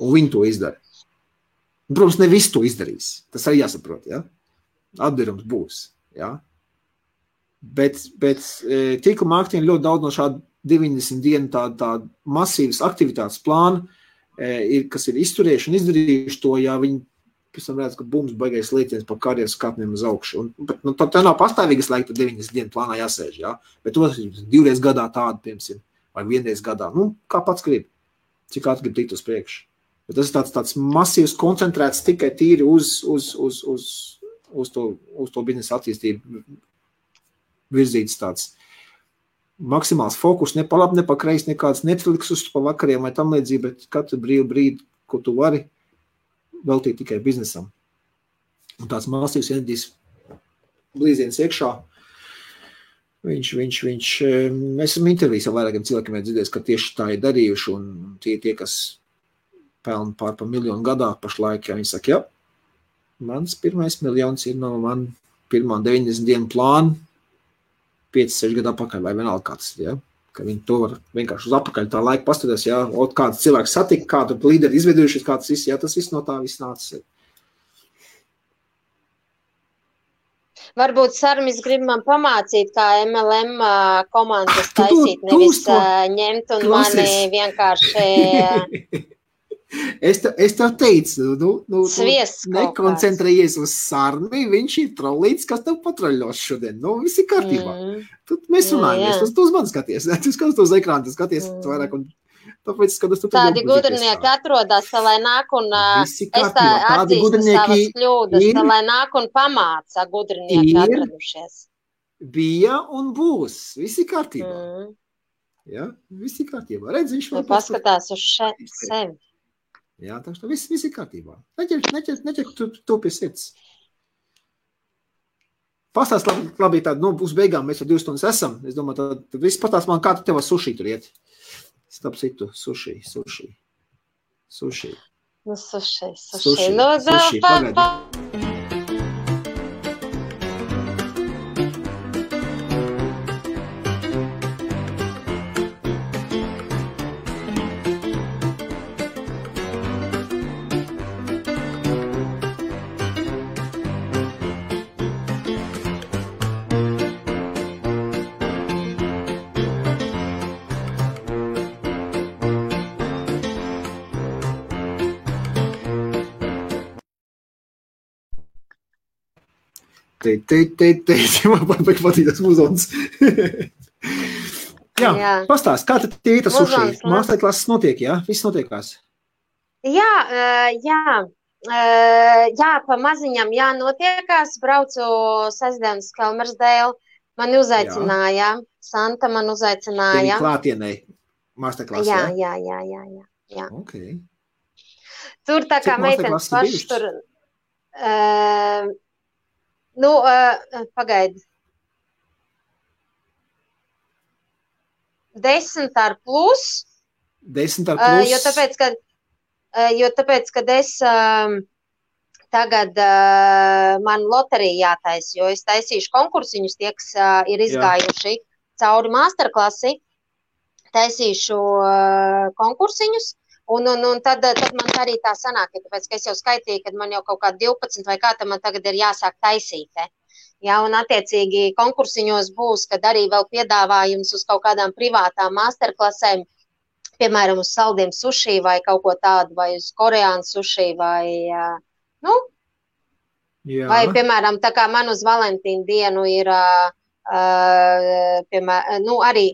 un viņi to izdara. Un, protams, ne visu to izdarīs. Tas arī jāsaprot, ja? Atdarums būs, ja? Bet tīkla mārketinga ļoti daudz no šāda 90 dienu tāda masīvas aktivitātes plāna, kas ir izturējuši un izdarījuši to, ja viņi pēc tam redz, ka bums baigais lietiens par karjeras kāpniem uz augšu. Bet tā nav pastāvīgas laika, tad 90 dienu plānā jāsēž, jā. Bet to 2 reizes gadā tādu, piemēram, vai 1 reizi gadā. Nu, kā pats grib. Cik ātri grib tikt uz priekšu. Bet tas ir tāds masīvs, koncentrēts tikai tīri uz to biznesa attīstību virzīts tāds maksimāls fokus, ne pa labi, ne pa kreis, nekāds Netflix uz pa vakariem vai tam līdzīgi, bet katru brīdi, ko tu vari veltīt tikai biznesam. Un tāds masīvs enerģijas blīziens iekšā. Mēs esam intervijas ar vairākiem cilvēkiem dzirdējis, ka tieši tā ir darījuši, un tie, kas pelna pār pa 1 miljonu gadā pašlaik, ja viņi saka, jā, mans pirmais miljons ir no man pirmā 90 dienu plāna, 5-6 gadu apakaļ vai vienalga kāds, ja? Ka viņi to var vienkārši uz apakaļ tā laika pastatās, ja? Kāds cilvēks satika, kādu līderi izveidojušies, kāds viss, ja? Tas viss no tā viss nācis. Varbūt Sarmis grib man pamācīt, kā MLM komandas taisīt, nevis ņemt un mani vienkārši... Es tev teicu, nekoncentrējies uz Sarmi, viņš ir trollīts, kas tev patroļos šodien. Nu, viss ir kārtībā. Tad mēs runājamies, tu uz mani skaties, tu skaties uz ekrānu, tu skaties vairāk, un tāpēc skatos tu tādi gudrinieki atrodas, lai nāk un es tā atzīstu savas kļūdas, lai nāk un pamāca gudrinieki atradušies. Bija un būs, viss ir kārtībā. Ja, viss ir kārtībā. Redz, viņš vēl paskatās uz sevi. Jā, tā viss ir kārtībā. Neķer to pie sirds. Pastāst labi tādu, nu, uz beigām mēs jau 2 stundas esam. Es domāju, tad viss pastāst man, kā tu tev suši tur iet. Starp citu, suši. Nu, suši. Nu, pagaidi. Man patīk tas muzonis. Jā, pastāst, kā tad tie tas suši? Masterklases notiek, jā? Viss notiekās? Jā, pa maziņam notiekās. Braucu sestdienas Kelmersdēlu. Mani uzaicināja. Santa man uzaicināja. Tevi klātienei masterklasē? Jā. Okay. Tur tā kā meitenes paši tur... Nu, pagaidi. 10 ar plus. 10 ar plus. Jo tāpēc, kad es tagad man loterija jātais, jo es taisīšu konkursiņus, tie, kas ir izgājuši cauri masterklasi, taisīšu konkursiņus, Un tad man arī tā sanāk, tāpēc, ka es jau skaitīju, kad man jau kaut kā 12 vai kā, tad man tagad ir jāsāk taisīt. Ja, un attiecīgi konkursiņos būs, kad arī vēl piedāvājums uz kaut kādām privātām masterklasēm, piemēram, uz saldiem suši vai kaut ko tādu, vai uz koreānu suši, vai, vai, piemēram, tā kā man uz Valentīnu dienu ir, piemēram, arī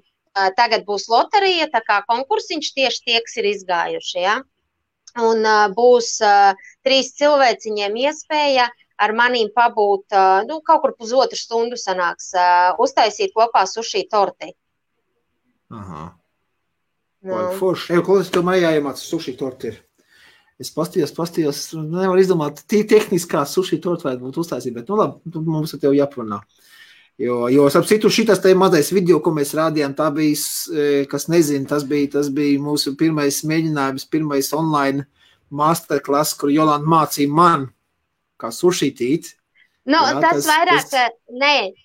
tagad būs loterija, tā kā konkursiņš tieši tie, kas ir izgājuši, ja? Un būs 3 cilvēciņiem iespēja ar manīm pabūt, kaut kur pusotru stundu sanāks, uztaisīt kopā suši torti. Aha. Forši. Klausies, tev mājā jāiemāc suši torti ir. Es pastījos, nevar izdomāt, tehniskā suši torti vajag būt uztaisīt, bet, labi, mums ar tev jāparunā. Jo ap citu šitas te mazais video, ko mēs rādījām, tā bija, kas nezina, tas bija mūsu pirmais mēģinājums, pirmais online masterclass, kur Jolanta mācīja man, kā sušitīt. Tas vairāk,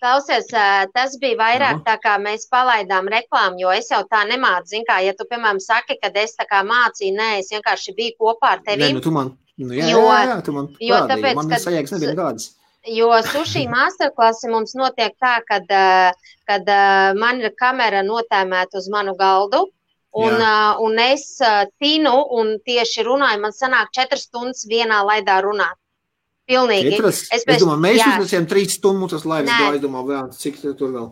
klausies, tas bija vairāk tā kā mēs palaidām reklāmu, jo es jau tā nemācu, zin kā, ja tu, piemēram, saki, kad es tā kā mācīju, es vienkārši biju kopā ar tevim. Tu man, tu man parādīji, man nesajēgas nebija nekādas. Jo suši masterklasi mums notiek tā, kad man ir kamera notēmēta uz manu galdu, un es tinu un tieši runāju, man sanāk 4 stundas vienā laidā runāt. Pilnīgi. Es domāju, mēs uznesiem 3 stundu tas laivas gāja, es domāju, cik tur vēl?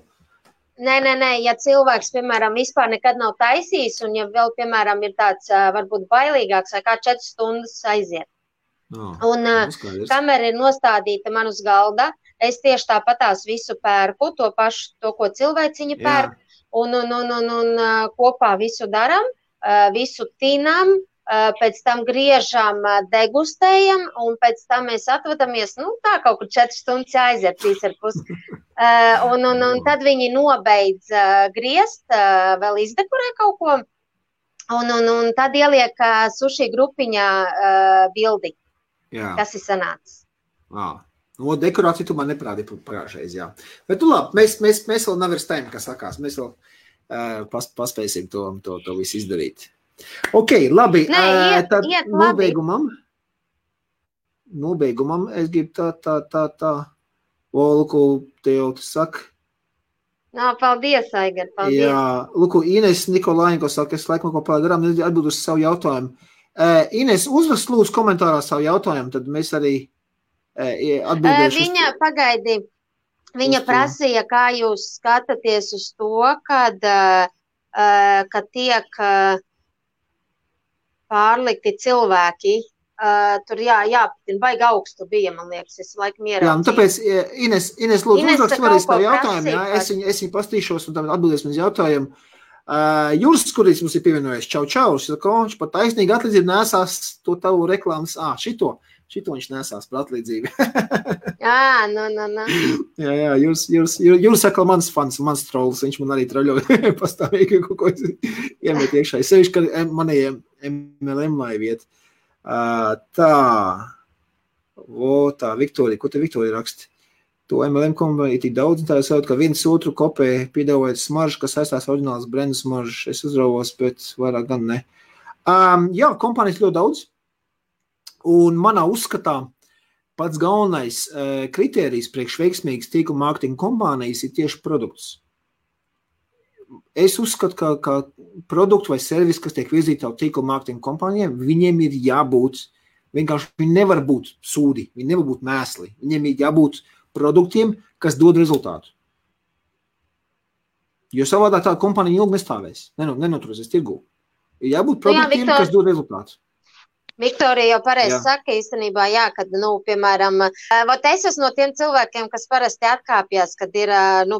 Nē, ja cilvēks, piemēram, vispār nekad nav taisījis, un ja vēl, piemēram, ir tāds varbūt bailīgāks, vai kā 4 stundas aiziet. Un kamera ir nostādīta man uz galda, es tieši tāpatās visu pērku, to pašu, to, ko cilvēciņi pērk, un kopā visu daram, visu tinam, pēc tam griežam, degustējam, un pēc tam mēs atvadamies, tā kaut kur 4 stundas aiziet, 3,5. Un tad viņi nobeidz griezt, vēl izdekorē kaut ko, un tad ieliek suši grupiņā bildi. Kas ir sanācis. Dekorāciju tu man neprādīji pagājušreiz, jā. Bet labi, mēs vēl nav ar stēm, kas sakās. Mēs vēl paspēsim to visu izdarīt. Ok, labi. Tad nobeigumam es gribu tā. Lūku, tev tu saka. Paldies, Aigar, paldies. Jā, lūku, Ines Nikolāņko saka, es laikam ko pārdarām, atbildu uz savu jautājumu. Ines, uzrakst lūdzu komentārā savu jautājumu, tad mēs arī atbildēšu. Viņa pagaidi, viņa prasīja, kā jūs skatāties uz to, kad tiek pārlikti cilvēki. Tur jāpatina, baigi augstu bija, man liekas, es laikam ieraudzīju. Jā, tāpēc, Ines lūdzu uzrakst vēlreiz tavu jautājumu, jā, es viņu pastīšos un tad atbildēsim uz jautājumu. Juris, kurīs mums ir pievienojies, čau, viņš pat taisnīgi atlīdzību nesās to tavu reklāmas, šito viņš nesās par atlīdzību. Jā, Juris saka, mans fans, mans trolls, viņš man arī troļoja pastāvīgi, ko iemet iekšā. Sevišķi, ka manējiem MLM laiviet. Tā, Viktorija, ko te Viktorija raksta? To MLM kompānija tik daudz, tā jau ka viens otru kopē piedāvājot smaržu, kas saistās oriģināls brendu smaržu. Es uzrauvos, bet vairāk gan ne. Jā, kompānijas ļoti daudz. Un manā uzskatā pats galvenais kritērijs priekš veiksmīgas tīkla mārketinga kompānijas ir tieši produkts. Es uzskatu, ka produktu vai servisi, kas tiek virzīti jau tīkla mārketinga kompānijiem, viņiem ir jābūt, vienkārši viņi nevar būt sūdi, viņi nevar būt mēsli, viņiem ir jābūt produktiem, kas dod rezultātu. Jo savādā tā kompānija ilgi nestāvēs, nenoturēsies tirgū. Ir jābūt produktiem, kas dod rezultātu. Viktorija jau pareizi saka īstenībā, kad, piemēram, es esmu no tiem cilvēkiem, kas parasti atkāpjas, kad ir,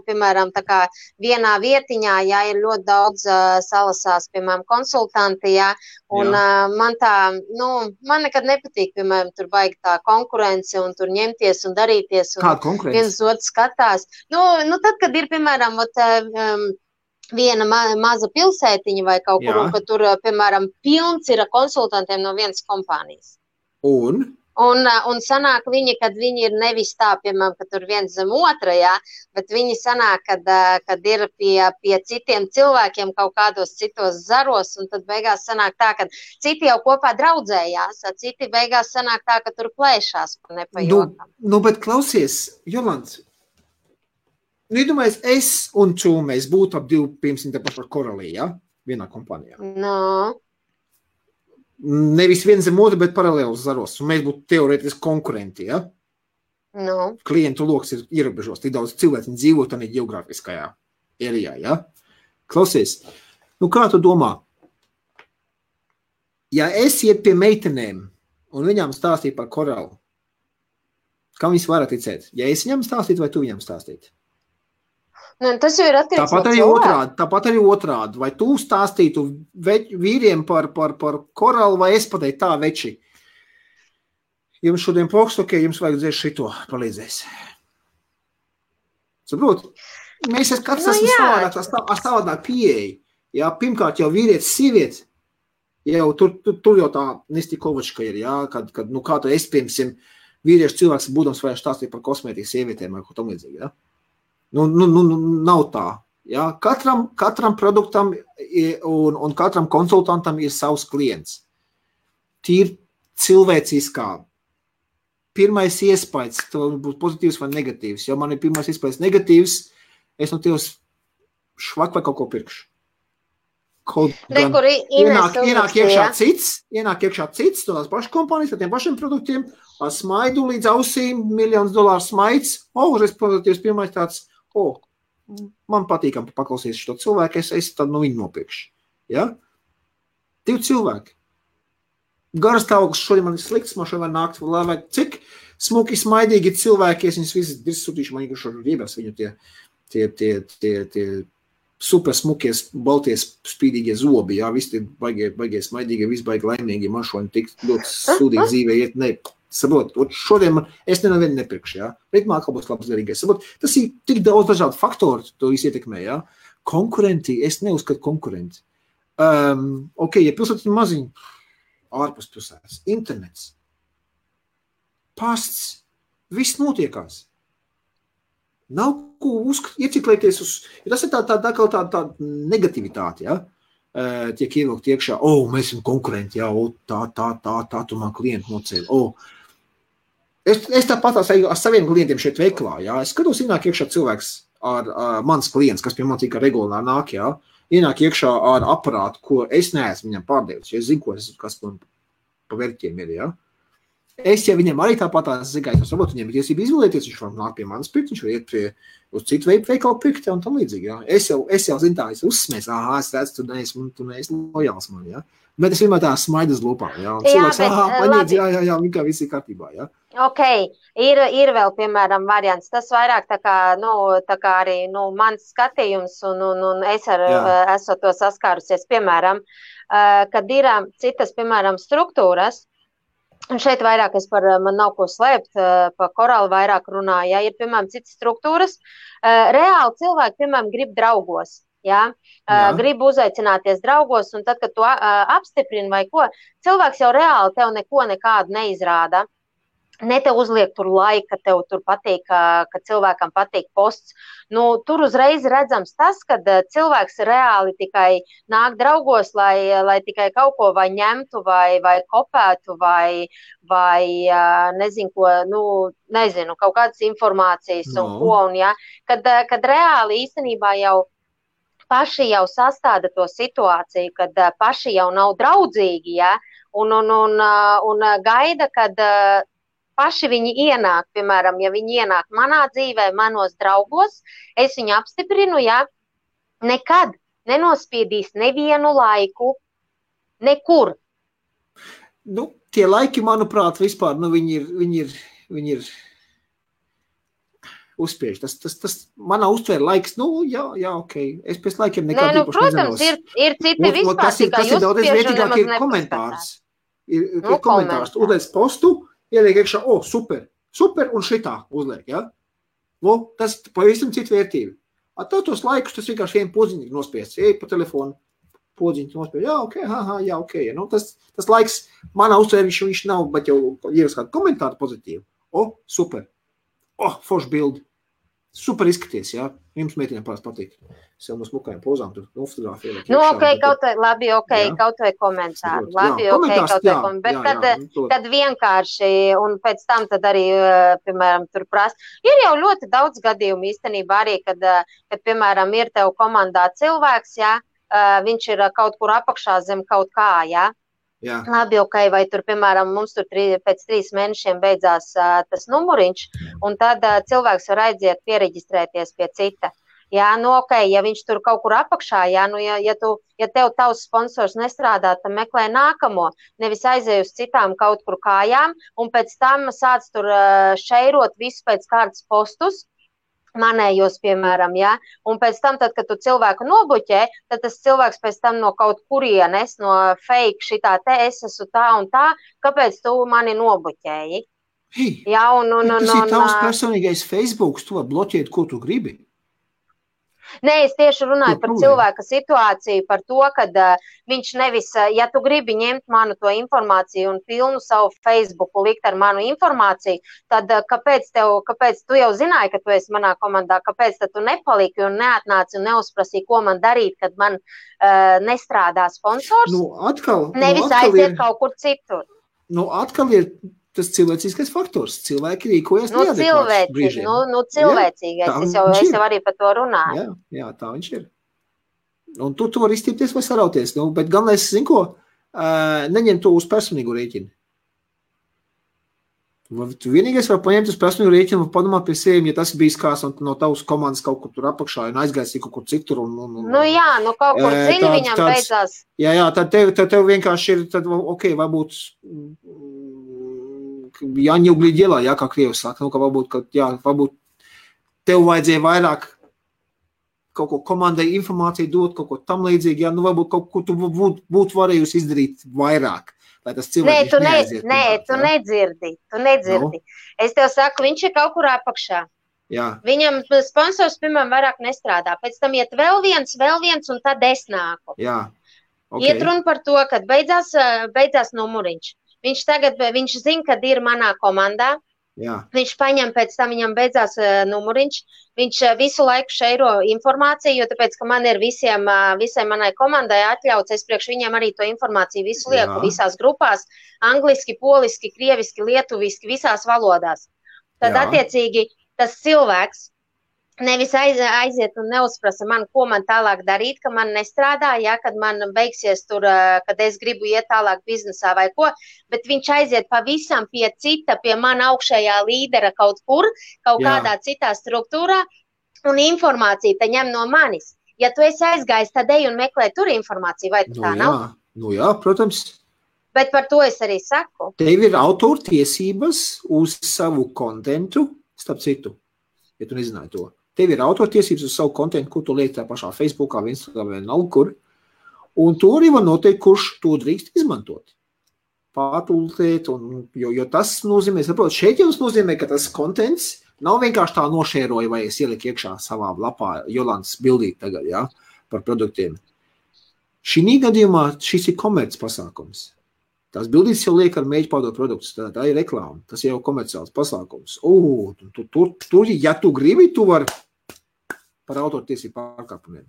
piemēram, tā kā vienā vietiņā, ir ļoti daudz salasās, piemēram, konsultanti, un man tā, man nekad nepatīk, piemēram, tur baigi tā konkurence un tur ņemties un darīties, un viens otrs skatās. Tad, kad ir, piemēram, viena maza pilsētiņa vai kaut kur, un ka tur, piemēram, pilns ir konsultantiem no vienas kompānijas. Un Un sanāk viņi, kad viņi ir nevis tā, piemēram, ka tur viens zem otra, jā, bet viņi sanāk, kad ir pie citiem cilvēkiem kaut kādos citos zaros, un tad beigās sanāk tā, ka citi jau kopā draudzējās, citi beigās sanāk tā, ka tur plēšās par nepajokam. Bet klausies, Jolants, iedomājies, es un tu mēs būtu ap 200 par Koralī, ja? Vienā kompānijā. No. Nevis viens zem otru, bet paralēlus zaros. Un mēs būtu teorētiski konkurenti, ja? No. Klientu loks ir ierobežos. Tik daudz cilvēku dzīvo tādā geogrāfiskajā ērijā, ja? Klausies, kā tu domā? Ja es iet pie meitenēm un viņām stāstīju par Koralu, kam viņas varat ticēt? Ja es viņām stāstītu vai tu viņām stāstītu? Tas jau ir atkarīgs no cilvēka. Tāpat arī otrādi. Vai tu stāstītu vīriem par Koralu, vai es pateiktu tā, veči? Jums šodien pokst, ok, jums vajag dzēst šito, palīdzēs. Saprot? Mēs katrs esam savādāk pieeja. Jā, pirmkārt jau vīrietis, sieviete, jau tur jau tā Nestikovačka ir, jā, kad kā tu esi, piemēram, vīriešu cilvēks būdams vajag stāstīt par kosmētikas sievietēm vai ko tam līdzīgi, jā? Nav tā. Ja? Katram produktam un katram konsultantam ir savs klients. Tīri cilvēciskā. Pirmais iespējas, to būs pozitīvs vai negatīvs. Ja man ir pirmais iespējas negatīvs, es no tevs švak vai kaut ko pirkšu. Ienāk iekšā cits, to tās pašas kompānijas ar tiem pašiem produktiem, ar smaidu līdz ausīm, $1,000,000 smaids. Uzreiz pozitīvs pirmais tāds, man patīkam paklausīt šo cilvēku, es tad no viņu nopirkšu. Ja? 2 cilvēki. Garas stāvoklis šodien man ir slikts, man šodien var nākt, vai cik smuki, smaidīgi cilvēki, es viņus visus sūtīšu, man šodien riebās viņu tie super smukies, balties, spīdīgie zobi, jā, visi tie baigie smaidīgie, visi baigi laimīgi, man šodien tik ļoti sūdīgi dzīvē iet, saprot, šodien es nevienu nepirkšu, jā, ritmā atkal būs labs derīgais, saprot, tas ir tik daudz dažādu faktoru, to visu ietekmē, jā, konkurenti, es neuzskatu konkurenti, ok, ja pilsētas ir maziņi, ārpus pilsētas, internets, pasts, viss notiekās. Nav ko ieciklēties uz, jo tas ir tā negativitāte, ja? Tiek ievilkt iekšā, mēs esam konkurenti, jā, tā, tu man klientu nocēli, Es tāpat ar saviem klientiem šeit veiklā, jā, es skatos, ienāk iekšā cilvēks ar mans klients, kas pie man tika regulāri nāk, jā, ienāk iekšā ar aparātu, ko es neesmu viņam pārdevis, jo es zinu, kas man pa vērķiem ir, jā. Es jau viņiem arī tāpat zigāju, varbūt viņiem ir tiesība izvēlēties, viņš var nāk pie manas pirkt, viņš var iet uz citu veikalu pirkt un tam līdzīgi, jā. Es jau zinu tā, es uzsmēs, es redzu, tu neesi lojāls man, jā. Bet es vienmēr tā smaidu uz lūpām, jā. Un cilvēks, paņēdz, jā, kā viss ir kārtībā, jā. Ok, ir vēl, piemēram, variants. Tas vairāk tā kā arī, mans skatījums, un es esmu to saskārusies, piemēram, kad ir citas, piemēram, struktūras, un šeit vairāk man nav ko slēpt, pa Koralu vairāk runāju, ja ir, piemēram, citas struktūras, reāli cilvēki, piemēram, grib draugos. Ja? Gribu uzaicināties draugos, un tad, kad tu apstiprini vai ko, cilvēks jau reāli tev nekādu neizrāda. Ne tev uzliek tur laika, tev tur patīk, ka cilvēkam patīk posts. Tur uzreiz redzams tas, ka cilvēks reāli tikai nāk draugos, lai tikai kaut ko vai ņemtu, vai kopētu, vai nezinu ko, kaut kādas informācijas un ko. Un, ja, kad reāli īstenībā jau paši jau sastāda to situāciju, kad paši jau nav draudzīgi, ja, un gaida, kad paši viņi ienāk, piemēram, ja viņi ienāk manā dzīvē, manos draugos, es viņu apstiprinu, ja, nekad nenospiedīs nevienu laiku, nekur. Tie laiki, manuprāt, vispār, viņi ir uzspiež. Tas manā uztvēra laiks, jā, ok. Es pēc laikiem nekādu īpaši nezinos. Protams, ir citi vispār, tikai uzspiež un nemaz nepaskatās. Ir komentārs. Uzliec postu, ieliek iekšā, super, un šitā uzliek, ja? Tas pavisam citu vērtību. Tos laikus, tas vienkārši vien poziņīgi nospiests. Ej pa telefonu, podziņu nospēj, jā, ok. Nu, tas laiks, manā uztvērē viņš nav, bet jau ieras kādu komentāru pozitīvu. Super. Forši bildi. Super izskaties, jā. Jums meitiņām pāris patīk. Sev no smukajām pozām tur fotogrāfiju. Kaut vai komentāru. Kad vienkārši, un pēc tam tad arī, piemēram, tur prasa. Ir jau ļoti daudz gadījumu īstenībā arī, kad piemēram, ir tev komandā cilvēks, jā, viņš ir kaut kur apakšā zem kaut kā, jā. Jā. Labi, vai tur, piemēram, mums tur pēc 3 mēnešiem beidzās tas numuriņš, un tad cilvēks var aiziet piereģistrēties pie cita. Jā, ja viņš tur kaut kur apakšā, jā, ja tev tavs sponsors nestrādā, tad meklē nākamo, nevis aizēj uz citām kaut kur kājām, un pēc tam sāc tur šeirot visu pēc kārtas postus, manējos, piemēram, jā, un pēc tam, tad, kad tu cilvēku nobuķē, tad tas cilvēks pēc tam no kaut kurienes, no fake šitā es esmu tā un tā, kāpēc tu mani nobuķēji? Jā, tas ir tavs personīgais Facebooks, tu var bloķēt, ko tu gribi. Nē, es tieši runāju par cilvēka situāciju, par to, kad viņš nevis, ja tu gribi ņemt manu to informāciju un pilnu savu Facebooku likt ar manu informāciju, tad kāpēc tu jau zināji, ka tu esi manā komandā, kāpēc tad tu nepaliki un neatnāci un neuzprasīji, ko man darīt, kad man nestrādā sponsors? Nevis aiziet kaut kur citur. Atkal ir tas cilvēcīgais faktors. Cilvēki rīkojas neadekvāti brīžiem. Cilvēcīgais. Es jau arī par to runāju. Jā, tā viņš ir. Un tu vari izstīpties vai sarauties. Bet galvenais, zin ko, neņem to uz personīgu rēķinu. Tu vienīgais var paņemt uz personīgu rēķinu un padomāt pie sevi, ja tas bijis kāds no tavas komandas kaut kur tur apakšā un aizgaisīja kaut kur citur. Kaut kur dziļi viņam beidzās. Jā, tad tev vienkārši ir, tad, varbūt jāņuglī ģelā, kā Krievs saka, ka varbūt tev vajadzēja vairāk kaut ko komandai informāciju dot, kaut ko tam līdzīgi, varbūt kaut ko tu būtu varējusi izdarīt vairāk, lai tas cilvēks neaiziet. Tu nedzirdi. No. Es tev saku, viņš ir kaut kur apakšā. Jā. Viņam sponsors, piemēram, vairāk nestrādā, pēc tam iet vēl viens, un tad es nāku. Jā. Okay. Iet runa par to, kad beidzās numuriņš. Viņš zina, kad ir manā komandā. Jā. Viņš paņem pēc tam, viņam beidzās numuriņš. Viņš visu laiku šeiro informāciju, jo tāpēc, ka man ir visai manai komandai atļauts, es priekš viņiem arī to informāciju visu lieku visās grupās, angliski, poliski, krieviski, lietuviski, visās valodās. Tad attiecīgi tas cilvēks nevis aiziet un neuzprasa man, ko man tālāk darīt, ka man nestrādā, kad man beigsies tur, kad es gribu iet tālāk biznesā vai ko, bet viņš aiziet pavisam pie cita, pie man augšējā līdera kaut kur, kaut kādā citā struktūrā, un informāciju te ņem no manis. Ja tu esi aizgājis, tad ej un meklē tur informāciju, vai tā nav? Jā, protams. Bet par to es arī saku. Tev ir autortiesības uz savu kontentu, starp citu, ja tu nezināji to. Tev ir autortiesības uz savu kontentu, kur tu liek tā pašā Facebookā, Instagramā vai nav kur. Un to arī var noteikt, kurš to drīkst izmantot. Pārtultēt, jo tas nozīmē, šeit jau nozīmē, ka tas kontents nav vienkārši tā nošēroja, vai es ieliku iekšā savā lapā Jolantas bildīt tagad, par produktiem. Šī gadījumā šis ir komerc pasākums. Tās bildītes jau liek ar mēģi pārdot produktus, tā ir reklāma, tas jau komerciāls pasākums. Tur, ja tu gribi, tu vari par autortiesību pārkāpumiem.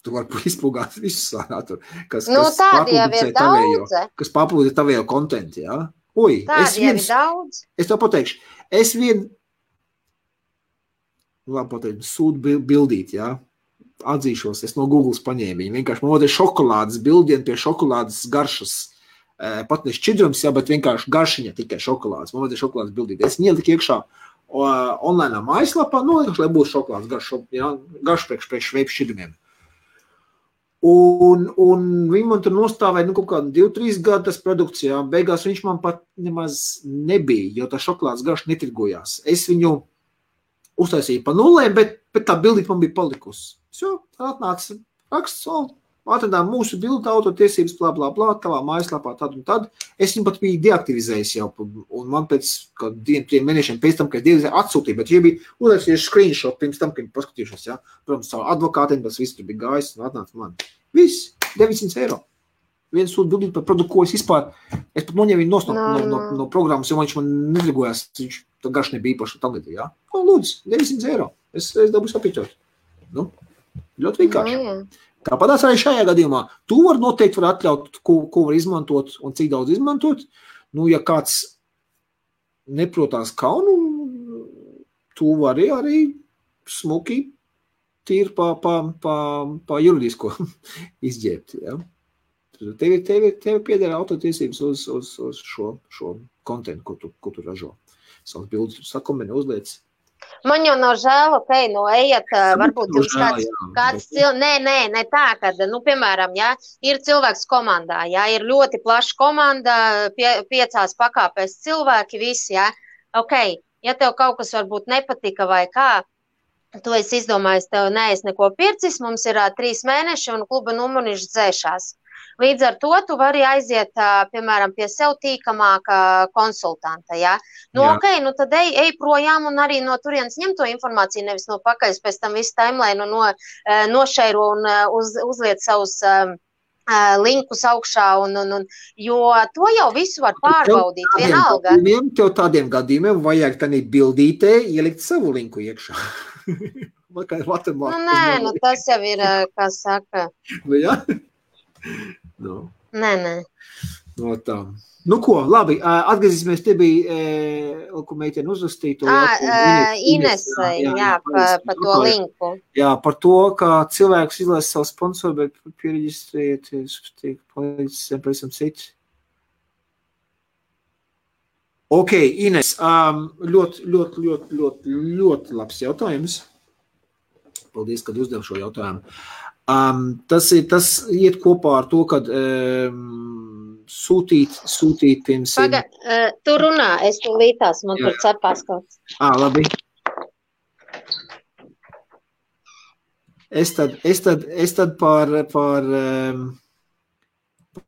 Tu vari izpūgāt visus tur, kas paplūda tavējo kontentu, jā? Tādi jau ir daudz. Es tev pateikšu, sūdu bildīt, jā? Atzīšos, es no Googles paņēmu viņu, vienkārši man ir šokolādes bildien pie šokolādes garšas. Pat ne šķidrums, bet vienkārši garšiņa tikai šokolādes. Man vajadzēja šokolādes bildīt. Es ieliku iekšā online mājaslapā, lai būtu šokolādes garš priekš veipu šķidrumiem. Un viņi man tur nostāvēja kaut kādu 2-3 gadu tas produkts, beigās viņš man pat nemaz nebija, jo tā šokolādes garš netirgojās. Es viņu uztaisīju pa nulēm, bet tā bildīt man bija palikusi. Tā atnāca raksts, atradām mūsu bildu autortiesības, tavā mājaslapā, tad un tad. Es viņu pat biju deaktivizējis jau, un man pēc 2-3 mēnešiem pēc tam, kad es atsūtīju, bet jau bija uzrakstījuši screenshot pirms tam, kad paskatījušos, Protams, savu advokātiem, tas viss tur bija gājis un atnāca man. Viss. 900 eiro. Viens sūta bildīt par produktu, ko es vispār, es pat noņēmu viņu no programmas, jo viņš man nedrigojās, viņš tā garš nebija īpaši tam līdzīgi, jā. Nu, lūdzu, 900 eiro. Es dabūšu apīķot. Nu, ļoti vienkārši. Tāpatās arī šajā gadījumā. Tu noteikti var atļaut, ko var izmantot un cik daudz izmantot. Nu, ja kāds neprotās kaunu, tu vari arī smuki tīri pa juridisko izģēbt, jā. Tev piedara autotiesības uz šo kontentu, ko tu ražo. Savas bildes sakombinē, uzliec. Man jau nav žēl, ejiet, varbūt jums kāds ne tā, kad, piemēram, ir cilvēks komandā, ir ļoti plaša komanda, 5 pakāpēs cilvēki, visi, ja tev kaut kas varbūt nepatika vai kā, tu esi izdomājis, tev neesi neko pircis, mums ir 3 mēneši un kluba numuriņš dzēšās. Līdz ar to tu vari aiziet, piemēram, pie sev tīkamāka konsultanta, tad ej projām un arī no turienes ņem to informāciju, nevis no pakaļas, pēc tam visu timeline nošeiro un uzliet savus linkus augšā, jo to jau visu var pārbaudīt, vienalga. Tev tādiem gadījumiem vajag tādī bildītē ielikt savu linku iekšā. Tas jau ir, kā saka. Nē. No tā. Nu ko, labi, atgriezīsimies, te bija, ko meiteni uzrastīja. Inesai, par to linku. Jā, par to, ka cilvēks izlēs savu sponsoru, bet piereģistrēties, tiek palīdzis, pēc tam cits. Ok, Ines, ļoti labs jautājums. Paldies, kad uzdev šo jautājumu. Tas iet kopā ar to, kad sūtīt, piemēram. Tu runā, es tu lītās, man tur cepās kāds. Labi. Es tad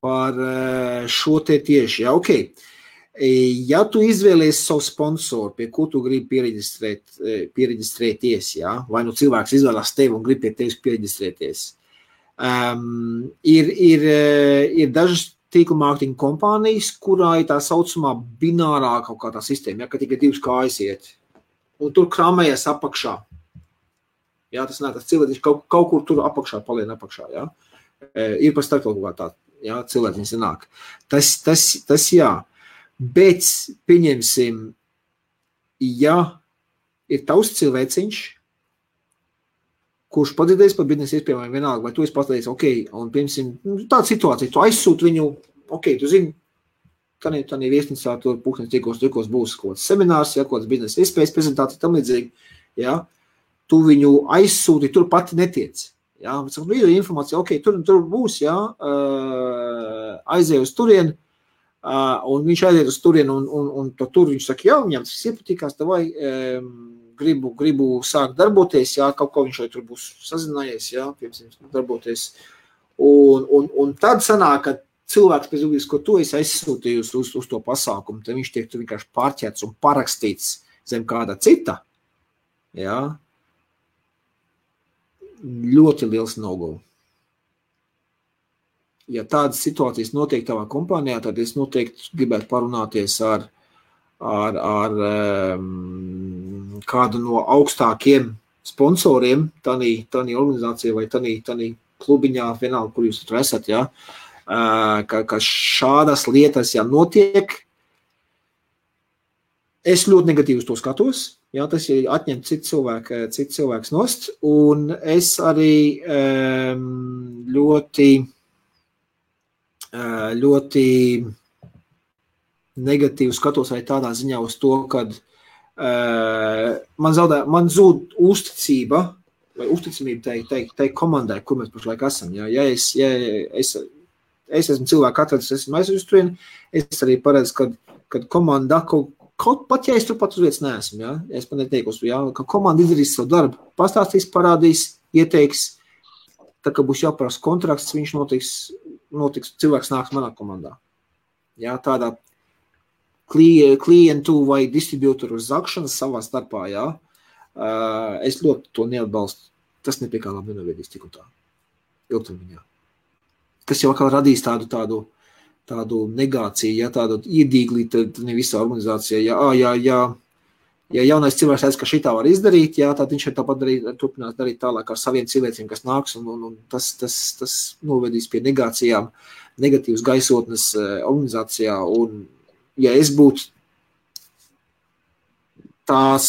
par šo te tieši, ok. Ja tu izvēlies savu sponsoru, pie ko tu gribi piereģistrēties, vai nu cilvēks izvēlās tevi un grib pie tevis piereģistrēties, ir dažas tīkla mārketinga kompānijas, kurā ir tā saucamā binārā kaut kā tā sistēma, ka tikai 2 kājas iet, un tur kramējas apakšā. Tas cilvēks kaut kur tur apakšā, palien apakšā, Ir par starp kaut kā tā, cilvēks nāk. Tas jā. Bet, pieņemsim, ja ir tavs cilvēciņš, kurš padzirdēs par biznesa iespējām vienalga, vai tu esi pateicis, ok, un, pieņemsim, tāda situācija, tu aizsūti viņu, ok, tu zini, tādā viesnīcā tur pūkstens tikos būs kaut kāds seminārs, kaut kāds biznesa iespējas prezentācija, tam līdzīgi, tu viņu aizsūti, tur pati netiec. Video informācija, ok, tur būs, aizēj uz turieni, un viņš aiziet uz turienu, un tur viņš saka, viņam tas iepatīkās, tavai gribu sākt darboties, kaut ko viņš vai tur būs sazinājies, piemēram, darboties. Un tad sanāk, ka cilvēks pēc būtības, ko tu esi aizsūtījusi uz to pasākumu, tad viņš tiek tu vienkārši pārķēts un parakstīts zem kāda cita, ļoti liels no-go. Ja tādas situācijas notiek tavā kompānijā, tad es noteikti gribētu parunāties ar kādu no augstākiem sponsoriem, tādī organizācija vai tādī klubiņā, vienalga, kur jūs tur esat, ka šādas lietas, notiek. Es ļoti negatīvi uz to skatos, tas ir atņemt citu cilvēks nost, un es arī ļoti negatīvi skatos arī tādā ziņā uz to, kad man zūd uzticība vai uzticamība tai komandai, kur mēs pašlaik esam. Ja es esmu cilvēku atradis, esmu aizvis turien, es arī paredzu, kad komanda kaut pat, ja es tur pat uz vietas neesmu, es pat neteikos, ka komanda izdarīs savu darbu, pastāstīs, parādīs, ieteiks, tā kā būs jāparās kontrakts, viņš notiks, cilvēks nāks manā komandā. Tādā klientu vai distribūtoru zakšanas savā starpā, es ļoti to neatbalstu. Tas nepie kā labi nenovedīs tik un tā. Ilgtermiņā. kas jau atkal radīs tādu negāciju, ja tādu iedīglī, tad ne visā organizācijā, ja jaunais cilvēks redz, ka šitā var izdarīt, jā, tad viņš ir tāpat turpinās darīt tālāk ar saviem cilvēkiem, kas nāks, un tas novedīs pie negācijām, negatīvas gaisotnes organizācijā, un ja es būtu tās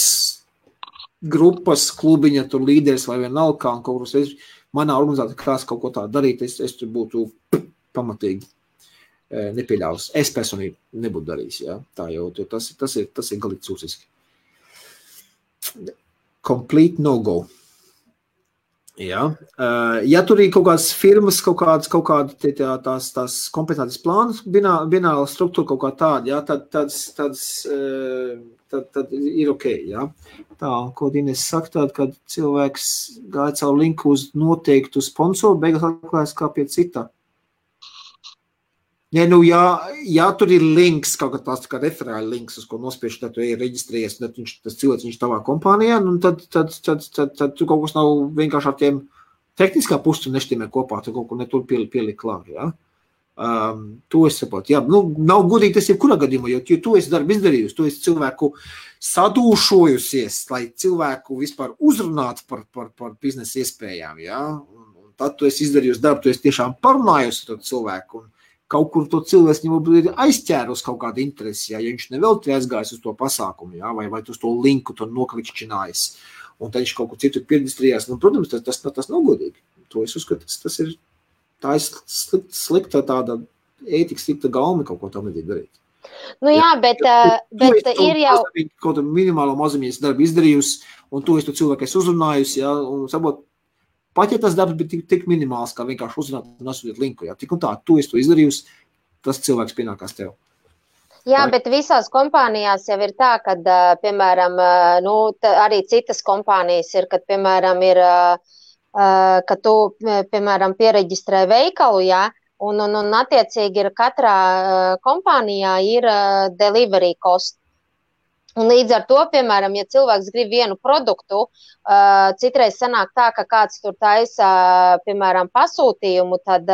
grupas, klubiņa, tur līderis vai vienalga, un kaut kur manā organizācijā krās kaut ko tā darīt, es tur būtu pamatīgi nepieļaus. Es personīgi nebūtu darījis, jā. Tā jau, tas ir galīgi cūciski. Complete no-go. Jā. Ja tur ir kaut kādas firmas, kaut kāda tās kompetences plānas, bināla struktūra kaut kā tāda, jā, tad ir ok, jā. Tā, ko Ines saka, tāda, kad cilvēks gāja caur linku uz noteiktu sponsoru, beigās atklājas kā pie cita. Ja, ja tur ir links, kaut kā referāli links, uz ko nospieši, tad tu ir reģistrējies, tad tas cilvēks viņš tavā kompānijā, un tad tu kaut kas nav vienkārši ar tiem tehniskā pusi nešķiemē kopā, tu kaut ko netur pieliek klāt, jā. To es saprotu, jā, nav godīgi tas jebkurā gadījumā, jo tu esi darbu izdarījusi, tu esi cilvēku sadūšojusies, lai cilvēku vispār uzrunātu par biznesa iespējām, jā, un tad tu esi izdarījusi darbu, tu esi tiešām parunājusi ar cilvēku, un kaut kur to cilvēks viņam ir aizķērus kaut kādu interesi, ja viņš nevelti aizgājis uz to pasākumu, ja, vai uz to linku tur noklikšķinājis, un tad viņš kaut kur citur pierģistrījās. Protams, tas nav godīgi. To es uzskatu, tā ir slikta tāda ētika, slikta gaumi kaut ko tam nedīgi darīt. Jā, bet ir jau... Kaut minimālo mazumies darbu izdarījusi, un to es to cilvēku esi uzrunājusi, ja, un sabot, pat ja tas darbs bija tik minimāls, kā vienkārši uzrunāt un atsūtīt linku, jā, tik un tā, tu esi to izdarījusi, tas cilvēks pienākās tev. Jā, bet visās kompānijās jau ir tā, kad, piemēram, arī citas kompānijas ir, kad, piemēram, ka tu, piemēram, piereģistrē veikalu, jā, un attiecīgi ir katrā kompānijā ir delivery cost. Un līdz ar to, piemēram, ja cilvēks grib vienu produktu, citreiz sanāk tā, ka kāds tur taisa, piemēram, pasūtījumu, tad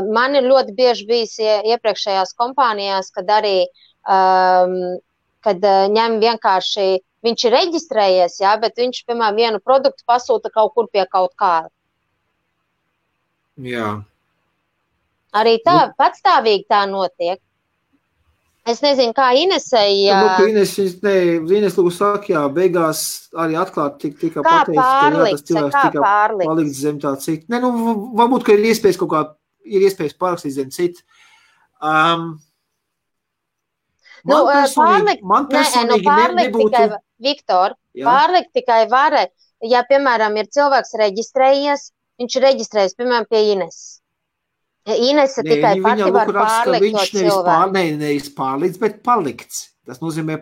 man ir ļoti bieži bijis iepriekšējās kompānijās, kad arī, kad ņem vienkārši, viņš ir reģistrējies, jā, bet viņš, piemēram, vienu produktu pasūta kaut kur pie kaut kā. Jā. Arī tā, patstāvīgi tā notiek. Es nezinu, kā Inesei... Ines lūgu saka, jā, beigās arī atklāt tika pateicis, ka jā, tas cilvēks tika palikts zem tā cita. Ne, varbūt, ka ir iespējas kaut kā, ir iespējas parakstīt zem cita. Man personīgi nebūtu... Viktor, pārlikt tikai var, ja, piemēram, ir cilvēks reģistrējies, viņš ir reģistrējies, piemēram, pie Ines. Inese tikai pati var pārlikt to cilvēku. Nevis pārlikts, bet palikts. Tas nozīmē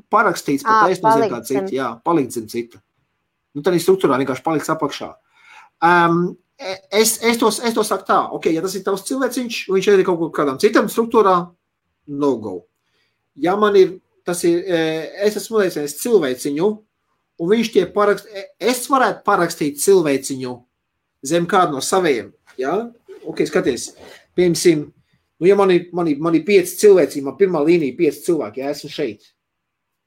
parakstīts, pat es nozīmē kā cita. Jā, palikt zem cita. Tā ir struktūrā vienkārši palikts apakšā. Es to saku tā, ok, ja tas ir tavs cilvēciņš, viņš ir kaut kādām citam struktūrā, no go. Ja man ir, es esmu liecinies cilvēciņu, un viņš tie es varētu parakstīt cilvēciņu zem kādu no saviem, jā? Ok, skaties, piemēram, ja man ir 5 cilvēci, man pirmā līnija 5 cilvēki, ja esmu šeit.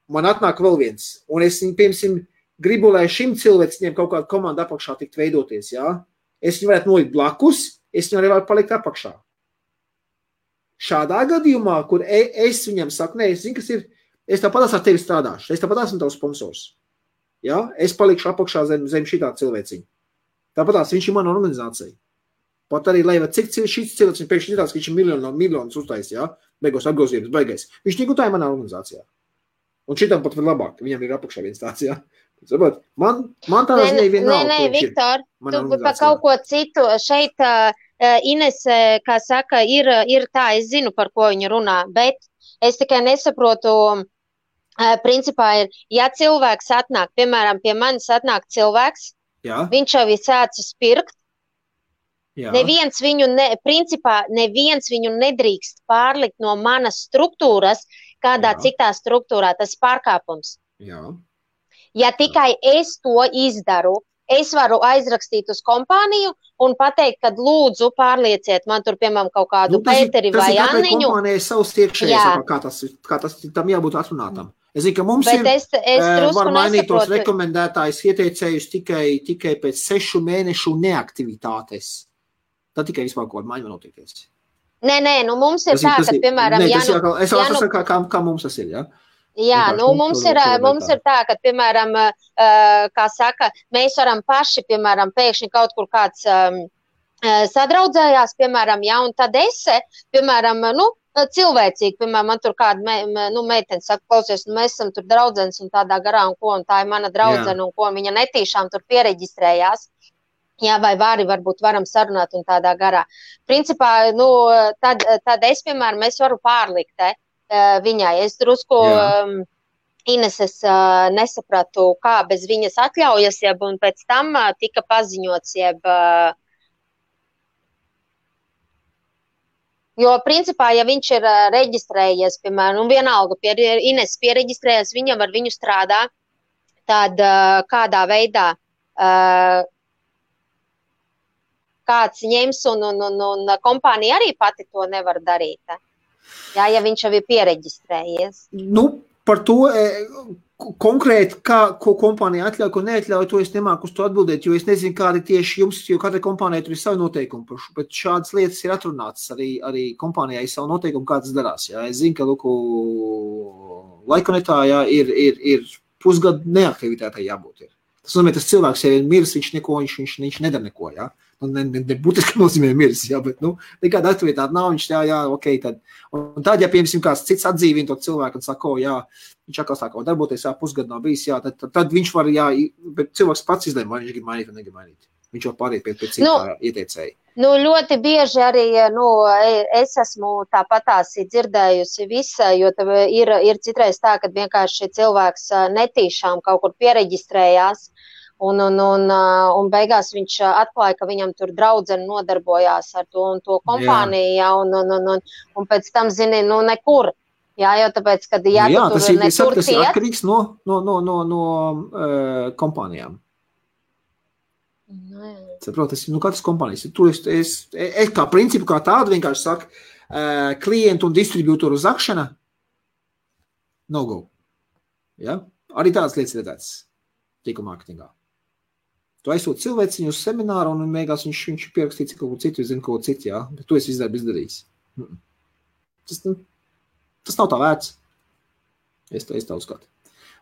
Man atnāk vēl viens, un es, piemēram, gribu, lai šim cilvēcim kaut kāda komanda apakšā tikt veidoties, ja? Es viņu varētu nolikt blakus, es viņu arī varu palikt apakšā. Šādā gadījumā, kur es viņam saku, es zinu, kas ir, es tāpatās ar tevi strādāšu, es tāpatās esmu tavs sponsors. Ja? Es palikšu apakšā zem šitā cilvēciņa. Tāpatās viņš ir mana organizācija. Pat arī, lai cik šis cilvēks, viņš pēkšņi ir tāds, ka viņš ir miljonus uztais, jā, beigos apgrozījums, baigais. Viņš neko tā ir manā organizācijā. Un šitam pat var labāk, viņam ir apakšā viens tāds, jā. Sabat, man tā ziņā vienalga. Nē, Viktor, tu pa kaut ko citu. Šeit Ines, kā saka, ir tā, es zinu, par ko viņa runā, bet es tikai nesaprotu, principā ir, ja cilvēks atnāk, piemēram, pie manis atnāk cilvēks, jā. Viņš jau ir sācis pirkt, Jā. Neviens viņu nedrīkst pārlikt no manas struktūras, kādā citā struktūrā, tas pārkāpums. Jā. Ja tikai es to izdaru, es varu aizrakstīt uz kompāniju un pateikt, ka lūdzu pārlieciet man tur, piemēram, kaut kādu Pēteri vai Anniņu. Tas ir kompānijai savs iekšējais, kā tas tam jābūt atrunātam. Es zinu, ka mums var mainīt tos rekomendētājus ieteicējus tikai pēc 6 mēnešu neaktivitātes. Tad tikai vispār kaut kāda maiņa notiekties. Nē, nu mums ir tā, ka, piemēram, es saprotu, kā mums tas ir, jā? Jā, nu mums ir tā, ka, piemēram, kā saka, mēs varam paši, piemēram, pēkšņi kaut kur kāds sadraudzējās, piemēram, jā, un tad piemēram, cilvēcīgi, piemēram, man tur kāda meitene saka, klausies, mēs esam tur draudzenes un tādā garā un ko, un tā ir mana draudzene un ko, viņa netīšām tur piereģistrējās. Jā, vai varbūt varam sarunāt un tādā garā. Principā, tad es, piemēram, varu pārlikt viņai. Es drusku Ineses nesapratu, kā bez viņas atļaujas, un pēc tam tika paziņots, jo, principā, ja viņš ir reģistrējies, piemēram, un vienalga Ineses piereģistrējies, viņam ar viņu strādā, tad kādā veidā kāds ņems un kompānija arī pati to nevar darīt. Jā, ja viņš jau ir piereģistrējies. Par to konkrēti, ko kompānija atļauj, ko neatļauj, to es nemāku uz to atbildēt, jo es nezinu, kādi tieši jums, jo katra kompānija tur ir savi noteikumi, bet šādas lietas ir atrunātas arī kompānijai savu noteikumu, kā tas darās. Jā. Es zinu, ka Laikonetā ir pusgadu neaktivitātei jābūt. Tas nozīmē, tas cilvēks, ja ir miris, viņš nedara neko, jā. Nebūtiski nozīmē miris, jā, bet, nekāda aktivitāte nav, viņš ok, tad. Un tad, ja, piemēram, kāds cits atdzīvina to cilvēku un saka, jā, viņš atkal sāk darboties, pusgadu nav bijis, jā, tad viņš var, bet cilvēks pats izlēma, vai viņš grib mainīt vai negrib mainīt. Viņš var pārīt pie citā ieteicēja. Ļoti bieži arī, es esmu tāpatās dzirdējusi visa, jo ir citreiz tā, ka vienkārši cilvēks netīšām kaut kur piereģistrējās, un beigās viņš atklāja, ka viņam tur draudzene nodarbojās ar to un to kompāniju, jā, un pēc tam, zini, nekur. Jā, jo tāpēc, kad tu tur netur tas ir atkarīgs no kompānijām. Saprot, katras kompānijas. Tur es kā principu, kā tādu vienkārši saku, klientu un distribūtoru zakšana, no go. Ja? Arī tādas lietas redzētas tīkla mārketingā. Tu aizsūti cilvēciņu uz semināru un mēgās viņš pierakstīts kaut ko citu, zinu kaut ko citu, jā, bet tu esi izdarījis. Tas nav tā vērts. Es tā uzskatu.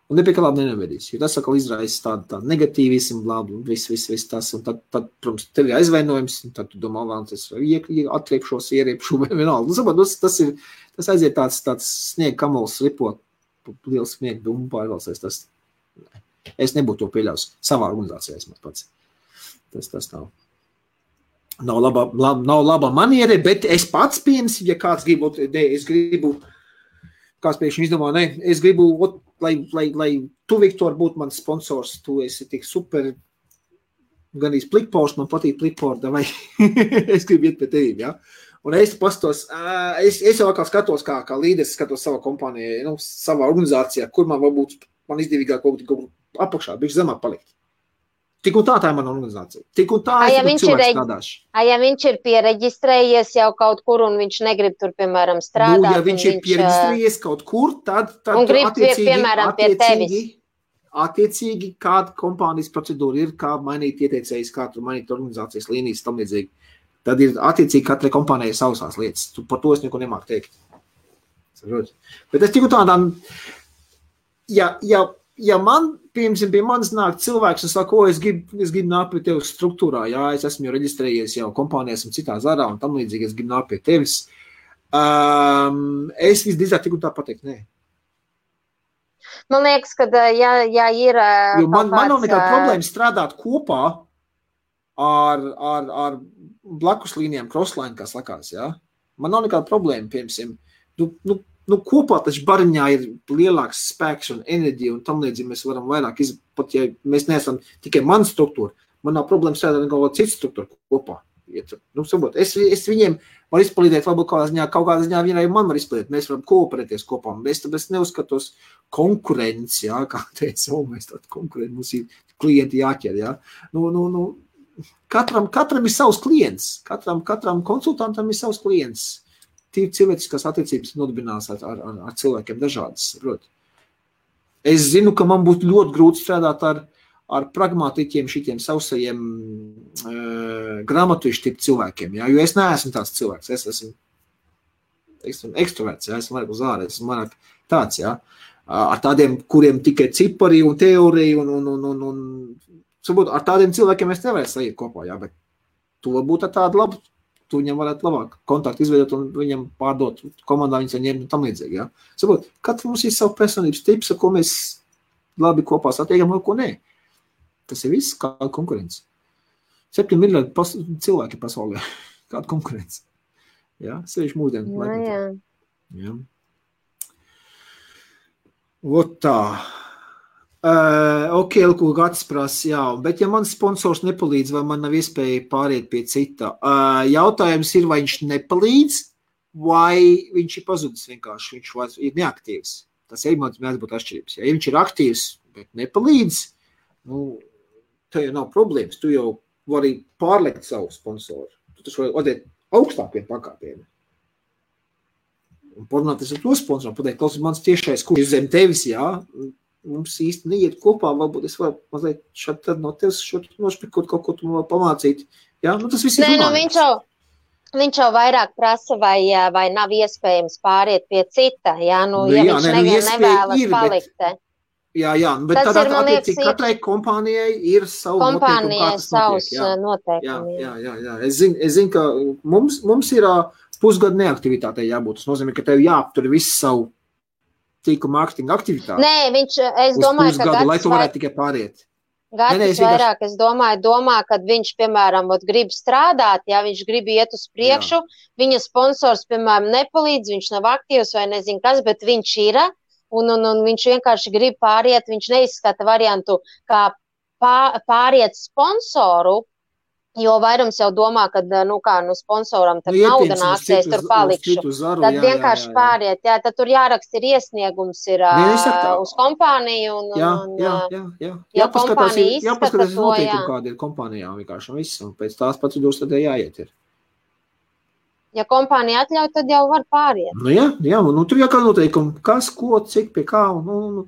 Un nepie kā labi nevedīs, jo tas atkal izraisa tādu negatīvismu, blābu, viss tas, un tad, protams, tev ir aizvainojums, un tad tu domā, es atriepšos, ieriepušu, vai vienalga. Tas aiziet tāds sniega kamols ripot, liels sniega dumbu pārvalsies, tas. Es nebūtu to pieļaus savā organizācijā, es pats. Tas nav. Nav laba maniere, bet es pats pieņems, ja kāds kāds pēkšņi izdomā, es gribu, lai tu, Viktor, būtu mans sponsors, tu esi tik super, gan plikpors, man patīk plikpor, vai es gribu iet pie tevīm, ja? Un es pastos, es jau kā skatos, kā līderis skatos savā kompānijā, savā organizācijā, kur man varbūt man izdevīgāk kaut apakšā, bišķi zemāk palikt. Tik un tā ir mana organizācija. Tik un tā cilvēks strādāšu. Ja viņš ir piereģistrējies jau kaut kur un viņš negrib tur, piemēram, strādāt. Ja viņš ir piereģistrējies kaut kur, tad un grib, piemēram, pie tevis. Attiecīgi, kāda kompānijas procedūra ir, kā mainīt ieteicējus, kā tur mainīt organizācijas līnijas, tam līdzīgi. Tad ir attiecīgi katrai kompānijai savas lietas. Par to es neko nemāku teikt. Bet es tik un tādām, ja man, piemēram, pie manis nāk cilvēks un saka, es gribu nākt pie tevis struktūrā, jā, es esmu jau reģistrējies jau kompānijās un citā zarā un tam līdzīgi, es gribu nākt pie tevis, es visdrīzāk tik un tā pateikt, nē. Man liekas, ka, ja ir jo man nav nekāda problēma strādāt kopā ar blakus līnijām, crossline, kā sakās, jā. Man nav nekāda problēma, piemēram, kopā taču bariņā ir lielāks spēks un enerģija un tam līdzīgi mēs varam vairāk pat ja mēs neesam tikai mana struktūra, man nav problēma strādāt kaut kādu citu struktūru kopā. Es viņiem var izpalīdēt, varbūt kaut kādā ziņā vienai man var izpalīdēt, mēs varam kooperēties kopā, tāpēc neuzskatos konkurenci, jā, kā teica, mēs tādu konkurenci, mums ir klienti jāķer, ja? Katram ir savs klients, katram konsultantam ir savs klients. Tīri cilvēciskās attiecības nodibinās ar cilvēkiem dažādas, proti. Es zinu, ka man būtu ļoti grūti strādāt ar pragmatiķiem, šitiem sausajiem grāmatujuši tipu cilvēkiem, ja? Jo es neesmu tāds cilvēks, es esmu ekstraverts, ja? Esmu vairāk uz ārē, esmu vairāk tāds, ja? Ar tādiem, kuriem tikai cipari un teorija un sabūt, ar tādiem cilvēkiem es nevarētu saīt kopā, ja? Bet to būtu tāda laba, tu viņam varētu labāk kontaktu izveidot un viņam pārdot komandā, viņas ņemt un tam līdzīgi, ja? Sabūt, katrs mums ir savu personības tips, ar ko mēs labi kopā satiekam, ar ko nē. Tas ir viss, kāda konkurence. 7 miljardi cilvēki pasaulē. Kāda konkurence. Ja? Sevišķi mūsdienu laikmetā. Ja? Vot tā. Ok, ko Gatis prasa, jā. Bet ja mans sponsors nepalīdz, vai man nav iespēja pāriet pie cita? Jautājums ir, vai viņš nepalīdz, vai viņš ir pazudis vienkārši, viņš ir neaktīvs. Tas ir mēdz būt atšķirības. Ja viņš ir aktīvs, bet nepalīdz, tev jau nav problēmas. Tu jau vari pārliekt savu sponsoru. Tu taču vari atdēt augstākiem pakāpieniem. Un porunāties ar to sponsoru, pateikt, klausies, mans tiešais kurs zem tevis, jā, mums īsti neiet kopā, varbūt es varu mazliet šādi tad no tevis nošpikot kaut ko tu man pamācīt. Jā, tas viss ir runājums. Viņš jau vairāk prasa, vai nav iespējams pāriet pie cita, ja viņš nevēlas palikt. Jā, bet tad attiecīgi katrai kompānijai ir savu noteikumu, kā tas notiek. Jā. Es zinu, ka mums ir pusgadu neaktivitātei jābūt. Tas nozīmē, ka tev jāaptur visu savu tīku mārketinga aktivitāti. Nē, es domāju, ka Gatis lai tu varētu tikai pāriet. Gatis vairāk, es domā, kad viņš, piemēram, grib strādāt, ja viņš grib iet uz priekšu, viņa sponsors, piemēram, nepalīdz, viņš nav aktīvs vai nezinu kas, bet viņš ir, un viņš vienkārši grib pāriet, viņš neizskata variantu, kā pāriet sponsoru, jo vairums jau domā, ka, sponsoram tad nauda nāks, es tur palikšu. Tad vienkārši pāriet, tad tur jāraksta ir iesniegums ir uz kompāniju. Ja kompānija izskata to, kāda ir kompānijām vienkārši un viss, un pēc tās procedūras tad jāiet ir. Ja kompānija atļauj, tad jau var pāriet. Jā, tur jākā noteikumi, kas, ko, cik, pie kā,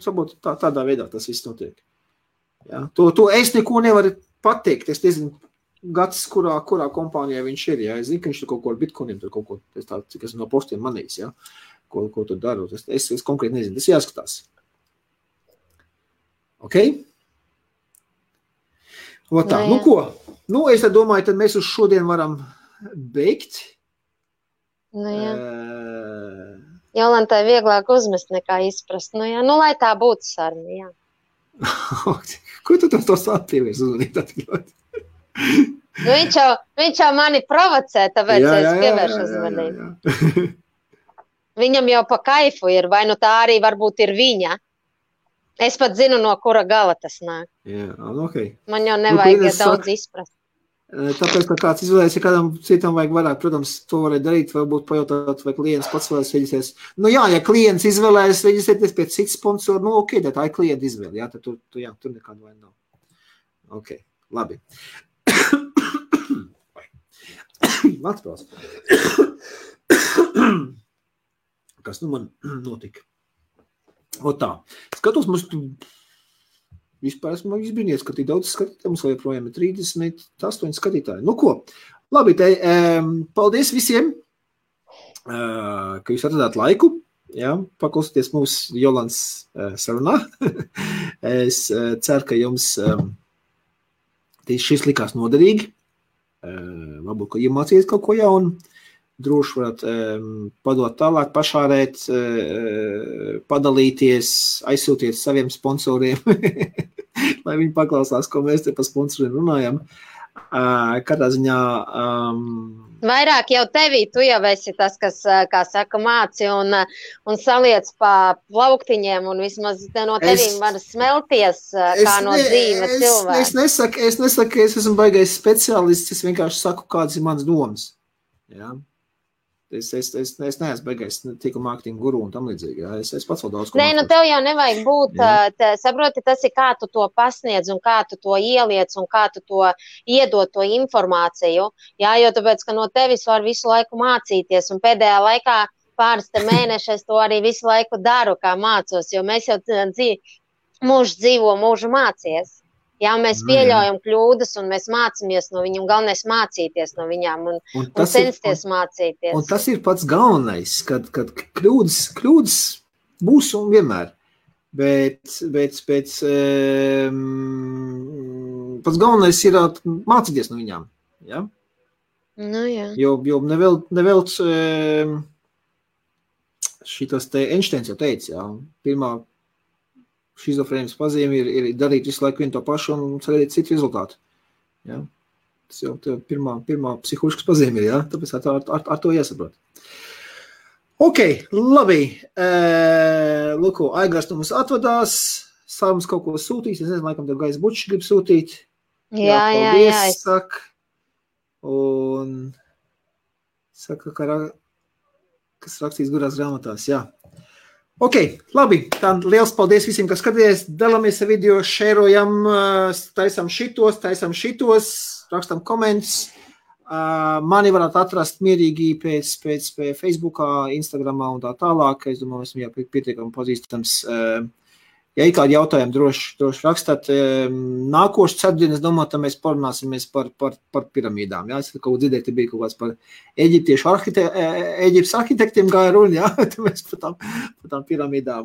sabot, tādā veidā tas viss notiek. Jā, to es neko nevaru pateikt, es nezinu, Gatis, kurā kompānijā viņš ir, jā, es zinu, ka viņš tur kaut ko ar bitcoiniem, tur kaut ko, cik es no postiem manīs, jā, ko tur daru, es konkrēti nezinu, tas jāskatās. Ok? Tā, ko? Es tad domāju, tad mēs uz šodien varam beigt. Jolantai vieglāk uzmest nekā izprast, lai tā būtu saruna, jā. Ko tu to sāpievies uzmanīt atļaut? Viņš jau mani provocē, tāpēc es pievēršu uzmanību. Viņam jau pa kaifu ir, vai tā arī varbūt ir viņa. Es pat zinu, no kura gala tas nāk. Jā, ok. Man jau nevajag daudz izprast. Tāpēc, ka kāds izvēlēs, ja kādam citam vajag vairāk, protams, to varētu darīt, varbūt pajautāt, vai klients pats vēlas reģistrēties. Ja klients izvēlēs reģistrēties pēc cits sponsoru, ok, tā ir klienta izvēle, jā, tad tur nekāda vaina nav. Ok, labi. Atspēls. Kas man notika? Tā. Skatos, mums vispār esmu izbrīnies, ka tik daudz skatītāji, mums joprojām ir 38 skatītāji. Ko? Labi, paldies visiem, ka jūs atradāt laiku, paklausieties mūsu Jolants sarunā. Es ceru, ka jums šis likās noderīgi. Varbūt, ka iemācīties kaut ko jaunu, droši varat padot tālāk, pašārēt, padalīties, aizsūtiet saviem sponsoriem, lai viņi paklausās, ko mēs te par sponsoriem runājam. Katrā ziņā... Vairāk jau tevī, tu jau esi tas, kas, kā saka, māci un saliec pa plauktiņiem, un vismaz no tevīm var smelties, kā no dzīve cilvēka. Es nesaku, ka es esmu baigais speciālists, es vienkārši saku, kādas ir manas domas. Jā. Es neesmu beigais tiku mārketinga guru un tam līdzīgi. Jā. Es pats vēl daudz ko Nē, nu mācos. tev jau nevajag būt, saproti, tas ir kā tu to pasniedz un kā tu to ieliec un kā tu to iedod to informāciju. Jā, jo tāpēc, ka no tevis var visu laiku mācīties un pēdējā laikā pāris te mēneši es to arī visu laiku daru, kā mācos, jo mēs jau mūžu dzīvo, mūžu mācies. Jā, mēs pieļaujam kļūdas un mēs mācāmies no viņiem, galvenais mācīties no viņām un censties mācīties. Un tas ir pats galvenais, kad kļūdas būs un vienmēr, bet pats galvenais ir mācīties no viņām. Ja? Nu, jā. Jo nevelc šitas te Einsteins jau teica, jā, pirmā šizofrēnijas pazīme ir darīt visu laiku vienu to pašu un sagaidīt citu rezultātu. Ja? Tas jau pirmā psiholoģiskas pazīme ir, ja? Tāpēc ar to jāsaprot. Ok, labi. Luko, Aigars no mums atvadās. Sārums kaut ko sūtīs. Es nezinu, laikam tev Gais Bučs grib sūtīt. Jā. Saka. Un saka, kas rakstīs gurās grāmatās, jā. Ok, labi, tā liels paldies visiem, kas skatījās, dalāmies ar video, šērojam, taisam šitos, rakstam komentus. Mani varētu atrast mierīgi pēc Facebookā, Instagramā un tā tālāk. Es domāju, esmu jau pietiekami pazīstams. Ja ir kādi jautājumi, droši rakstāt. Nākošu ceturtdienu, es domāju, tad mēs parunāsimies par piramīdām. Ja? Es kaut ko dzirdēju, bija kaut kāds par Eģiptes arhitektiem gāja runa, ja? Tad mēs par tām piramīdām.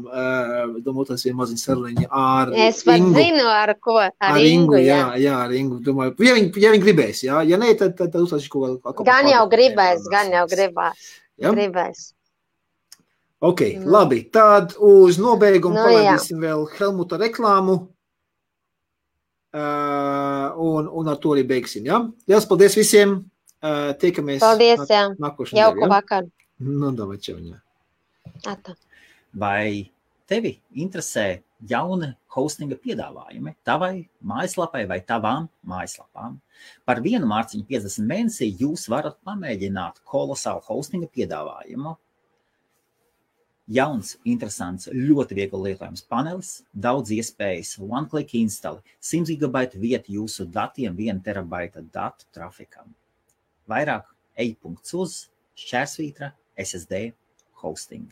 Domāju, tas ir maziņ saruniņa ar Ingu. Es pat zinu, ar ko. Ar Ingu, jā. Jā, ar Ingu. Domāju, ja viņi gribēs, ja? Ja ne, tad uzlaiši kaut ko. Gan jau gribēs. Ja? Gribēs. Ok, labi, tad uz nobeigumu palaidīsim vēl Helmuta reklāmu un ar to arī beigsim, ja? Liels paldies visiem, tiekamies nākošajā. Jauku vakaru. Nu, davai, čau, jā. Ata. Vai tevi interesē jauni hostinga piedāvājumi tavai mājaslapai vai tavām mājaslapām? Par vienu mārciņu 50 mēnesī jūs varat pamēģināt kolosālu hostinga piedāvājumu. Jauns, interesants, ļoti viegli lietojams panelis, daudz iespējas, one-click install, 100 GB vieta jūsu datiem, 1 terabaita datu trafikam. Vairāk ej.uz /SSD hosting.